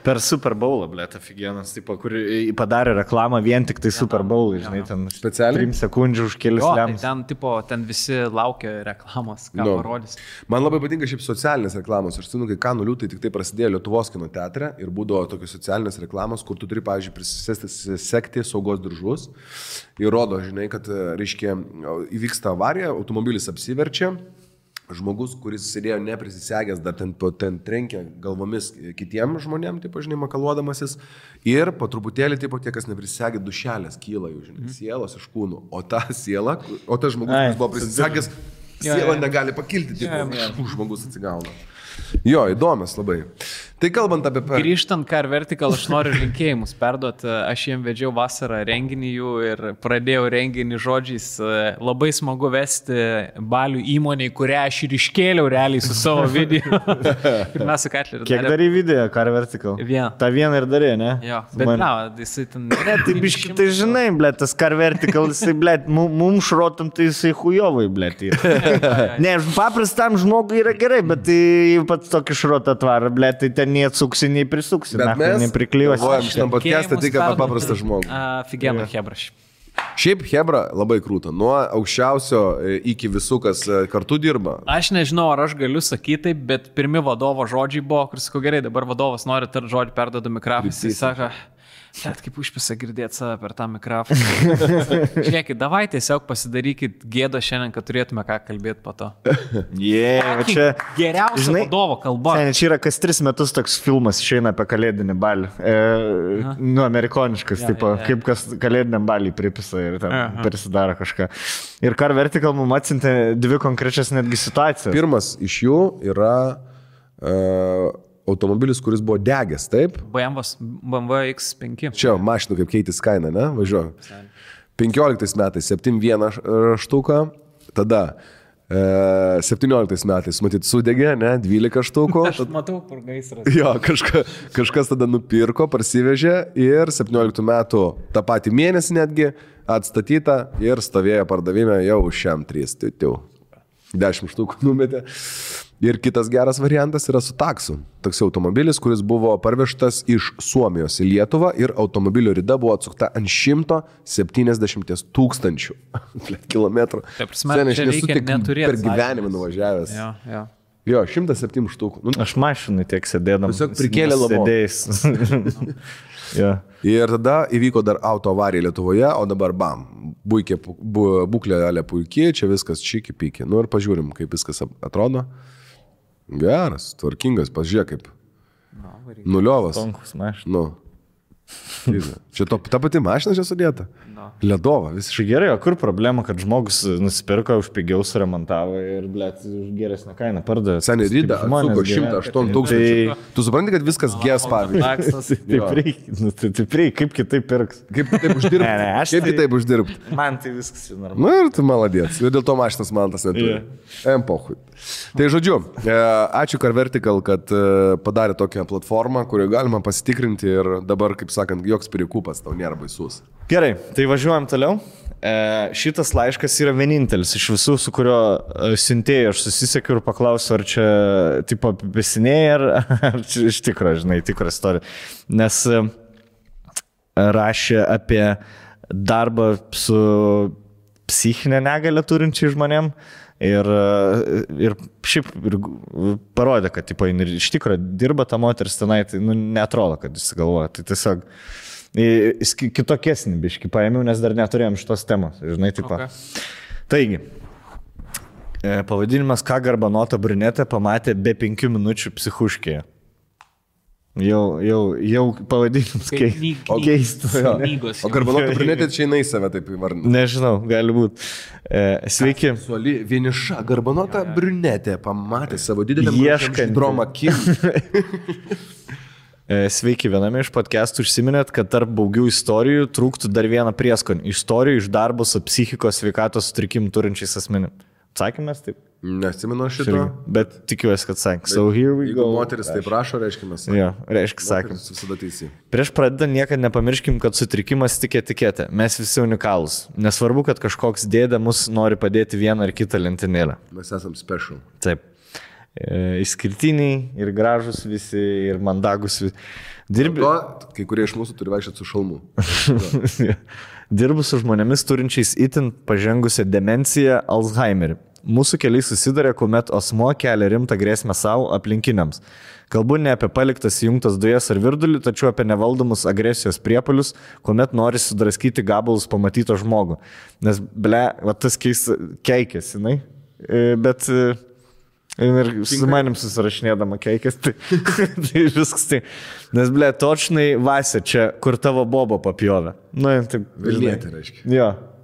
Per Super Bowlą, blėt, afigienas, tipo, kur padarė reklamą vien tik tai Super Bowl, žinai, ten specialiai 3 sekundžių už kelius lemus. Tai ten visi laukia reklamos, ką parodys. Man labai patinka šiaip socialinės reklamos. Aš žinau, kai Kanų liūtai tik tai prasidėjo Lietuvos kino teatre ir būdavo tokios socialinės reklamos, kur tu turi, pavyzdžiui, prisisegti saugos diržus. Ir rodo, žinai, kad, reiškia, įvyksta avarija, automobilis apsiverčia. Žmogus, kuris sėdėjo neprisisegęs, dar ten trenkia galvomis kitiem žmonėm, taip, žinai, makaluodamasis. Ir po truputėlį, taip, tie, kas neprisisegė, dušelės kyla jų, žinai, sielos iš kūnų. O ta siela, o tas žmogus, kuris buvo prisisegęs, siela negali pakilti, taip, žmogus atsigauna. Jo, įdomias labai. Tai kalbant apie... Grįžtant Car Vertical, aš noriu linkėjimus perduoti. Aš jiem vedžiau vasarą renginį jų ir pradėjau renginį žodžiais. Labai smagu vesti balių įmoniai, kurią aš ir iškėliau realiai su savo video. Ir mes su Katleriu. Kiek darė video Car Vertical? Vieną. Ta vieną ir darė, ne? Jo, bet na, jisai ten... Ne, tai biški, tai žinai, blėt, tas Car Vertical, jisai, blėt, mums šrotam, tai jisai hujovai, blėt. Ne, paprastam žmogui yra gerai, bet tai pats tokį šrotą atvarą, blėt, tai ten neatsuksi, nei prisuksi, nepriklijuosi. Galvojam šitam podcast'ą tik apie paprastą žmogų. Figėna Hebraš. Šiaip Hebra labai krūta. Nuo aukščiausio iki visų, kas kartu dirba. Aš nežinau, ar aš galiu sakyti taip, bet pirmi vadovo žodžiai buvo, kur sakau, gerai, dabar vadovas nori tarti žodį, perduoda mikrofoną. Jis sako, bet kaip užpisa girdėti save per tą mikrofoną. Žiūrėkit, davai tiesiog pasidarykit gėdą šiandien, kad turėtume ką kalbėti po to. Čia geriausia vadovo kalba. Čia yra kas 3 metus toks filmas išeina apie kalėdinį balį. Amerikoniškas, kaip kas kalėdiniam balį pripisa ir ten prisidaro kažką. Ir Car Vertical mums atsintė 2 konkrečias netgi situacijas. Pirmas iš jų yra... automobilis, kuris buvo degęs, taip? BMW X5. Čia mašinų kaip keitis kaina, ne? Važiuoju. 15 metais 7.1 štuką, tada 17 metais, matyt, sudegė, ne? 12 štukų. Aš matau, kur gaisras. Jo, kažkas tada nupirko, parsivežė ir 17 metų tą patį mėnesį netgi atstatyta ir stovėjo pardavime jau už šiam 3. 10 štukų numetė. Ir kitas geras variantas yra su taksu. Toks automobilis, kuris buvo parvežtas iš Suomijos į Lietuvą ir automobilio rida buvo atsukta ant 170 000 kilometrų. Taip, aš nesu tik per gyvenimą nuvažiavęs. Jo, 107 štukų. Aš mašinai tiek sėdėdam. Tiesiog prikėlė sėdėjais. Ir tada įvyko dar auto avarija Lietuvoje, o dabar bam, būklė puikiai, čia viskas čiki-piki. Nu ir pažiūrim, kaip viskas atrodo. Geras, tvarkingas, pažiūrėk kaip. Nuliovas. Tonkus mašina. Nu. Čia ta pati mašina čia sudėta. Ledova, visiškai. Gerai, o kur problema, kad žmogus nusipirko, už pigiau suremontavo ir, blėt, už geresnę kainą pardavė. Seniai rydą atsuko 108 000. Tu supranti, kad viskas gės, pavyzdžiui. Taip reikia, kaip kitaip pirks. Kaip kitaip uždirbti? Kaip kitaip uždirbti? Man tai viskas normalu. Na ir tu maladėts. Ir dėl to mašinas man tas neturi. Pochui. Tai žodžiu, ačiū Car Vertical, kad padarė tokią platformą, kurioje galima pasitikrinti ir dabar, kaip sakant, joks pirikupas tau nėra baisus. Gerai, tai važiuojam toliau. Šitas laiškas yra vienintelis iš visų, su kurio siuntėjai aš susisiekiu ir paklausiu, ar čia tipo apipisinėjai, ar čia iš tikro, žinai, tikra istorija. Nes rašė apie darbą su psichinė negalia turinčiai žmonėm ir šiaip parodė, kad tipo, iš tikro dirba ta moteris tenai, tai neatrodo, kad jis galvoja. Tai tiesiog kitokesnį biškį paėmiau, nes dar neturėjom šitos temos, žinai, taip. Okay. Taigi, pavadinimas Ką garbanota brunetė pamatė be 5 minučių psichuškėje. Jau pavadinimas keistas. O garbanota brunetė čia jinai save taip įvardina? Nežinau, gali būti. Sveiki. Suoli vieniša garbanota brunetė pamatė savo didelę dromą kim. Sveiki, viename iš podcastų užsiminėt, kad tarp baugių istorijų trūktų dar vieną prieskonį. Istorijų iš darbo su psichikos sveikatos sutrikimų turinčiais asmenim. Atsakymės taip? Neatsimenu šito. Bet tikiuosi, kad sakė. So here we go. Jeigu moteris taip rašo, reiškia mes. Jo, reiškia sakė. Visada teisė. Prieš pradedant niekada nepamirškim, kad sutrikimas tik etiketė. Mes visi unikalūs. Nesvarbu, kad kažkoks dėdė mus nori padėti vieną ar kitą lentynėlę. Mes esam special. Taip. Išskirtiniai ir gražus visi, ir mandagus visi. Kai kurie iš mūsų turi vaikščioti su šalmu. Dirbu su žmonėmis turinčiais itin pažengusią demenciją Alzheimerį. Mūsų keliai susidarė, kuomet asmuo kelia rimtą grėsmę savo aplinkiniams. Kalbu ne apie paliktas įjungtas dujas ar virdulį, tačiau apie nevaldomus agresijos priepuolius, kuomet nori sudraskyti gabalus pamatyto žmogų. Nes, va tas keikės, jinai, bet... Ir su manim susirašinėdama keikės, tai viskas tai. Nes, točnai Vasė čia, kur tavo bobo papjovė. Nu, taip. Vilnietė, reiškia.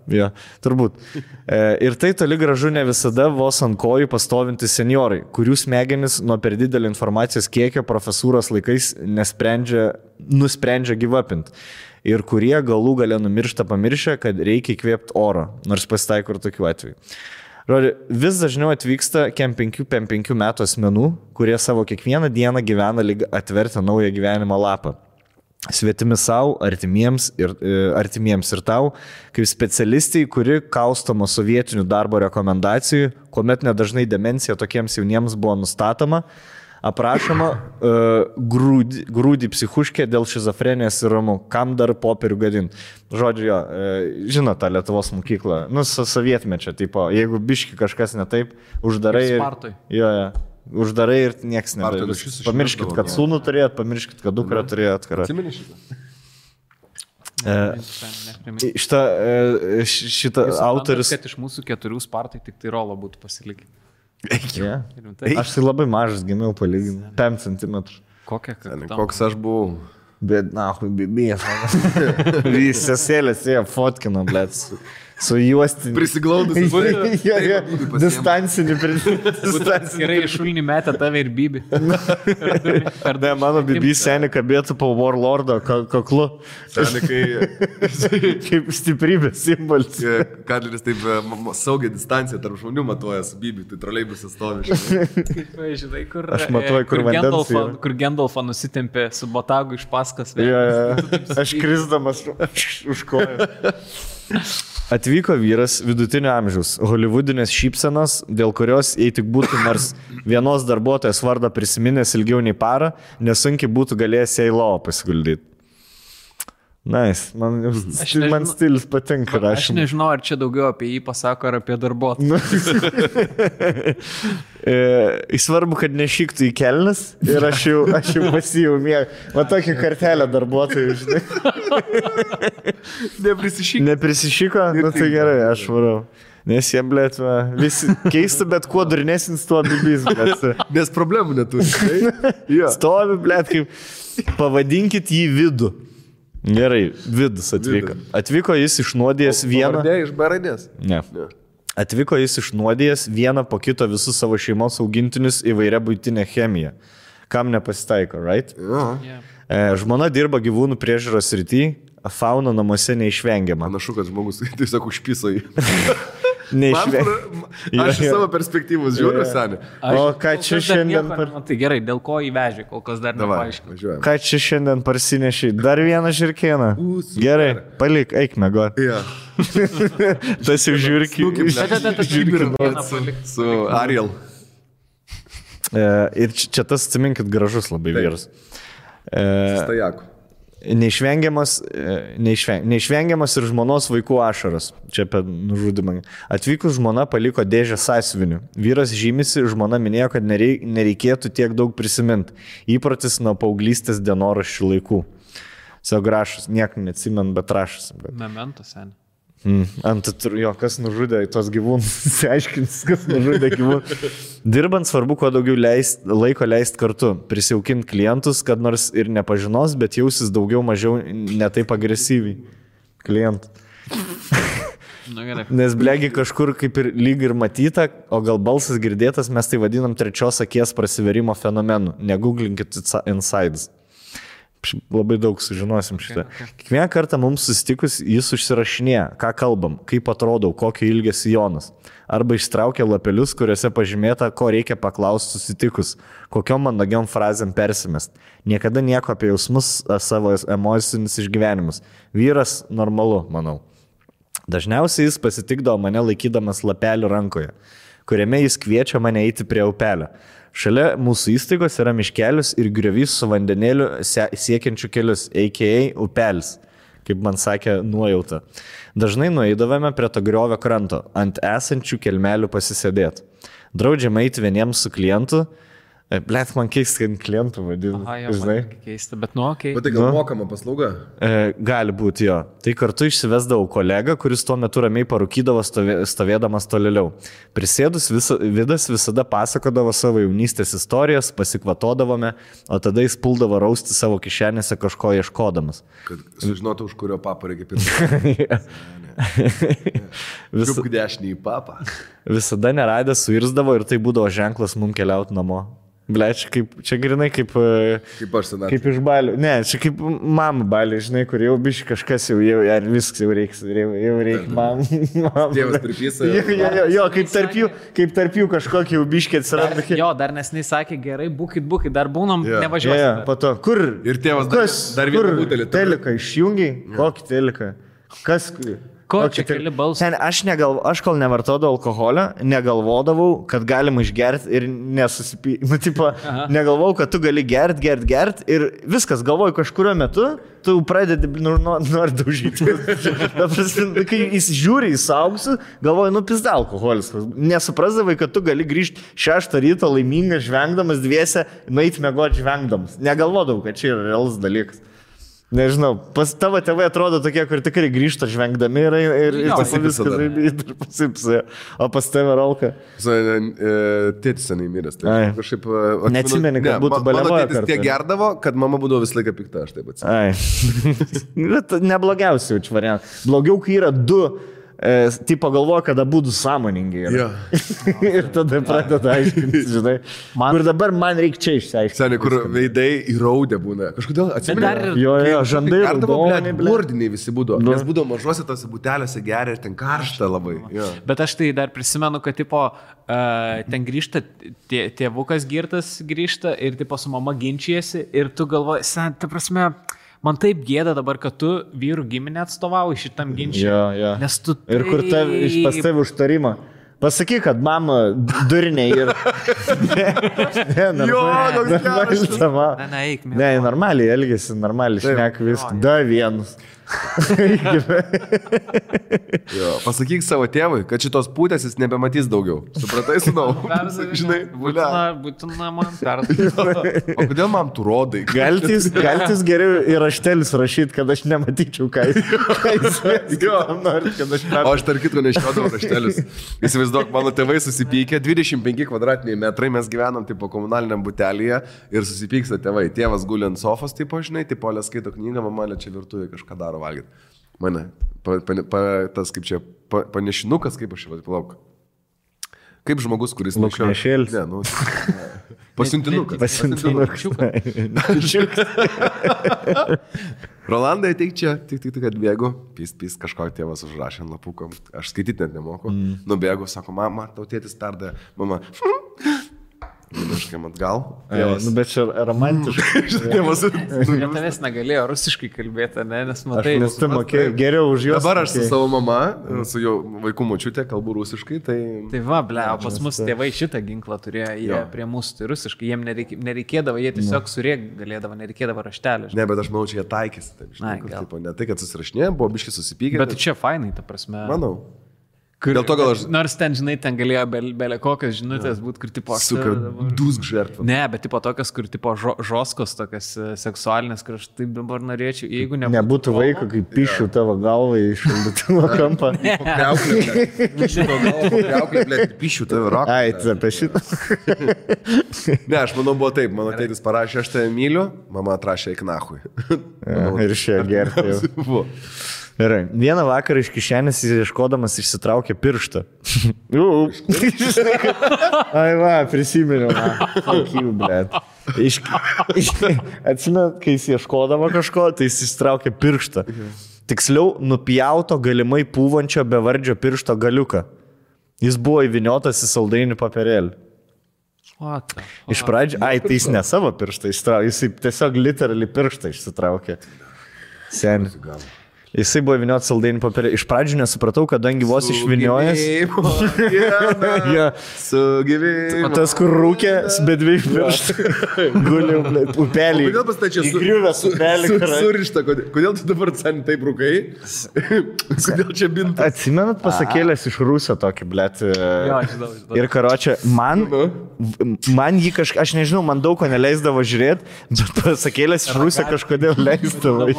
Jo, turbūt. Ir tai toli gražu ne visada vos ant kojų pastovinti seniorai, kurių smegenis nuo per didelio informacijos kiekio profesūros laikais nusprendžia gyvapint. Ir kurie galų gale numiršta pamiršę, kad reikia įkvėpti oro, nors pasitaiko ir tokių atvejų. Vis dažniau atvyksta kem 5 metų asmenų, kurie savo kiekvieną dieną gyvena lyg atvertę naują gyvenimo lapą. Svetimi savo, artimiems ir tau, kaip specialistai, kuri kaustoma sovietinių darbo rekomendacijų, kuomet nedažnai demencija tokiems jauniems buvo nustatoma, aprašoma grūdį psichuškė dėl šizofrenijos ir ramų, kam dar popierių gadint. Žodžiu, žino tą Lietuvos mokyklą, sovietmečio, tipo, jeigu biški kažkas ne taip, uždarai ir... Uždarai ir nieks nedarys. Pamirškit, kad sūnų turėjot, pamirškit, kad dukrą turėjot. Atsimeni šitą? Šitą autorius... Kad iš mūsų 4 spartai tik tai rolo būtų pasilikę. Yeah. Aš tai labai mažas gimiau palyginti. 5 cm. Koks aš buvau? Bet, bibijas. Sesėlės ėjo fotkino, blėt. Su juostiniu. Prisiglaudus. Distancinį. Gerai, šulnį metę tave ir Bibi. Ne, mano Bibi seniai kabėtų po Warlordo kaklu. Seniai, kaip stiprybės simbolis. Kadleris taip saugiai distanciją tarp žmonių matuojas Bibi, tai troleibusas stovi. Kaip, žinai, kur... Aš matuoju, kur vandens yra. Kur Gendalfą nusitempė su botagu iš paskas. Aš krisdamas už koją. Atvyko vyras vidutinio amžiaus, holivudinės šypsenos, dėl kurios, jei tik būtų nors vienos darbuotojas vardą prisiminęs ilgiau nei parą, nesunkiai būtų galėjęs į lovą pasiguldyti. Nice. Man stilius patinka rašymas. Aš nežinau, ar čia daugiau apie jį pasako, ar apie darbuotoją. Svarbu, kad nešyktų į kelnes ir aš jau pasijau mėgą. Va tokią kartelę darbuotojų, žinai. Neprisišyko? Nu tai gerai, aš varau. Nes jie, blėt, visi keista, bet kuo durnesnis tuo bibis, blėt. Nes problemų neturi. Stovi, blėt, kaip pavadinkit jį vidų. Gerai, vidus atvyko. Atvyko jis išnuodėjęs vieną... Pavardė iš baradės? Ne. Atvyko jis išnuodėjęs vieną po kito visus savo šeimos augintinius įvairia buitinę chemiją. Kam nepasitaiko, right? Žmona dirba gyvūnų priežiūros srity, fauna namuose neišvengiama. Panašu, kad žmogus tiesiog užpiso jį. Aš iš savo perspektyvos žiūriu, seniai. O ką čia šiandien... Tai gerai, dėl ko įvežė, kol kas dar nepaaiškinu. Ką čia šiandien parsinešiai? Dar vieną žirkieną. Gerai, palik, eik mėgot. Tas jau žiūrki. Su Ariel. Ir čia tas, atsiminkit, gražus labai vyras. Stajaku. Neišvengiamas ir žmonos vaikų ašaras. Čia apie nužudimą. Atvykus žmona paliko dėžę sąsiuvinių. Vyras žymisi, žmona minėjo, kad nereikėtų tiek daug prisiminti. Įprotis nuo paauglystės dienoraščių laikų. Savo grašus, nieko neatsimenu, bet rašas. Memento, seniai. Kas nužudė tos gyvūnus, aiškins, kas nužudė gyvūnus. Dirbant svarbu, kuo daugiau laiko leisti kartu, prisijaukinti klientus, kad nors ir nepažinos, bet jausis daugiau mažiau netaip agresyviai klientų. Nes blegi kažkur kaip ir lyg ir matyta, o gal balsas girdėtas, mes tai vadinam trečios akies prasiverimo fenomenu. Negooglinkit insides. Labai daug sužinosim šitą. Kiekvieną kartą mums susitikus jis užsirašinėja, ką kalbam, kaip atrodau, kokio ilgio sijonas. Arba ištraukia lapelius, kuriuose pažymėta, ko reikia paklausti susitikus, kokiom mandagiom frazėm persimest. Niekada nieko apie jausmus, savo emocinius išgyvenimus. Vyras normalu, manau. Dažniausiai jis pasitikdavo mane laikydamas lapelį rankoje, kuriame jis kviečia mane eiti prie upelio. Šalia mūsų įstaigos yra miškelis ir griovys su vandenėliu siekiančiu kelius, a.k.a. upelis, kaip man sakė nuojauta. Dažnai nueidavome prie to griovio kranto, ant esančių kelmelių pasisėdėti. Draudžiama eiti vieniems su klientu. Blet, man keista, kad klientų vadinu. Žinai, keista, bet okei. Bet tai gal mokama paslauga? Gali būti jo. Tai kartu išsivesdavau kolegą, kuris tuo metu ramiai parūkydavo stovėdamas tolėliau. Prisėdus Vidas visada pasakodavo savo jaunystės istorijas, pasikvatodavome, o tada jis puldavo rausti savo kišenėse kažko ieškodamas. Kad sužinotų, už kurio papą reikia pirkti. Čiupk dešinį į papą. Visada neradęs suirzdavo ir tai būdavo ženklas mum keliauti namo. Bleć, čia grinai kaip aš senatvė. Kaip iš balių. Ne, čia kaip mama balių, žinai, kur jau biškai kažkas jau viskas jau reiks, jau reikia mam. Tėvas pripisa. Jo, kaip tarp jų kažkokį jau biškai atsiranda. Jo, dar nesnei sakė, gerai, būkit, dar būnam, nevažiuosim. Jo, po to, kur? Ir tėvas dar vieną butelį. Teliką išjungiai? Kokį teliką? Kas? Ko čia keli balsai? Aš kol nevartodavau alkoholio, negalvodavau, kad galima išgerti ir nesusipyti. Negalvojau, kad tu gali gerti ir viskas, galvoju, kažkurio metu tu pradedi nori daužyti. Kai jis žiūri į suaugusius, galvoju, pizda alkoholis. Nesuprasdavai, kad tu gali grįžti 6 ryto laimingas, žvengdamas dviese, nueiti mėgoti žvengdamas. Negalvodavau, kad čia yra realus dalykas. Nežinau, pas tavo tėvai atrodo tokie, kur tikrai grįžta žvengdami ir pasipsa. O pas tave Rolka? Tėtis senai miręs. Neatsimeni, kad būtų baliavoja. Mano tėtis tiek gerdavo, kad mama būdavo visą laiką pikta, aš taip atsimenu. Neblogiausiai jaučiu variantą. Blogiau, kai yra 2. Tipo galvoja, kada būtų sąmoningi. Ir tada pradeda aiškinti, žinai. Kur dabar man reikia čia išsiaiškinti. Seniai, kur veidai įraudę būna. Kažkodėl atsimenu. Jo, žandai. Burdiniai visi būdavo. Nes būdavo mažuose tose butelėse geria ir ten karšta labai. Bet aš tai dar prisimenu, kad tipo, ten grįžta, tėvukas girtas grįžta ir tipo su mama ginčijasi ir tu galvoji, ta prasme... Man taip gėda dabar, kad tu vyrų giminę atstovauji šitam ginčiui. Jo. Nes tu taip... Ir kur pas tave užtarimą. Pasakyk, kad mama durniai ir... Ne, normaliai elgesi, normaliai šnek viską. Da vienus. Pasakyk savo tėvui, kad šitos pūtės jis nebematys daugiau. Supratai, sūnau? Žinai, būtina man perduoti. O kodėl man tu rodai? Galtis geriau į raštelius rašyti, kad aš nematyčiau, ką jis nori, kad aš perduoti. O aš tarp kitko nešiodavau raštelius. Įsivaizduok, mano tėvai susipykė, 25 kvadratiniai metrai, mes gyvenam tipo komunaliniam butelėje ir susipyksta tėvai. Tėvas guli ant sofos, tipo, žinai, tipo, Olė skaito knygą, mama čia virtuvėje kažką daro valgyti. Mane, tas kaip čia, panešinukas, kaip aš čia palauk. Kaip žmogus, kuris nešioja. Luknešėlis. Ne, pasiuntinukas. Rolandai, ateik čia, tik atbėgu, pys kažko tėvas užrašė ant lapuko, aš skaityti net nemoku, nubėgu, sako, mama, tau tėtis perdavė, mama, Kažkaip atgal. Bet čia romantiškai. Tavęs negalėjo rusiškai kalbėti, ne? Nes matai. Nes tu mokėjai geriau už juos. Dabar aš su savo mama, su jo vaikų močiutė kalbu rusiškai, tai... Tai va, pas mus tėvai šitą ginklą turėjo, jie prie mūsų tai rusiškai, jiem nereikėdavo, jie tiesiog surėk galėdavo, nereikėdavo raštelį. Ne, bet aš manau, čia jie taikėsi. Ne tai, kad susirašinė, buvo biškai susipykė. Bet čia fainai, ta prasme. Manau. Dėl to gal aš... Nors ten, žinai, ten galėjo belė kokios žinutės būti, kur tipo... Super dusk žertva. Ne, bet tipo tokios, kur tipo žoskos, tokios seksualinės, kur aš taip dabar norėčiau, jeigu nebūtų... Nebūtų vaiko, kai pišiu tavo galvą į šaldytuvo kampą. Pišiu tavo raką. Ai, tai apie šitą. Ne, aš manau, buvo taip. Mano tėtis parašė, aš tave myliu, mama atrašė į knachui. Ir išėjo gerti jau. Gerai. Vieną vakarą iš kišenės ieškodamas išsitraukė pirštą. Ai va, prisiminiau. Fuck you, blet. Atsimenu, kai jis ieškodavo kažko, tai jis išsitraukė pirštą. Tiksliau, nupjauto galimai pūvančio bevardžio piršto galiuką. Jis buvo įviniotas į saldainių papirėlį. Iš pradžių, tai jis ne savo pirštą išsitraukė, jis tiesiog literally pirštą išsitraukė. Seni. Jisai buvo įvinioti saldainių papirėlį. Iš pradžių nesupratau, kadangi vos išviniojęs. Sugyvėjimo. Tas, kur rūkė, be dviejų pirštų. Guliau, upelį. Kodėl pastačiau įgriuvęs upelį? Surišta, kodėl tu dabar sen taip rūkai? Kodėl čia bintas? Atsimenat pasakėlės iš Rusio tokį, blet. Žinau. Ir karočią, man jį kažkaip, aš nežinau, man daug ko neleisdavo žiūrėti, bet pasakėlės iš Rusio kažkodėl leisdavo.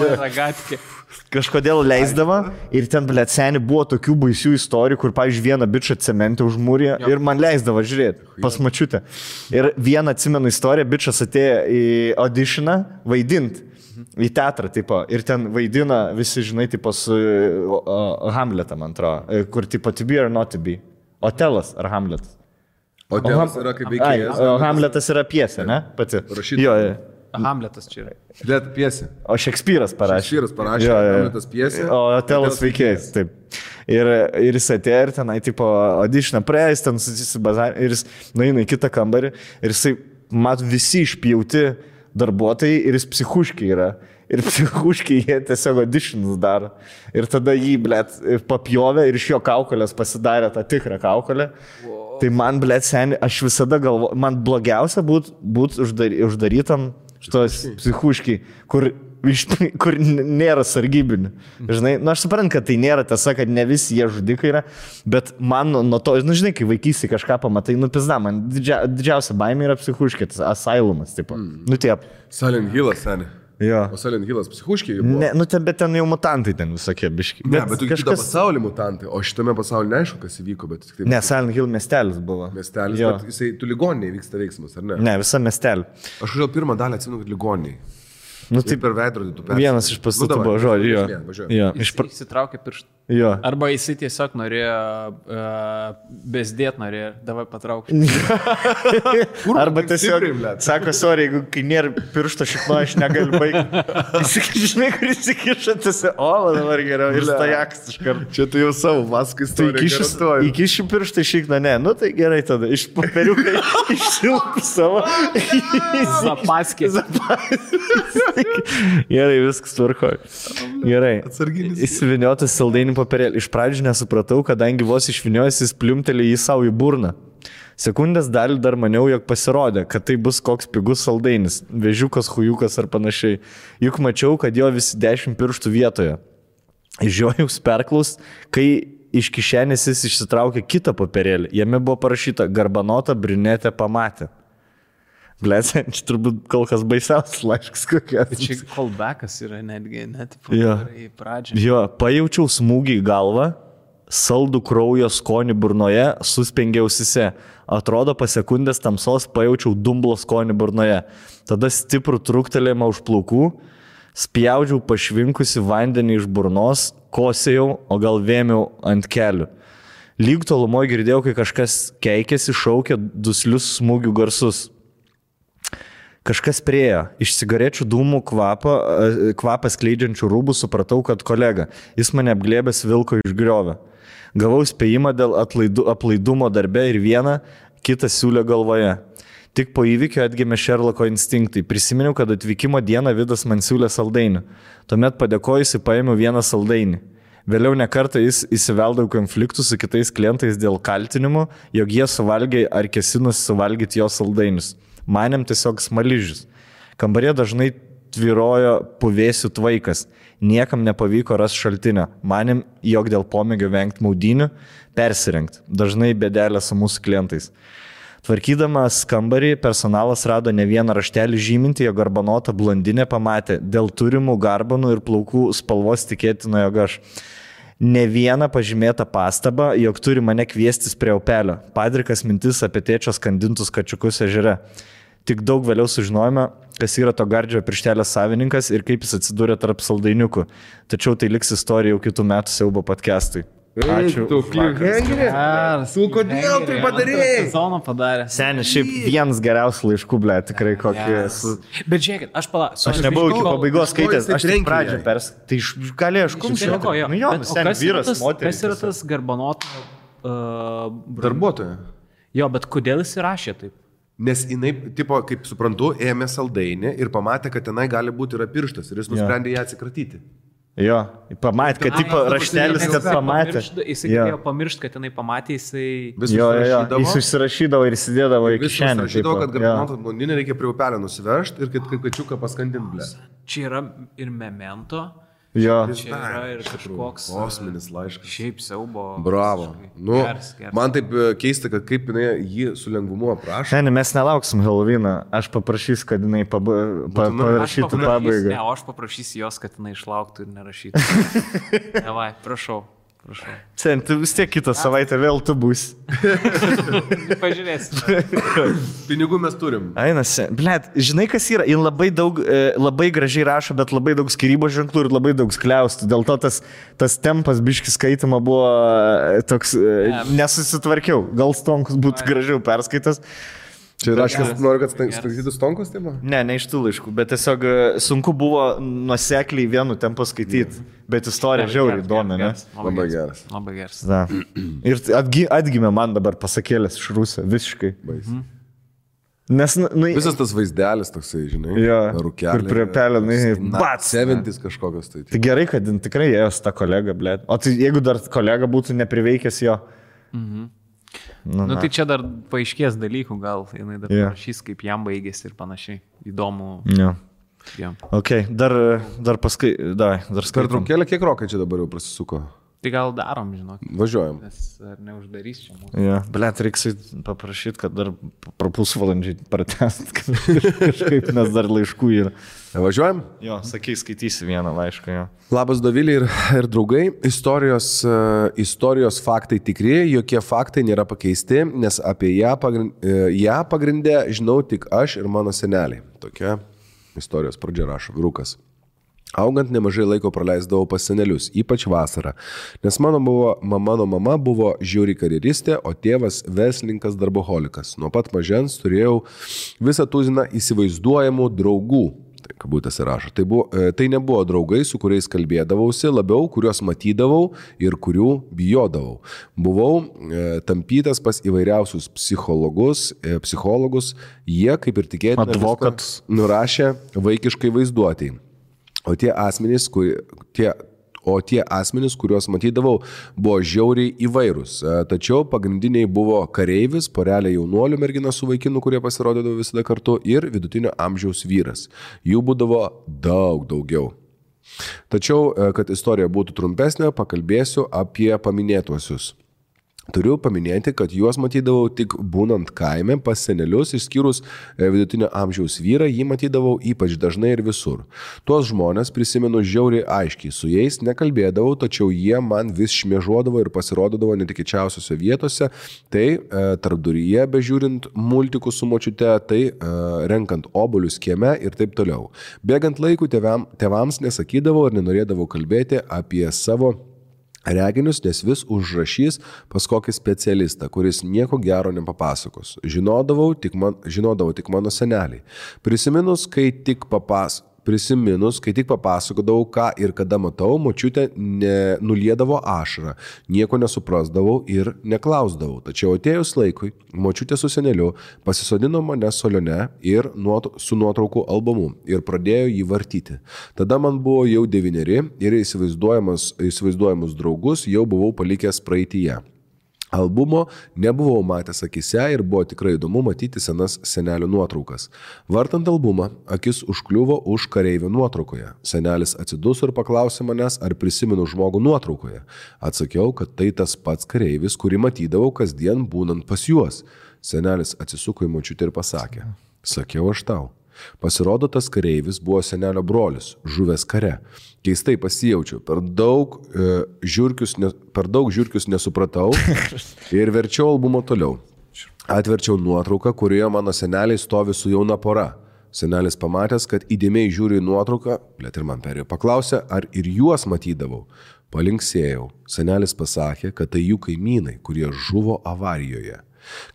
Kažkodėl leisdavo ir ten, blet, seni, buvo tokių baisių istorijų, kur, pavyzdžiui, vieną bičą cementę užmūrė ir man leisdavo žiūrėti pas mačiutę. Ir vieną atsimenu istoriją, bičas atėjo į auditioną vaidinti. Į teatrą, tipo, ir ten vaidina visi, žinai, tipo su Hamletą, man atrodo, kur, tipo, to be or not to be. Otelas ar Hamletas? Otelas yra kaip veikėjas. Hamletas yra pjesė, ne? Pati. Rašytoja. Hamletas čia yra. Net piesė. O Šekspyras parašė. Hamletas piesė. O Otelas veikėjas, taip. Ir jis atėjo ir tenai, tipo, auditioną praėjęs, ten susibazarė, ir jis nueina į kitą kambarį, ir jisai, mat, visi išpjauti darbuotojai, ir jis psichuškiai yra. Ir psichuškiai jie tiesiog auditionus daro. Ir tada jį, blet, papjovė ir iš jo kaukolės pasidarė tą tikrą kaukolę. Tai man, blet, seni, aš visada galvoju, man blogiausia būt uždarytam šitos psichuškiai, kur nėra sargybinių. Žinai, aš suprantu, kad tai nėra tiesa, kad ne visi jie žudikai yra, bet man nuo to, žinai, kai vaikystėje kažką pamatai, pizda, man didžiausia baimė yra psichuškė, tas asailumas, tipo. Taip. Silent Hillas, seni. Jo. O Silent Hillas psichuškiai buvo? Ne, bet ten jau mutantai ten visokie biški. Ne, bet tu kitą pasaulį mutantai, o šitame pasaulyje neaišku, kas įvyko, bet... Taip, ne, Silent Hill miestelis buvo. Miestelis, bet jisai, tu ligoninėje vyksta veiksmas, ar ne? Ne, visa miestelį. Aš kažkaip pirmą dalį atsimenu, kad ligoninėje. Taip per veidrodį tu persi. Vienas iš pastatų buvo žodžių, jo. Įsitraukė pirštą. Jo. Arba jisai tiesiog norėjo, bezdėt norėjo, davai patraukti. Arba tiesiog, sako, sorry, jeigu kai nėra piršto šikno, aš negaliu baigti. Žinai, kur įsikiša, tiesiog, dabar geriau, ir stajaks iš karto. Čia tu jau savo maską istoriją. Įkišiu pirštą šikną, ne, tai gerai tada, iš paperiukai išsilpų savo. Zapaskė. Gerai, viskas tvarkoja. Gerai. Įsiviniotas saldainių papirėlį. Iš pradžių nesupratau, kadangi vos išviniojęs jis pliumtelė į savo į burną. Sekundės dalį dar maniau, jog pasirodė, kad tai bus koks pigus saldainis, vežiukas, hujukas ar panašiai. Juk mačiau, kad jo visi 10 pirštų vietoje. Žiojus perklaus, kai iš kišenės jis išsitraukė kitą papirėlį. Jame buvo parašyta garbanota briunetė pamatė. Blėse, čia turbūt kol kas baisiausias laiškas kokia. Čia callbackas yra netgi, net į pradžią. Jo, pajaučiau smūgį į galvą, saldų kraujo skonį burnoje, suspengiau ausise. Atrodo, po sekundės tamsos pajaučiau dumblo skonį burnoje. Tada stiprų truktelėjimą už plaukų, spjaudžiau pašvinkusi vandenį iš burnos, kosėjau, o gal vėmiau ant kelių. Lyg tolumoje girdėjau, kai kažkas keikėsi, šaukė duslius smūgių garsus. Kažkas priejo, iš cigarečių dūmų kvapą skleidžiančių rūbų supratau, kad kolega, jis mane apglėbęs vilko iš griovio. Gavau spėjimą dėl aplaidumo darbe ir vieną, kitą siūlę galvoje. Tik po įvykio atgimė Šerloko instinktai. Prisiminiau, kad atvykimo dieną Vidas man siūlė saldainių. Tuomet padėkojusi paėmiau vieną saldainį. Vėliau nekartą jis įsiveldavo konfliktų su kitais klientais dėl kaltinimų, jog jie suvalgė ar kėsinusi suvalgyti jo saldainius. Manėm tiesiog smaližius. Kambarė dažnai tvyrojo puvėsių tvaikas. Niekam nepavyko rasti šaltinio. Manėm, jog dėl pomėgio vengti maudynių, persirengti. Dažnai bėdelė su mūsų klientais. Tvarkydamas kambarį, personalas rado ne vieną raštelį žyminti, jog garbanota blondinė pamatė. Dėl turimų garbanų ir plaukų spalvos tikėtina, jog aš. Ne vieną pažymėtą pastabą, jog turi mane kviestis prie upelio. Padrikas mintis apie tėčio skandintus kačiukus ežere. Tik daug vėliau sužinojome, kas yra to gardžio pirštelės savininkas ir kaip jis atsidūrė tarp saldainiukų. Tačiau tai liks istorija jau kitų metų siaubo podcast'ui. Ačiū. Tu kodėl tai padarėjai? Sezoną padarė. Seniai, šiaip vienas geriausių laiškų, ble, tikrai kokį esu. Bet žiūrėkit, Aš nebuvau iki pabaigos skaitęs, aš tik pradžią tai galėjau aš kumščiau. Nu jo, seniai, vyras, moteris. Kas yra tas garbanoto Darbuotoja. Jo, bet kodėl jis įrašė taip? Nes jinai, tipo, kaip suprantu, ėmė saldainį ir pamatė, kad tenai gali būti yra pirštas ir jis nusprendė ją atsikratyti. Jo, pamatė, kad tipo raštelis, kad pamatė. Jis galėjo pamiršti, kad jinai pamatė, jisai... Jis užsirašydavo ir įsidėdavo į kišenę. Jis užsirašydavo, kad garbanoto blondinę reikia prie upelio nusivežti ir kad kačiuką paskandint, ble. Čia yra ir memento. Jo. Čia yra ir kažkoks kosminis laiškas. Šiaip siaubo. Bravo. Nu, man taip keista, kad kaip jinai jį su lengvumu aprašo. Seniai, mes nelauksim Halloweeną. Aš paprašysiu, kad jinai parašytų pabaigą. Ne, o aš paprašysiu jos, kad jinai išlauktų ir nerašytų. Davai, prašau. Seniai, tu vis tiek kitą savaitę vėl tu būsi. Pažiūrėsime. Pinigų mes turim. Ainas, blet, žinai kas yra? Jis labai gražiai rašo, bet labai daug skyrybos ženklų ir labai daug skliaustų. Dėl to tas tempas biškis skaitimo buvo toks, nesusitvarkiau. Gal Stonkus būtų gražiau perskaitas. Čia raškas, noriu, kad skaitytų Stonkus, taip? Ne iš tų laiškų, bet tiesiog sunku buvo nuosekliai vienu tempu skaityti, bet istorija žiauriai įdomi, ne? Labai geras. Labai geras. Da. Ir atgimė man dabar pasakėlės iš Rusų, visiškai. Nes, visas tas vaizdelis toksai, žinai, rūkelė. Ir prie pelio, bats. 70 kažkokios tai. Tai gerai, kad tikrai ėjo su ta kolega, blėt. O tai jeigu dar kolega būtų nepriveikęs jo. Tai čia dar paaiškės dalykų, gal jinai dar parašys, kaip jam baigėsi ir panašiai. Įdomu. Ok, dar paskui, dar skaitom. Per traukėlę kiek rokai čia dabar jau prasisuko? Tai gal darom, žinok. Važiuojam. Nes ar neuždarys čia mūsų. Blet, reiks paprašyti, kad dar pusvalandžiai pratęst kažkaip, nes dar laiškų yra. Važiuojam? Jo, sakai, skaitysi vieną laišką, jo. Labas, Dovilė ir draugai. Istorijos faktai tikri, jokie faktai nėra pakeisti, nes apie ją pagrindę žinau tik aš ir mano seneliai. Tokia istorijos pradžia rašo vyrukas. Augant nemažai laiko praleisdavau pas senelius, ypač vasarą, nes mano mama buvo žiauri karjeristė, o tėvas verslininkas darboholikas. Nuo pat mažens turėjau visą tuziną įsivaizduojamų draugų. Tai kabutėse rašo. Tai nebuvo draugai, su kuriais kalbėdavausi, labiau kuriuos matydavau ir kurių bijodavau. Buvau tampytas pas įvairiausius psichologus, jie, kaip ir tikėtina, nurašė vaikiškai vaizduotėjai. O tie asmenys, kuriuos matydavau, buvo žiauriai įvairūs. Tačiau pagrindiniai buvo kareivis, porelė jaunuolių mergina su vaikinu, kurie pasirodydavo visada kartu, ir vidutinio amžiaus vyras. Jų būdavo daugiau. Tačiau, kad istorija būtų trumpesnė, pakalbėsiu apie paminėtuosius. Turiu paminėti, kad juos matydavau tik būnant kaime pas senelius, išskyrus vidutinio amžiaus vyrą, jį matydavau ypač dažnai ir visur. Tuos žmonės prisimenu žiauriai aiškiai, su jais nekalbėdavau, tačiau jie man vis šmėžuodavo ir pasirodydavo netikėčiausiose vietose, tai tarpduryje bežiūrint multikus su močiute, tai renkant obuolius kieme ir taip toliau. Bėgant laikų tėvams nesakydavau ir nenorėdavau kalbėti apie savo reginius, nes vis užrašys pas kokį specialistą, kuris nieko gero nepapasakos. Žinodavau tik mano seneliai. Prisiminus, kai tik papasakodavau, ką ir kada matau, močiutė nuliedavo ašarą, nieko nesuprasdavau ir neklausdavau. Tačiau atėjus laikui, močiutė su seneliu pasisodino mane solione ir su nuotraukų albumu ir pradėjo jį vartyti. Tada man buvo jau 9 ir įsivaizduojamus draugus jau buvau palikęs praeityje. Albumo nebuvau matęs akise ir buvo tikrai įdomu matyti senas senelių nuotraukas. Vartant albumą, akis užkliuvo už kareivio nuotraukoje. Senelis atsiduso ir paklausė manęs, ar prisimenu žmogų nuotraukoje. Atsakiau, kad tai tas pats kareivis, kurį matydavau kasdien būnant pas juos. Senelis atsisuko į močiutę ir pasakė, sakiau aš tau. Pasirodo, tas kareivis buvo senelio brolis, žuvęs kare. Keistai pasijaučiau, per daug žiurkius nesupratau ir verčiau albumą toliau. Atverčiau nuotrauką, kurioje mano seneliai stovi su jauna pora. Senelis pamatęs, kad įdėmiai žiūri į nuotrauką, blėt ir man perėjo, paklausė, ar ir juos matydavau. Palinksėjau. Senelis pasakė, kad tai jų kaimynai, kurie žuvo avarijoje.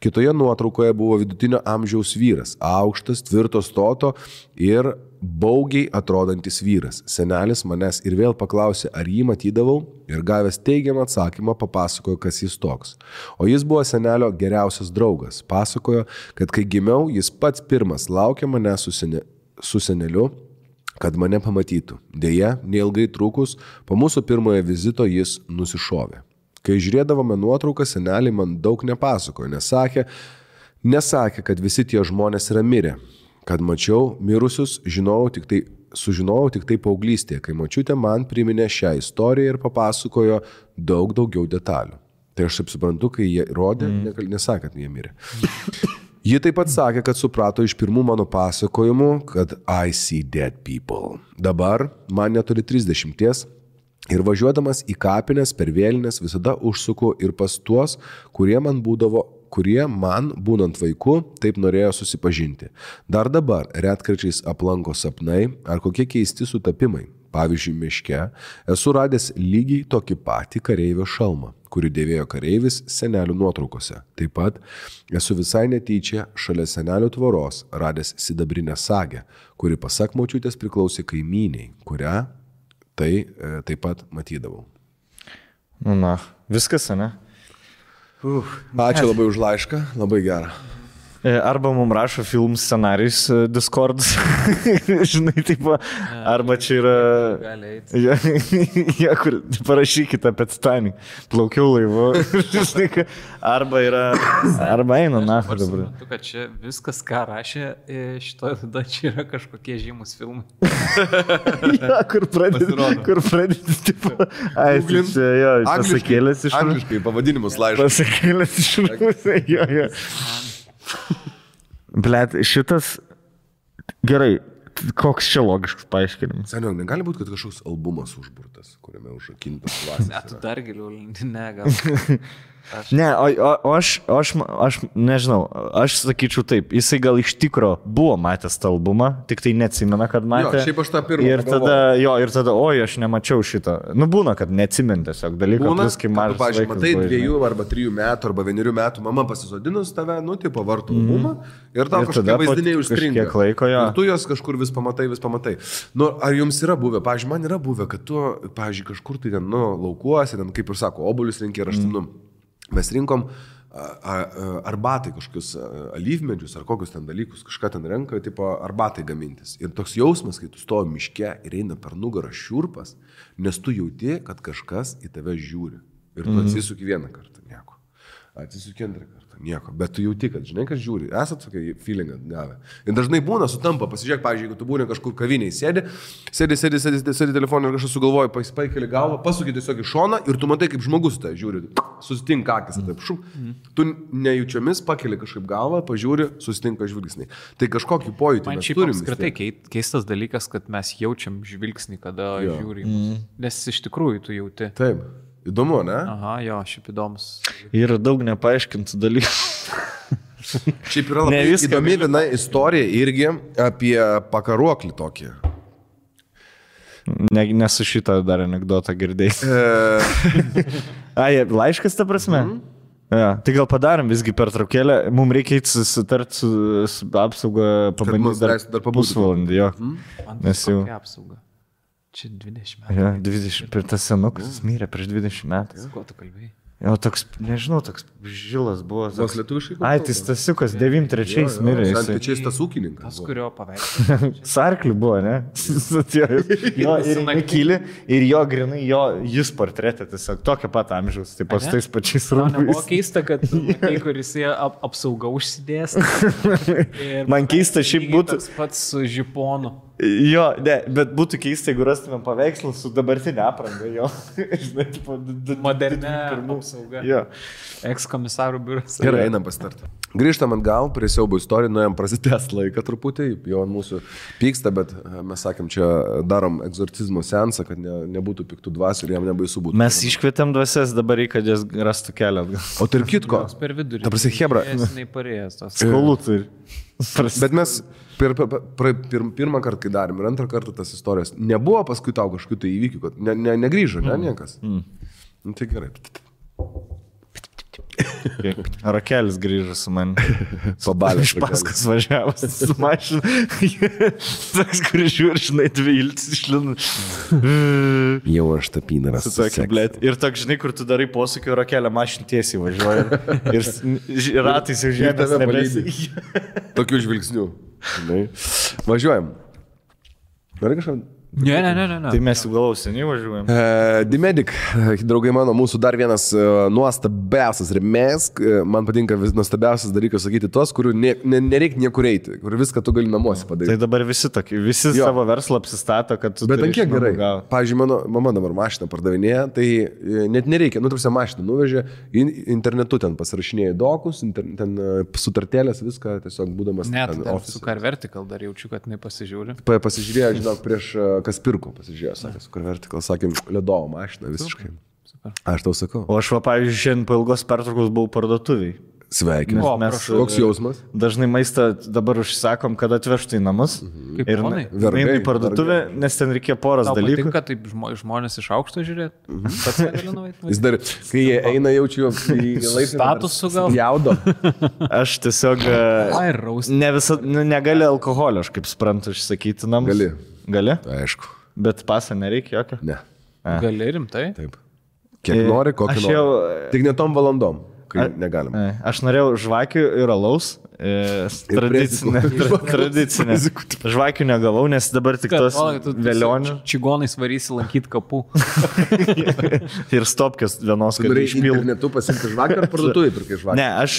Kitoje nuotraukoje buvo vidutinio amžiaus vyras, aukštas, tvirto stoto ir baugiai atrodantis vyras. Senelis manęs ir vėl paklausė, ar jį matydavau, ir gavęs teigiamą atsakymą papasakojo, kas jis toks. O jis buvo senelio geriausias draugas. Pasakojo, kad kai gimiau, jis pats pirmas laukė mane su seneliu, kad mane pamatytų. Deja, neilgai trukus, po mūsų pirmojo vizito jis nusišovė. Kai žiūrėdavome nuotrauką, seneliai man daug nepasakojo, nesakė, kad visi tie žmonės yra mirę. Kad mačiau mirusius, sužinojau tik tai paauglystėje, kai močiutė man priminė šią istoriją ir papasakojo daug daugiau detalių. Tai aš taip suprantu, kai jie rodė, nesakė, kad jie mirė. Ji taip pat sakė, kad suprato iš pirmų mano pasakojimų, kad I see dead people. Dabar man neturi 30 ir važiuodamas į kapines per vėlines visada užsuku ir pas tuos, kurie man būnant vaiku taip norėjo susipažinti. Dar dabar retkarčiais aplanko sapnai ar kokie keisti sutapimai. Pavyzdžiui, miške esu radęs lygiai tokį patį kareivio šalmą, kurį dėvėjo kareivis senelių nuotraukose. Taip pat esu visai netyčia šalia senelių tvoros radęs sidabrinę sagę, kuri pasak močiutės priklausė kaimyniai, kurią taip pat matydavau. Na, viskas, ne? Ačiū labai už laišką, labai gerą. Arba mums rašo film scenarijus Discord, žinai, taip, arba čia yra... Gali eiti. Ja, kur parašykite apie Titanic, plaukiau laivu, žinai, arba eina, na, dabar. Aš kad čia viskas, ką rašė šitoje tada, čia yra kažkokie žymus filmai. Ja, kur pradėti, tipo, čia, jo, pasakėlės iš... Angliškai pavadinimus laišką. Pasakėlės iš... Jo. Blet, šitas... Gerai, koks čia logiškas paaiškinimas? Seniau, negali būti, kad kažkoks albumas užburtas, kuriame užrakintas klasės. Ne, tu dar giliau, ne, gal. Ne, o aš nežinau, aš sakyčiau taip, jisai gal iš tikro buvo matęs tą albumą, tik tai neatsimena, kad matė. Jo, šiaip aš tą pirmą ir tada, oi, aš nemačiau šitą. Nu, būna, kad neatsimint tiesiog dalykų, plus kai mažas vaikas. Pavyzdžiui, matai 2 arba 3 metų arba 1 metų, mama pasisodinus tave, nu, tipo, vartų albumą ir tau kažkokie vaizdiniai užstringa. Ir tu jos kažkur vis pamatai. Nu, ar jums yra buvę, pavyzdžiui, man yra buvę, kad tu, pavyzdžiui, kažkur tai ten, nu, laukuosi, ten, kaip ir sako, obuolius rinkė ir aš ten, mes rinkom arbatai kažkokius alyvmedžius ar kokius ten dalykus, kažką ten renka, tipo arbatai gamintis. Ir toks jausmas, kai tu stovi miške ir eina per nugarą šiurpas, nes tu jauti, kad kažkas į tave žiūri. Ir tu atsisuki vieną kartą, nieko. Atsisuki antrą kartą, nieko. Bet tu jauti, kad žinai, kas žiūri. Esat tokį feelingą gavę. Ir dažnai būna sutampa, pasižiūrėk, pavyzdžiui, jeigu tu būni kažkur kaviniai, sėdi telefoną ir kažkas sugalvoja, paikeli galvą, pasuki tiesiog į šoną ir tu matai, kaip žmogus tai žiūri. Susitinka akis, taip šum. Tu nejučiomis pakeli kažkaip galvą, pažiūri, susitinka žvilgsniai. Tai kažkokį pojūtį mes turim. Man šiaip apskritai keistas dalykas, kad mes jaučiam žvilgsnį, kada žiūri. Nes iš tikrųjų tu jauti. Taip. Įdomu, ne? Aha, jo, šiaip įdomus. Yra daug nepaaiškintų dalykų. Šiaip yra labai įdomi viena istorija irgi apie pakaruoklį tokį. Nesu šitą dar anekdotą girdėjai. Laiškas ta prasme? Ja, tai gal padarom visgi pertraukėlę. Mums reikia susitarti su apsauga, pabandyti dar pusvalandį. Jo. Nes jau... apsauga. Čia 20 metų. Ja, 20, per tas senukas mirė prieš 20 metų. Ko tu kalbėjai? Jo, toks, nežinau, toks žilas buvo. Vos lietuviškai? Ai, tai Stasiukas 93 mirė. Santyčiais tas ūkininkas. Tas, kurio paveikslas. Sarklių buvo, ne? Jo, ir nekyli, ir jo grinai, jis portretė tiesiog tokio pat amžiaus, taip pat tais pačiais rūbais. Man buvo keista, kad kuris apsauga užsidės. Man keista šiaip būtų. Tas pats su žiponu. Jo, ne, bet būtų keista, jeigu rastumėm paveikslą su dabartinė apranga, jo. Žinai, tipo, modernė apsauga. Jo. Ekskomisarų biuras. Gerai, einam pasitarti. Grįžtam atgal prie siaubo istorijų, nuėjom prasitęst laiką truputį, jau ant mūsų pyksta, bet mes sakėm, čia darom egzorcizmo seansą, kad nebūtų piktų dvasių ir jam nebaisu būtų. Mes iškvietėm dvasias, dabar reikia, kad jas rastų kelią atgal. O tarp kitko, per vidurį. ta prasme, hebra. Skolų turi. Bet mes Pirmą kartą, kai darėm, ir antrą kartą tas istorijos. Nebuvo paskui tau kažkokių tai įvykių, kad negrįžo, niekas. Nu, tai gerai. Rakelis grįžo su man. Pabalė. Iš paskas važiavas su mašinu. Toks, kuris žiūri, žinai, dvi iltis išlina. Jau aš tapynaras. Ir toks, žinai, kur tu darai posūkį, rakelę mašinų tiesiai važiuoja. Ir ratais jau žemės nebesi. Tokių žvilgsnių. Važiuojam. Nori kažką? Ne. Tai mes jau galau seniai važiuojam. Dimedic, draugai mano, mūsų dar vienas nuostabiausias remėjas. Man patinka nuostabiausias dalykas sakyti tos, kurių nereikia niekur eiti, kur viską tu gali namuose padaryti. Tai dabar visi tokie, savo verslą apsistato, kad tu... Bet ant kiek gerai. Pavyzdžiui, mano mama dabar mašiną pardavinėja, tai net nereikia, tarsi mašiną nuvežė, internetu ten pasirašinėja dokus, ten sutartėlės, viską tiesiog būdamas... Net su Car Vertical dar jaučiu, kad nepasižiūri. Pasižiūrėjo, žinok, prieš... Kas pirko, pasižiūrėjo, sakė, Car Vertical, sakėm, ledovo mašiną visiškai. Super. Aš tau sakau. O aš, pavyzdžiui, šiandien po ilgos pertraukos buvau parduotuviai. Sveikinu. Koks jausmas? Dažnai maistą dabar užsisakom, kad atvežtų į namus. Ir einu į parduotuvę, nes ten reikėjo poras dalykų. Patinka taip žmonės iš aukšto žiūrėti? Jis dar, kai jie eina, jaučiu į statusų gal. Jaudo. Aš tiesiog negali alkoholio, aš kaip suprantu, išsakyti namus. Gali? Aišku. Bet pasą nereikia jokio? Ne. Gali rimtai? Taip. Kiek nori, kokį nori. Tik ne tom valandom. Negalima. Aš norėjau žvakių ir alaus. Tradicinė. Žvakių negavau, nes dabar tik tos vėlionių. Čigonais varysi lankyti kapų. Ir stopkės vienos, kad išpiltų. Internetu pasimti žvakių ar parduotuvai pirkai žvakių? Ne, aš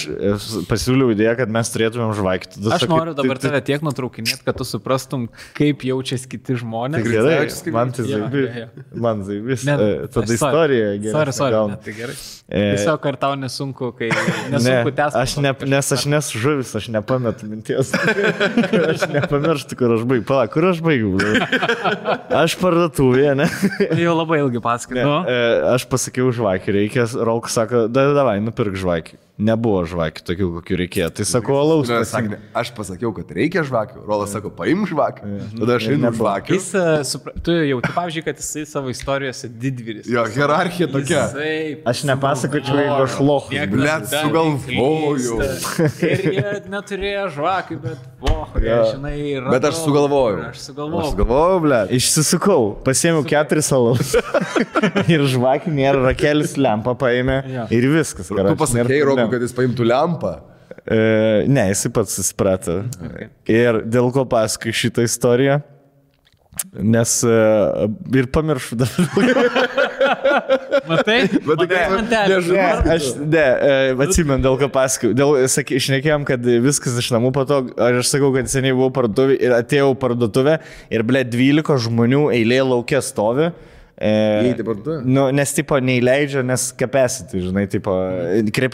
pasiūliau idėją, kad mes turėtumėm žvakių. Aš noriu dabar tave tiek nutraukinėti, kad tu suprastum, kaip jaučiasi kiti žmonės. Gerai, man tai zaibis. Man zaibis. Tada istorija gerai. Sorry, tai gerai. Tiesiog ar tau nesunku, kai nesunku tęsti. Nes aš nesu žuvis, aš nepametu minties. Aš nepamirštu, kur aš baigiu. Pala, kur aš baigiu? Aš parduotuvėje, ne? Jau labai ilgai pasakai. Aš pasakiau žvakį, reikia, Rolkas sako, davai, nupirk žvakį. Nebuvo žvakių tokių, kokių reikėjo. Tai sakau, alaus. Aš pasakiau, kad reikia žvakių. Rolas sako, paim žvakių. Tada aš einu žvakių. Tu jauti, pavyzdžiui, kad jisai savo istorijose didvyris. Jo, hierarchija tokia. Aš nepasakočiau, jeigu aš lochas. Blet, sugalvoju. Ir jie neturėjo žvakių, bet žinai, radau. Bet aš sugalvoju. Aš sugalvoju, blet. Išsisukau, pasiėmiau 4 alaus. Ir žvakių nėra, rakelis lempą paėmė. Ir viskas. Tu pasakėjai, Roku, kad jis paimtų lempą? Ne, jisai pats susiprato. Ir dėl ko pasakai šitą istoriją, nes ir pamiršau dabar. Matai? Aš atsimenu, dėl ko pasakai. Šnekėjom, kad viskas iš namų patogu. Aš sakau, kad seniai buvau parduotuvė ir atėjau parduotuvę ir 12 žmonių eilė laukia stovi. Nes tipo neįleidžia, nes capacity, žinai, tipo,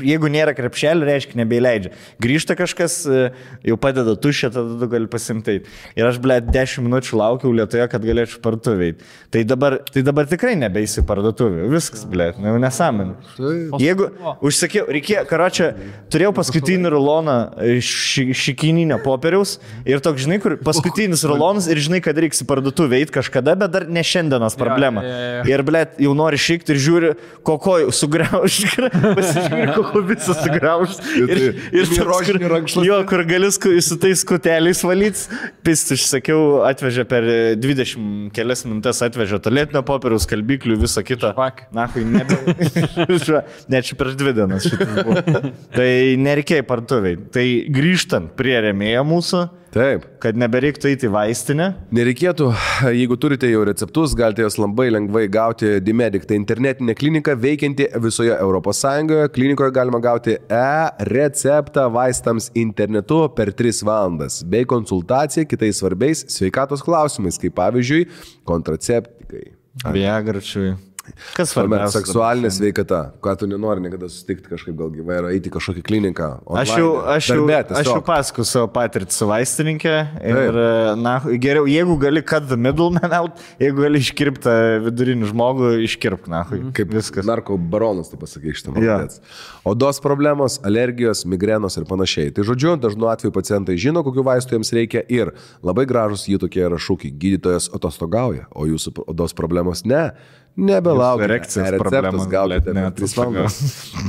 jeigu nėra krepšelio, reiškia nebeįleidžia. Grįžta kažkas, jau padeda tušę, tada tu gali pasimtai. Ir aš, 10 minučių laukiau Lietuvoje, kad galėčiau parduotuvėj. Tai dabar tikrai nebeisi parduotuvėj. Viskas, nesąmonė. Jeigu užsakiau, reikėjo, karočią, turėjau paskutinį ruloną šikininio popieriaus ir toks, žinai, kur paskutinis rulonas ir žinai, kad reiks į parduotuvę eiti kažkada, bet dar ne šiandienos problema. Ir, jau nori šikti ir žiūri, kokoj sugriauš, pasižiūri, kokoj visą sugriauš. Ir kur gali su tais skuteliais valyti. Pist, išsakiau, atvežė per 20 kelias minutės, atvežė tualetinio popieriaus, skalbiklių, visą kitą. Nahui, net čia prieš 2 dienas šitas buvo. Tai nereikėjo parduotuviai. Tai grįžtant prie rėmėjo mūsų, taip, kad nebereiktų eiti į vaistinę. Nereikėtų, jeigu turite jau receptus, galite jos labai lengvai gauti Dimedic. Tai internetinė klinika veikianti visoje ES. Klinikoje galima gauti e-receptą vaistams internetu per 3 valandas, bei konsultaciją kitais svarbiais sveikatos klausimais, kaip pavyzdžiui, kontraceptikai. Viagračiui. Kas svarbiausia? Seksualinė sveikata. Ką tu nenori niekada susitikti kažkaip gal gyvai ir eiti kažkokį kliniką. Aš jau pasakoju savo patirtį su vaistininkė ir na, geriau, jeigu gali cut the middleman out, jeigu gali iškirpti vidurinį žmogų, iškirpk, na, kaip viskas. Narko baronas, tu pasakai šitą matėts. Odos problemos, alergijos, migrenos ir panašiai. Tai žodžiu, dažnu atveju pacientai žino, kokiu vaistu jiems reikia ir labai gražus jų tokie yra šūkiai. Gydytojas atostogauja, o jūsų odos problemos ne. Nebelaukite. Receptus gaukite per 3 valandas.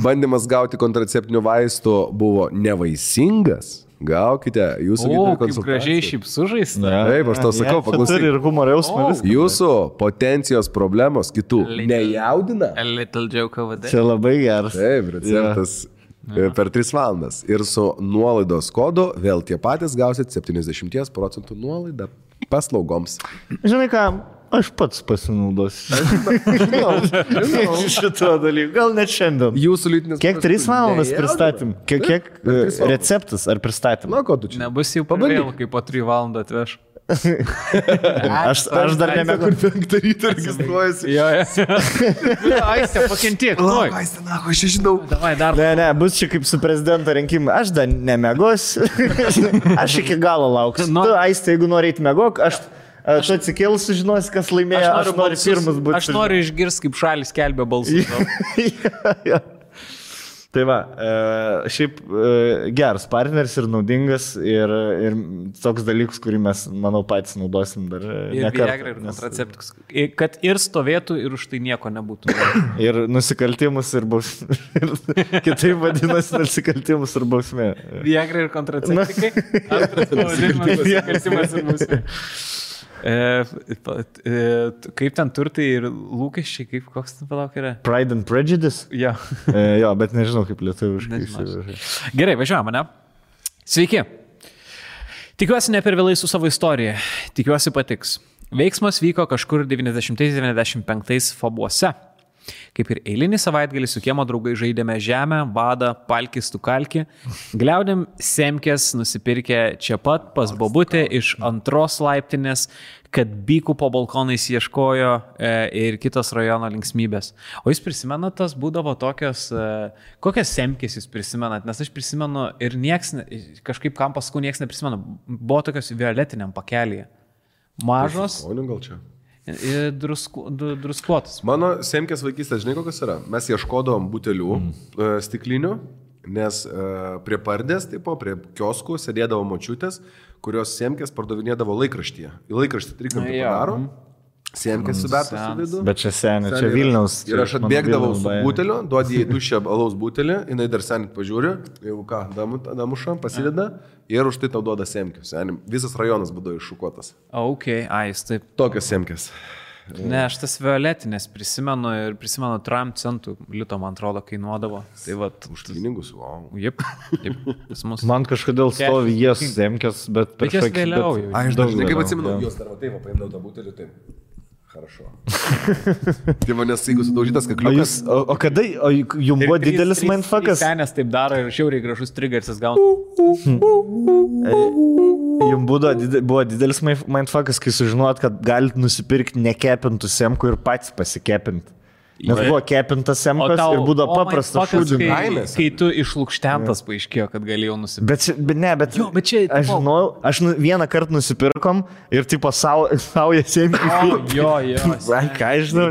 Bandymas gauti kontraceptinių vaistų buvo nevaisingas. Gaukite jūsų gydytojų konsultaciją. Kaip gražiai šiaip sužais. Taip, aš tau sakau, paklausyk. Ir humoro jausmas. Jūsų potencijos problemos kitų nejaudina. A little joke over there. Čia labai geras. Taip, receptas per 3 valandas. Ir su nuolaidos kodu vėl tie patys gausit 70% nuolaidą paslaugoms. Žinai ką? Aš pats pasinaudosiu. Šito dalyko. Gal net šiandien. Jūsų lytinis... Kiek 3 valandas pristatym? Kiek receptas ar pristatym? Na, ko tu čia? Nebus jau pavėl, kai po 3 valandą atveš. Aš dar nemėgau. Kur 5 ryto registruojasi. Jo. Aistė, pakentiek. Aistė, na, aš žinau. Davai, dar. Ne, bus čia kaip su prezidento rinkimai. Aš dar nemėgosiu. Aš iki galo lauksiu. Tu, Aistė, jeigu nori eiti mėgok, tu atsikėlus sužinosi, kas laimėjo, aš noriu pirmas būti. Aš noriu išgirsti, kaip šalis skelbia balsus. Tai va, šiaip geras partneris ir naudingas ir toks dalykas, kurį mes, manau, patys naudosim dar nekartą. Ir kontraceptikus. Kad ir stovėtų ir už tai nieko nebūtų. Ir nusikaltimus ir bausmė. Kitaip vadinasi nusikaltimus ir bausmė. Viagra ir kontraceptikai. Antras pavadinimas nusikaltimas ir bausmė. Kaip ten turtai ir lūkesčiai, kaip koks ten palauk yra? Pride and Prejudice? Jo. Jo, bet nežinau kaip lietuviškai. Gerai, važiuojame, ne? Sveiki. Tikiuosi ne per vėlai su savo istorija. Tikiuosi patiks. Veiksmas vyko kažkur 90-95 Fabuose. Kaip ir eilinį savaitgalį su kiemo draugai žaidėme žemę, badą, palkis, tukalkį. Gliaudėm semkės nusipirkę čia pat pas bobutę iš 2 laiptinės, kad bykų po balkonais ieškojo ir kitos rajono linksmybės. O jūs prisimenat, tas būdavo tokios, kokias semkės jūs prisimenat? Nes aš prisimenu ir kažkaip kam paskui nieks neprisimenu. Buvo tokios violetiniam pakelyje. Mažos. O ne gal čia? Druskuotus. Mano semkės vaikystės, žinai, kokios yra? Mes ieškodavom butelių stiklinių, nes prie pardės, prie kioskų sėdėdavo močiutės, kurios semkės pardavinėdavo laikraštyje. Į laikraštį trikampį padaro, semkės subertas su vidu. Bet čia senė, čia Vilniaus. Ir aš atbėgdavau su buteliu, duodi į tuščią alaus butelį, jinai dar senit pažiūri, jeigu ką, damuša, pasideda ir už tai tau duoda semkių. Visas rajonas būdavo iššukuotas. Ok, jis taip. Tokios semkės. Ne, aš tas violetinės prisimenu ir prisimenu 3 centų lito, man atrodo, kainuodavo. Tai vat, už pinigus, wow. Jep. Man kažkodėl stovi jas semkės, bet per jas vėliau jau. Aš dažnai kaip atsimenu, jos dar taip, paimdau tą butelį, taip. Хорошо. Tai manęs, jeigu sudaužytas kakliukas. O kada, jums buvo didelis mindfuckas? Senės taip daro ir šiauriai gražus triggersis gauna. Jums buvo didelis mindfuckas, kai sužinot, kad galit nusipirkti nekepintų semkų ir patys pasikepinti. Nes buvo kepintas semkas ir būdavo paprasta šūdžių. Kai tu išlukštentas paaiškėjo, kad galėjau nusipirkti. Bet čia, aš žinau, vieną kartą nusipirkom ir tipo sauja semkį. Jo. Ką aš žinau,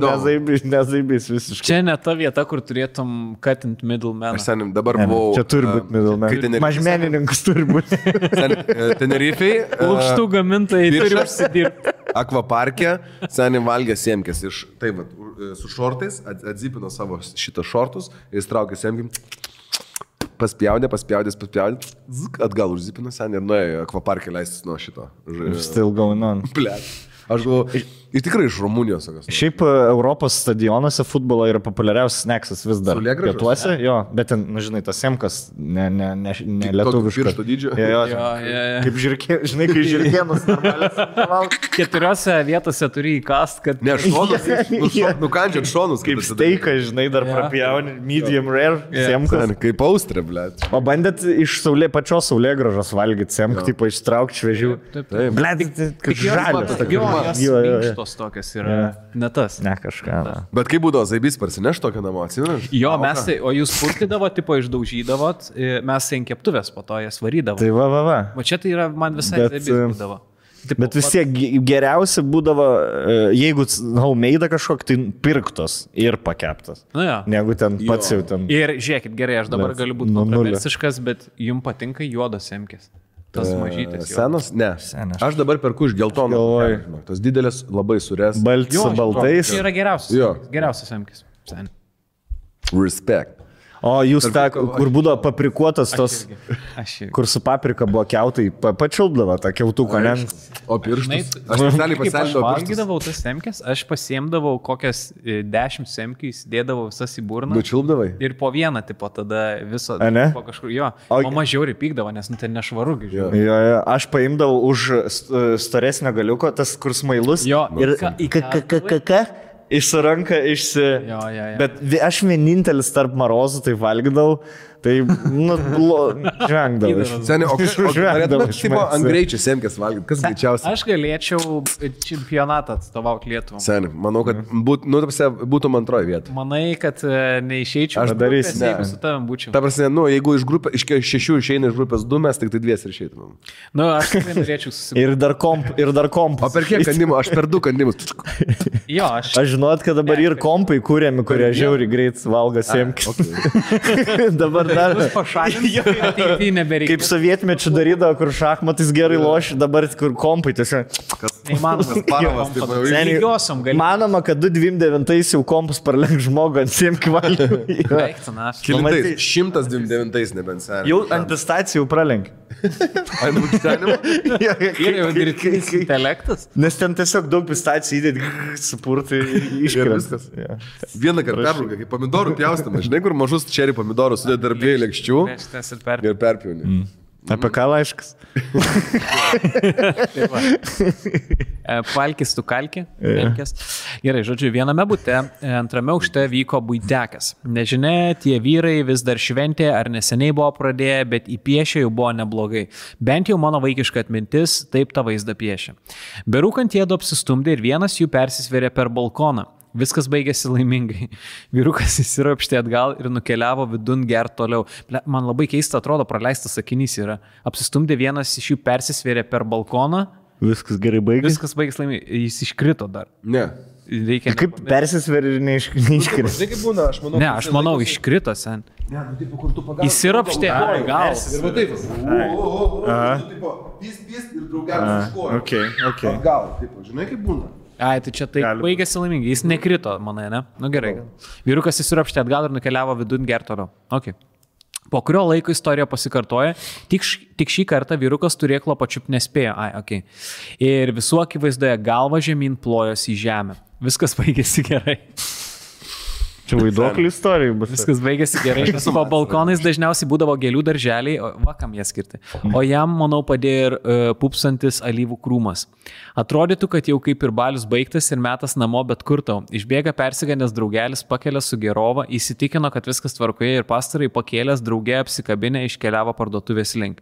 nezaibys visiškai. Čia ne ta vieta, kur turėtum cutting middleman. Aš senim dabar buvau. Čia turi būti middleman. Mažmenininkas turi būti. Tenerifei. Lukštų gamintojai turi užsidirbti. Akvaparke senim valgė semkės iš, taip, su šortais, atzipino savo šitą šortus ir įstraukė semkim, paspjaudė, atgal užzipino senį ir nuėjo akvaparke leistis nuo šito. Still going on. Blet. Aš galvoju, ir tikrai iš Rumunijos. Šiaip Europos stadionuose futbolo yra populiariausias snacksas vis dar. Pietuose, jo, bet ten, žinai, tas semkas ne lietuviškas. Piršto dydžio. Jo. Kaip žirkė, žinai, kai žirkėnus normaliai. 4 vietose turi įkast, kad... Ne, šonus, nukandžiat šonus. Kaip steiką, žinai, dar prapjauni, medium rare semkas. Kaip austrė, blet. O bandėt iš pačios saulėgrąžos valgyti semką, tipo ištraukti šviežių. Taip. Blet, kaip žalias. Minkštos tokios yra. Ne tas. Ne kažką. Bet kaip būdavo, Zaibys parsineš tokią namo, atsimenat? Jo, mes tai, o jūs purtydavo, tipo išdaužydavot, mes ant keptuvės po to jas varydavo. Tai va. O čia tai yra man visai Zaibys būdavo. Tipo, bet vis tiek geriausia būdavo, jeigu homemade kažkok, tai pirktos ir pakeptas. Negu ten pats jau ten. Ir žiūrėkit, gerai, aš dabar galiu būti kontroversiškas, bet jums patinka juodos semkės. Tas mažytis. Senas? Ne. Aš dabar perku iš geltono. Tos didelės labai surės. Baltis su baltais. Tai yra geriausias. Geriausias semkės. Respect. O jūs tą, kur būdavo paprikuotas tos, kur su paprika buvo kiautai, pačilpdavo tą kiautuką, ne? O pirštus? Aš specialiai pasielgdavau pirštus. Aš valgydavau tas semkės, aš pasiemdavau kokias 10 semkės, dėdavau visas į burną. Nučilpdavai? Ir po vieną, tipo, tada viso, po kažkur, jo. O mažiau pykdavo, nes ten nešvaru. Jo, aš paimdavau už storesnio galiuko, tas kur smailus. Jo, ir išsiranka, Bet aš vienintelis tarp marozų tai valgydavau, tai, žvengdavau. Seniai, o norėtumėt, tipo, ant greičio semkės valgyti, kas greičiausiai? Aš galėčiau čempionatą atstovauti Lietuvą. Seniai, manau, kad būtum antroji vieta. Manai, kad neišeičiau. Aš darysiu, jeigu su tavim būčiau. Ta prasme, jeigu iš 6 išeina iš grupės 2, mes tik tai 2 ir išeitumėm. Aš tikrai norėčiau susipažinti. Ir dar komp. O per kiek kandimų? Aš per 2 kandimus. Jo, aš žinot, kad dabar ir kompai kūrėmi, kurie žiauri greit valgo semkės. Dabar dar kaip sovietmečių darydavo, kur šachmatais gerai loši, dabar kur kompai tiesiog. Manoma, kad 2029 jau kompus parlenk žmogų ant semkių valgymų. Kilintais, 129 nebent seniai. Jau ant pistacijų pralenk. Ant mūkštenimo? Ir jau dirbtinis intelektas. Nes ten tiesiog daug pistacijų įdėti, supurtai ir iškristas. Vieną kartą perbraukia, kaip pomidorų pjaustama. Žinai, kur mažus čerį pomidorus sudėti tarp 2 lėkščių ir perpjauni. Apie ką laiškas? Palkis tu kalki. Gerai, žodžiu, viename bute, antrame aukšte vyko buitekas. Nežinia, tie vyrai vis dar šventė ar neseniai buvo pradėję, bet įpiešė jau buvo neblogai. Bent jau mano vaikiška atmintis taip tą vaizdą piešė. Berūkant jėdu apsistumdė ir vienas jų persisvėrė per balkoną. Viskas baigėsi laimingai. Vyrukas įsiropštė atgal ir nukeliavo vidun gert toliau. Man labai keista atrodo, praleistas sakinys yra. Apsistumdė vienas iš jų persisvėrė per balkoną. Viskas gerai baigėsi. Viskas baigėsi laimingai. Jis iškrito dar. Ne. Kaip persisvėrė ir neiškrito? Tai kaip būna, aš manau. Ne, aš manau, iškrito sen. Įsiropštė atgal. Ir va taip. Pys ir draugelis iškojo. Atgal, taip, žinai kaip būna. Ai, tai čia taip baigėsi laimingai, jis nekrito, manai, ne? Nu gerai. Vyrukas įsiropštė atgal ir nukeliavo vidun gert toliau. Okay. Po kurio laiko istorija pasikartoja, tik šį kartą vyrukas turėklo pačiup nespėjo. Okay. Ir visų akivaizdoje galva žemyn plojosi į žemę. Viskas baigėsi gerai. Čia vaiduoklių istorija bus. Viskas baigėsi gerai. Po balkonais dažniausiai būdavo gėlių darželiai, va kam jie skirti. O jam, manau, padėjo ir pupsantis alyvų krūmas. Atrodytų, kad jau kaip ir balius baigtas ir metas namo, bet kur tau. Išbėga persigandęs draugelis, pakelia su gerova, įsitikino, kad viskas tvarkoje ir pastarai pakėlęs draugė apsikabinę iškeliavo parduotuvės link.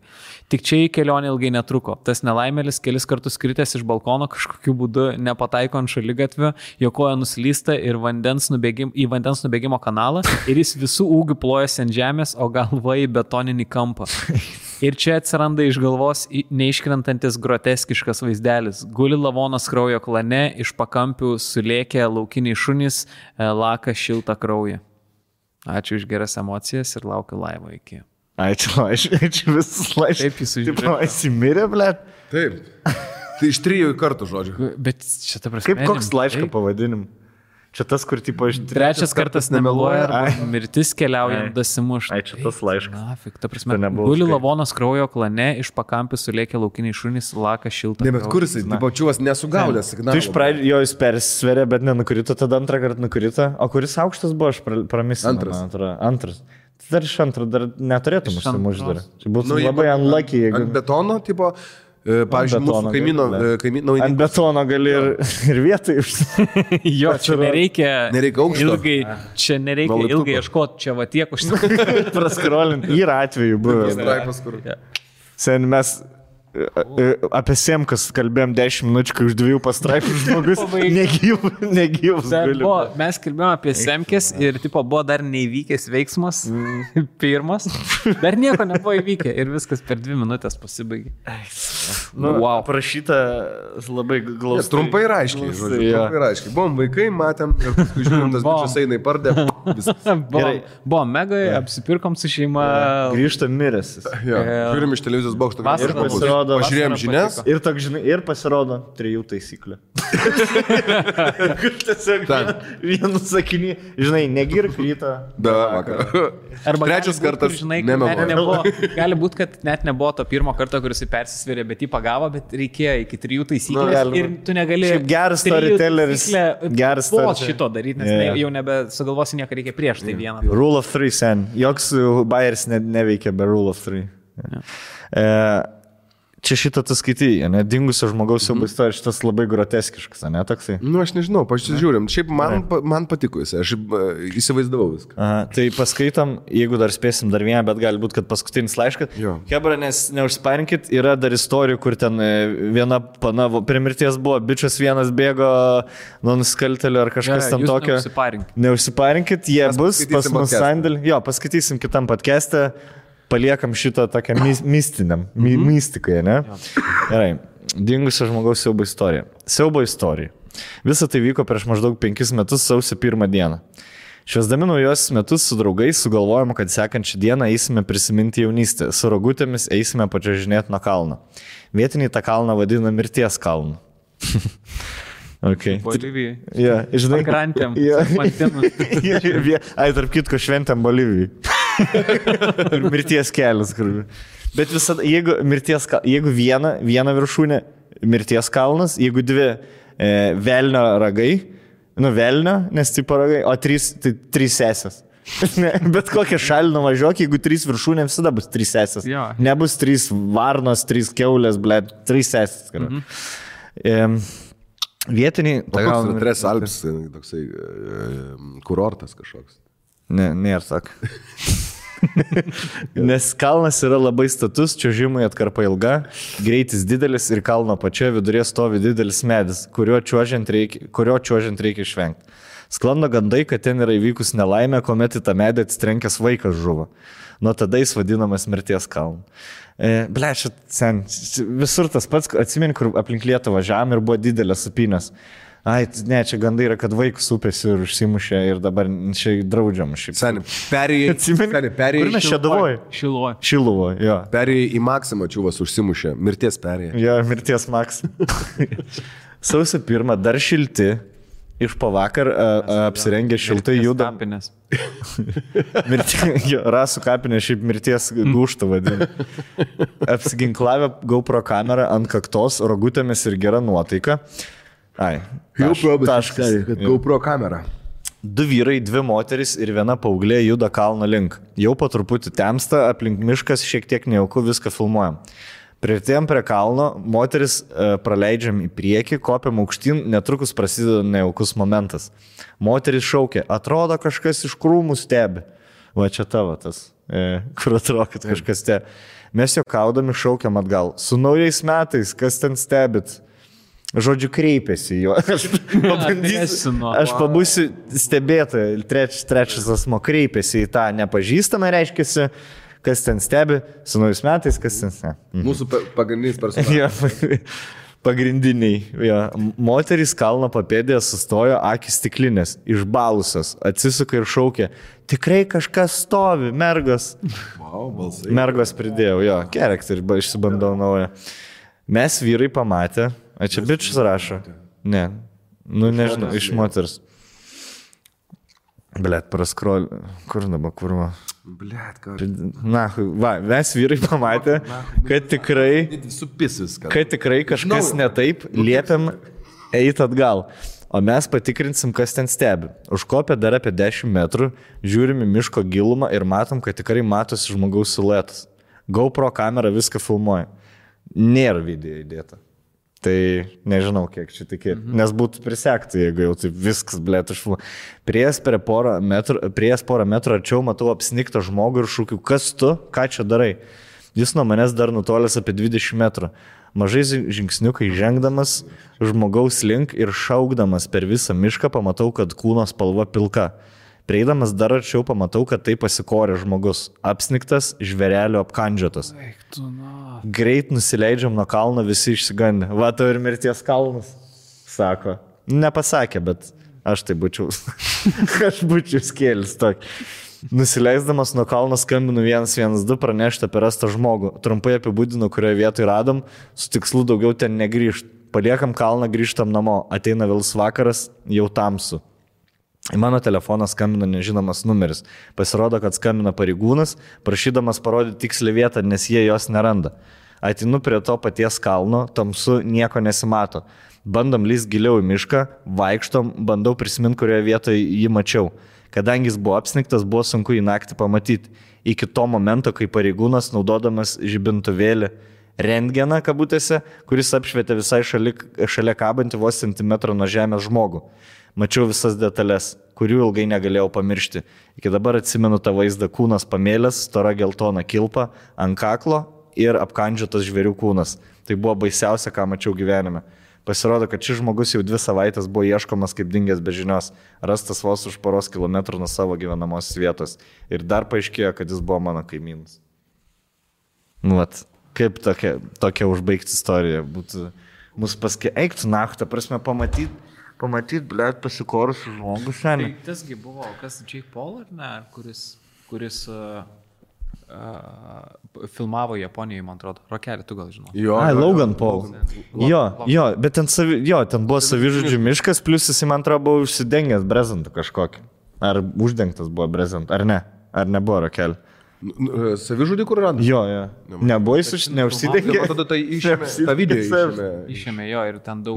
Tik čia į kelionę ilgai netruko. Tas nelaimėlis kelis kartus kritęs iš balkono kažkokiu būdu nepataiko ant šaligatvio, jo koja nuslysta ir į vandens nubėgimo kanalą ir jis visų ūgių plojasi ant žemės, o galva į betoninį kampą. Ir čia atsiranda iš galvos neiškrentantis groteskiškas vaizdelis. Guli lavonas kraujo klane, iš pakampių sulėkė laukiniai šunys, laka šiltą kraują. Ačiū už geras emocijas ir laukiu laivo iki. Ačiū visus laiškus. Taip jis užžiūrė. Taip, įsimirė, blėt. Taip. Tai iš 3 kartų žodžiu. Bet čia ta prasme. Kaip koks laiško pavadinim? Čia tas, kur tipo iš... Trečias kartas nemeluoja, mirtis keliaujant dasimuš. Ai, čia tas laiškas. Na, fik, ta prasme, guli lavonas kraujo klane, iš pakampių sulėkė laukiniai šunys, laka šiltą. Ne, bet kur jisai, pačiuos nesugaudė signalą. Tu iš pradžio jo jis persisverė, bet nenukrito, tada antrą kartą nukrito. O kuris aukštas buvo, aš pramisinau. Antras. Tai dar iš antro, dar neturėtum užsimušti dar. Čia būtų labai unlucky, jeigu... Ant betono, tipo... Pavyzdžiui, mūsų kaimyno... Ant betono gali ir vietai užsimušti. Jo, čia nereikia aukšto. Čia nereikia ilgai ieškoti, čia va tiek praskrolinti. Yra atveju buvo. Straipas, kur... Sen mes Apie Semkas kalbėjom 10 minučių, kai už 2 pastraipų žmogus negyvus. Mes kalbėjom apie Semkes ir tipo, buvo dar neįvykęs veiksmas, pirmas, dar nieko nebuvo įvykę ir viskas per 2 minutės pasibaigė. Wow. Prašyta labai glaustai. Trumpai ir aiškiai, žodžiu. Trumpai ir aiškiai. Buvom vaikai, matėm ir paskui žiūrim, tas bičias eina į pardę. Buvo megai, apsipirkom su šeima. Grįžtam miręs. Žiūrim iš televizijos bokšto. Pažiūrėjom žinias. Ir pasirodo 3 taisyklė. Tiesiog vienu sakinį, žinai, negirk rytą. Be vakarą. Arba trečias kartas, žinai, gali būti, kad net nebuvo to pirmo karto, kuris persisvėrė, bet jį pagavo, bet reikėjo iki 3 taisyklės ir tu negali... Šiaip geras storytelleris. Geras storytelleris. Šito daryti, nes jau nebesugalvosi nieko, reikia prieš tai vieną. Rule of 3 sen. Joks Bayeris neveikia be Rule of 3. Čia šitą tu skaitai, ne, dingusio žmogaus siaubo istorija, šitas labai groteskiškas, ne, toksai? Aš nežinau, pasižiūrim, šiaip man patiko jis, aš įsivaizdavau viską. Aha, tai paskaitom, jeigu dar spėsim dar vieną, bet gali būti, kad paskutinis laiškas. Hebra, nes neužsparinkit, yra dar istorijų, kur ten viena pana, prie mirties buvo, bičias vienas bėgo nuo nusikaltelio ar kažkas tam tokio. Neužsiparinkit, jie bus pas mus sandėlį. Jo, paskaitysim kitam podcast'e. Paliekam šitą tokią mistiniam, mystikai, ne? Gerai, dingusio žmogaus siaubo istorija. Siaubo istorija. Visa tai vyko prieš maždaug 5 metus sausio 1 dieną. Švęsdami naujosius metus su draugais sugalvojom, kad sekančią dieną eisime prisiminti jaunystę. Su rogutėmis eisime pačiažinėti nuo kalno. Vietiniai tą kalną vadina mirties kalnu. Okay. Bolivijai. Ja, žinai, pakrantėm. Tarp kitko šventėm Bolivijai. Mirties kelias. Bet visada, jeigu viena viršūnė mirties kalnas, jeigu 2 velnio ragai, velnio, nes tipo ragai, o 3 sesės. Bet kokią šalį nuvažiuok, jeigu 3 viršūnė, visada bus 3 sesės. Nebus 3 varnos, 3 keulės, 3 sesės. Vietiniai... O koks yra Tres Alps, toksai kurortas kažkoks? Nėra sak. Nes kalnas yra labai status, čiuožimui atkarpa ilga, greitis didelis ir kalno pačioje vidurėje stovi didelis medis, kurio čiuožiant reikia išvengti. Sklando gandai, kad ten yra įvykus nelaimė, kuomet į tą medį atsitrenkęs vaikas žuvo. Nuo tada jis vadinamas mirties kalnu. Blešit, sen, visur tas pats, atsimeni, kur aplink Lietuvą važiavam ir buvo didelės supynės. Ai, ne, čia gandai yra, kad vaikus upės ir užsimušė ir dabar čia draudžiam. Seni, perėjai. Kur mes čia Šeduvoj? Šiluvoj, jo. Perėjai į Maksimą, čiuvas užsimušė, mirties perėjai. Jo, mirties Maksimą. Sausio 1 dar šilti. Iš pavakar apsirengę šiltai juda. Rasų kapinė šiaip mirties gūštą vadina. Apsiginklavę GoPro kamerą ant kaktos, rogutėmis ir gera nuotaika. Taškas. GoPro kamera. 2 vyrai, 2 moteris ir 1 paauglė juda kalno link. Jau po truputį temsta, aplink miškas šiek tiek nejauku, viską filmuojam. Priartėjom prie kalno, moteris praleidžiam į priekį, kopiam aukštyn, netrukus prasideda nejaukus momentas. Moteris šaukia, atrodo kažkas iš krūmų stebi. Va čia tavo tas, kur atrodo, kad kažkas stebi. Mes juokaudami šaukiam atgal. Su naujais metais, kas ten stebit? Žodžiu, kreipėsi jo. Aš pabūsiu stebėtoja. Trečias asmo kreipėsi į tą nepažįstamą, reiškiasi, kas ten stebi, su naujais metais, kas ten stebi. Mūsų pagrindinis personažas. Pagrindiniai. Ja. Moterys kalno papėdėje sustojo, akis stiklinės, išbalusios, atsisuka ir šaukė, tikrai kažkas stovi, mergos. Wow, balsai. Mergos pridėjau, jo, gerekt ir išsibandau naują. Mes vyrai pamatė, čia bičius rašo. Ne, nežinau, iš moters. Blet, praskrol, kur dabar, kurva? Blet, ką? Na, va, mes vyrai pamatė, kad tikrai kažkas ne taip, liepiam eiti atgal. O mes patikrinsim, kas ten stebi. Užkopę dar apie 10 metrų, žiūrim į miško gilumą ir matom, kad tikrai matosi žmogaus siluetas. GoPro kamera viską filmuoja. Nėra video įdėta. Tai nežinau, kiek čia tikėti. Nes būtų prisekti, jeigu jau taip viskas, blėt, išfilmuoja. Prieš porą metrų arčiau matau apsniktą žmogų ir šūkiu, kas tu, ką čia darai? Jis nuo manęs dar nutolęs apie 20 metrų. Mažai žingsniukai žengdamas žmogaus link ir šaukdamas per visą mišką pamatau, kad kūno spalva pilka. Prieidamas dar arčiau pamatau, kad tai pasikorė žmogus. Apsniktas, žvėrelio apkandžiotas. Greit nusileidžiam nuo kalno, visi išsigandę. Va, tau ir mirties kalnas, sako. Nepasakė, bet aš tai būčiau. Aš būčiau skėlis tokį. Nusileisdamas nuo kalno skambinu 112 pranešti apie rastą žmogų. Trumpai apibūdinu, kurioje vietoje radom, su tikslu daugiau ten negrįžti. Paliekam kalną, grįžtam namo. Ateina vėlus vakaras, jau tamsu. Į mano telefoną skambina nežinomas numeris. Pasirodo, kad skambina pareigūnas, prašydamas parodyti tikslį vietą, nes jie jos neranda. Ateinu prie to paties kalno, tamsu, nieko nesimato. Bandom lįst giliau į mišką, vaikštom, bandau prisiminti, kurioje vietoje jį mačiau. Kadangi jis buvo apsniktas, buvo sunku į naktį pamatyti. Iki to momento, kai pareigūnas, naudodamas žibintuvėlį rentgeną kabutėse, kuris apšvietė visai šalia kabantį vos centimetrą nuo žemės žmogų. Mačiau visas detalės, kurių ilgai negalėjau pamiršti. Iki dabar atsimenu tą vaizdą: kūnas pamėlęs, stora geltona kilpa, ant kaklo ir apkandžiotas žvėrių kūnas. Tai buvo baisiausia, ką mačiau gyvenime. Pasirodo, kad šis žmogus jau 2 savaitės buvo ieškomas kaip dingęs be žinios, rastas vos už poros kilometrų nuo savo gyvenamosios vietos. Ir dar paaiškėjo, kad jis buvo mano kaimynas. Nu, vat, kaip tokia užbaigti istorija būtų mus eiktų naktą, prasme, pamatyti, blėt, pasikorusių žmogus šiandien. Tai tasgi buvo, kas Jake Paul, ar ne, kuris filmavo Japonijoje, man atrodo. Rokelį, tu gal žinai. Logan Paul. Jo, bet ten buvo savižudžių miškas, plus jis, man atrodo, buvo užsidengęs brezentų kažkokį. Ar uždengtas buvo brezentų, ar ne? Ar nebuvo rokelį? Savižudį kur rado? Jo. Nebuvo jis neužsidengė. Ir tada tai išėmė, tą video išėmė jo ir ten daug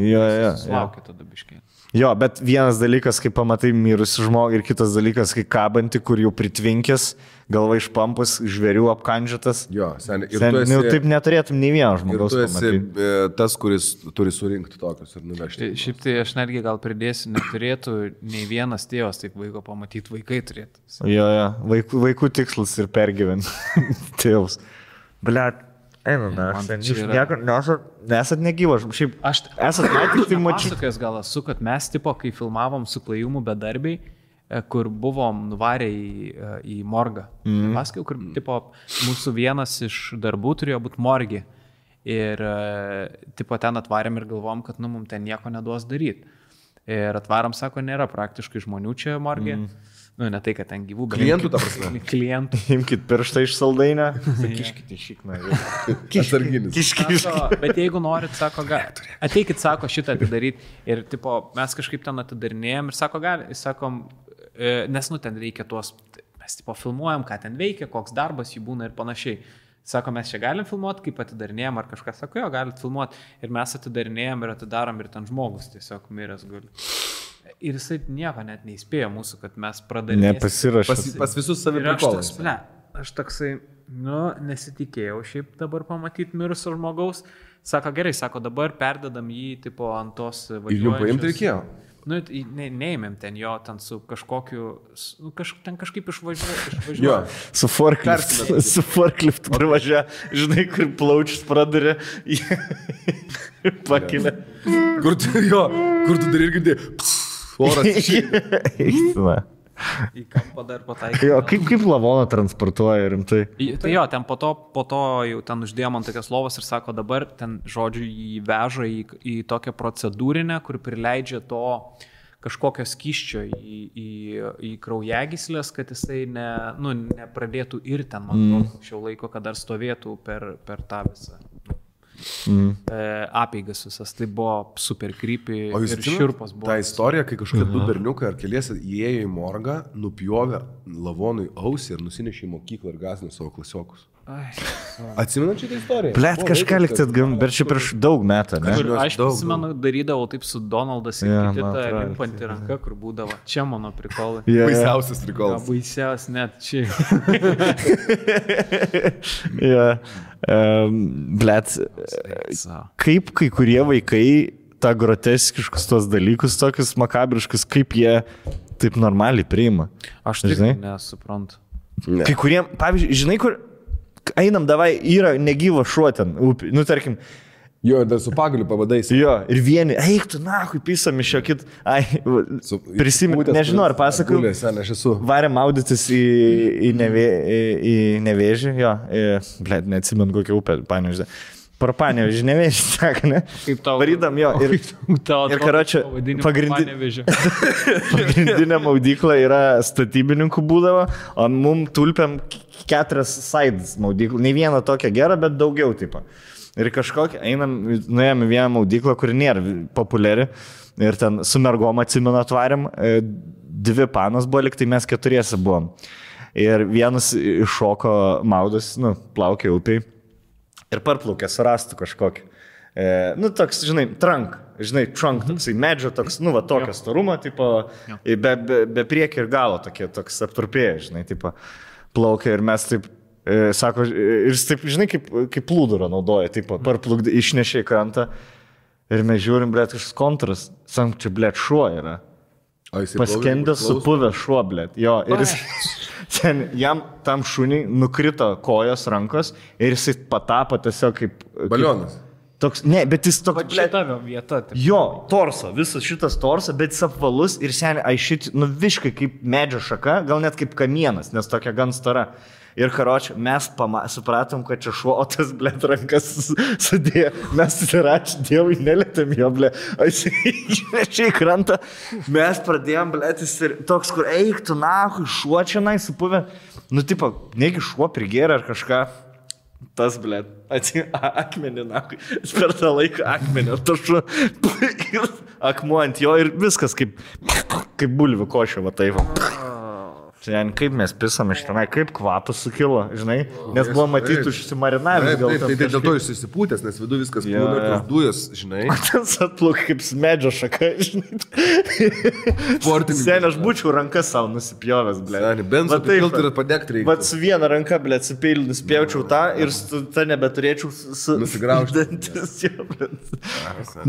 sulaukė tada biškiai. Jo, bet vienas dalykas, kai pamatai mirusi žmogų, ir kitas dalykas, kai kabanti, kur jau pritvinkęs, galva išpampus, žvėrių apkandžiotas. Jo, seniai. Jau taip neturėtum nei vieno žmogaus pamatyti. Ir tu esi tas, kuris turi surinkti tokius ir nuvežti. Šiaip tai aš netgi gal pridėsiu, neturėtų nei vienas tėvas taip vaiko pamatyti, vaikai turėtų. Jo, vaikų tikslas ir pergyventi tėvus. Blet. Nesat negyvas. Šiaip esat matyti, tai mačiau. Pasakęs gal esu, kad mes tipo, kai filmavom su Klajumu bedarbiai, kur buvom nuvarę į morgą. Pasakiau, kur tipo, mūsų vienas iš darbų turėjo būti morgi. Ir tipo, ten atvarėm ir galvom, kad mums ten nieko neduos daryti. Ir atvaram, sako, nėra praktiškai žmonių čia morgė. Nu, ne tai, kad ten gyvų, bet... Klientų, ta prasme. Klientų. Imkit pirštą iš saldainę. Kiškite šikną. Kiškis. Bet jeigu norit, sako, ateikit, sako, šitą atidaryti. Ir, tipo, mes kažkaip ten atidarinėjom ir sako, sakom, nes, ten reikia tuos, mes, tipo, filmuojam, ką ten veikia, koks darbas jų būna ir panašiai. Sako, mes čia galim filmuoti, kaip atidarinėjom, ar kažkas, sako, jo, galit filmuoti. Ir mes atidarinėjom ir atidarom ir ten žmogus tiesiog miręs guli. Ir jisai nieko net neįspėjo mūsų, kad mes pradarėme. Nepasirašė. Pas visus saviprikolas. Aš toksai, nesitikėjau šiaip dabar pamatyti mirusio žmogaus. Sako, gerai, sako, dabar perdedam jį tipo ant tos važiuojančios. Ir jų paimti reikėjo? Neėmėm ten jo, ten su kažkokiu, ten kažkaip išvažiuoja. Su forkliftu privažiuoja, žinai, kur plaučius pradarė, pakilė. Kur tu dar ir girdėjai? Oras išėjo. Į kampą dar pataikė. Jo, kaip lavoną transportuoja rimtai? Tai jo, ten po to jau ten uždėjom ant tokios lovos ir sako, dabar ten, žodžiu, jį veža į tokią procedūrinę, kur prileidžia to kažkokio skysčio į kraujagyslės, kad jisai nepradėtų ir ten, man atrodo, šio laiko, kad dar stovėtų per tą visą apeigas visas. Tai buvo super creepy ir šiurpas buvo. Ta istorija, kai kažkokie 2 berniukai ar keliese įėjo į morgą, nupjovė lavonui ausį ir nusinešė į mokyklą ir gąsdino savo klasiokus. Atsimenat šitą istoriją? Blet, kažką likti atgam, bet čia prieš daug metų, ne? Aš prisimenu, darydavau taip su Donaldas ir kitą limpanti ranka, kur būdavo. Čia mano prikolai. Baisiausias prikolas. Baisiausias net čia. Blet, kaip kai kurie vaikai tą groteskiškus tos dalykus, tokius makabriškus, kaip jie taip normaliai priima? Aš tik nesuprantu. Kai kurie, pavyzdžiui, žinai, einam, davai, yra negyva šuo ten, upė, nu tarkim. Jo, dar su pagaliu pavadais. Jo, ir vieni, eik tu, nahui, pisam iš jo kit, prisimint, nežinau, ar pasakau, varėm maudytis į Nevėžį, jo, blėt, neatsimenu kokią upę, Panevėžį. Pro Panevėžį, Nevėžį, sako, ne? Kaip tau? Varydam jo, ir karočią, pagrindinė maudykla yra statybininkų būdavo, o mum tulpiam 4 sides maudyklų, ne vieną tokią gerą, bet daugiau tipo. Ir kažkokia, nuėjom į vieną maudyklą, kuri nėra populiari, ir ten su mergom atsimenu atvarėm, 2 panos buvo, liktai mes 4 buvom. Ir vienas iššoko maudas, plaukė upiai. Ir parplaukė, surastų kažkokį. Toks, žinai, trunk, toksai medžio, toks, tokio storumo, tipo, be priekio ir galo tokie, toks aptrupėję, žinai, tipo, plaukė ir mes taip, sako, ir taip, žinai, kaip plūdurą naudoja, tipo, parplukdė, išnešė į krantą ir mes žiūrim, blėt, kažkas kontras, sakom, čia, blėt, šuo yra. Paskendęs supuvęs šuo, blėt, jo, ir jis... Ten jam tam šuniai nukrito kojos, rankos ir jisai patapo tiesiog kaip... Balionas. Toks, ne, bet jis toks... Šitavio vieta. Taip. Jo, torso, visas šitas torso, bet jis apvalus ir seniai, aišit, viškai kaip medžio šaka, gal net kaip kamienas, nes tokia gan stora. Ir karočią, mes supratom, kad čia šuo, o tas, blėt, rankas sudėjo. Mes ačiū Dievui, nelėtėm jo, blėt. Aš išnešiai krantą. Mes pradėjom, blėt, jis ir toks, kur eiktų, nahui, šuo čia nai supuvę. Tipo, negi šuo prigėrė ar kažką. Tas, blėt, akmenį, nahui. Per tą laiką akmenį, tas šuo. Ir akmuo ant jo ir viskas kaip bulvių košė, va taip. Kaip mes pisam iš tenai, kaip kvapas sukilo, žinai, nes buvo matyti užsimarinavęs. Tai dėl to jūs įsipūtęs, nes vidu viskas būna ir tos dujos, žinai. Ten atpluk kaip medžio šaka, žinai. Seniai, aš būčiau rankas savo nusipjovęs, blė. Seniai, bent supilti ir padegti reikia. Bet su viena ranka, blė, atsipėlį nuspjaučiau tą ir tą nebeturėčiau nusigraužti.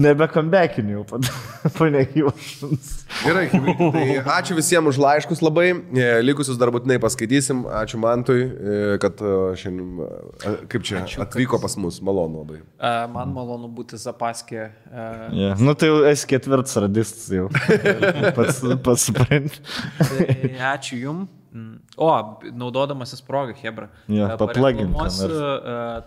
Nebekambekiniu jau panegyvašins. Gerai, tai ačiū visiems už laiškus labai. Likusius dar būtinai paskaitysim. Ačiū Mantui, kad šiandien, kaip čia, atvyko pas mus. Malonu labai. Man malonu būti Zapaskė. Tai jau esi 4 radistas jau. Pats supranti. Ačiū jum. O, naudodamasis progą, Hebra. Paplagintas.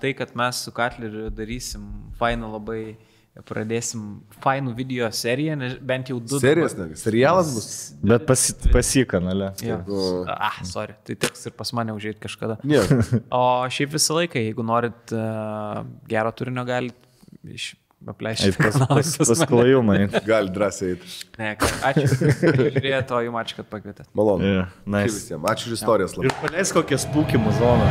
Tai, kad mes su Katleriu darysim fainą labai... Pradėsim fainų video seriją, bent jau 2. Serijas, serialas bus. Bet pasi kanale. Sorry, tai teks ir pas mane užėjti kažkada. Yeah. O šiaip visą laiką, jeigu norit gero turinio, galit apleisti. Pasklajumai. Gali drąsiai eiti. Ne, ačiū. Žiūrėjau, o jums ačiū, kad pakvietėt. Malonu. Nice. Ačiū visiems. Ačiū už istorijas labai. Ir paleis kokią spūkimų zoną.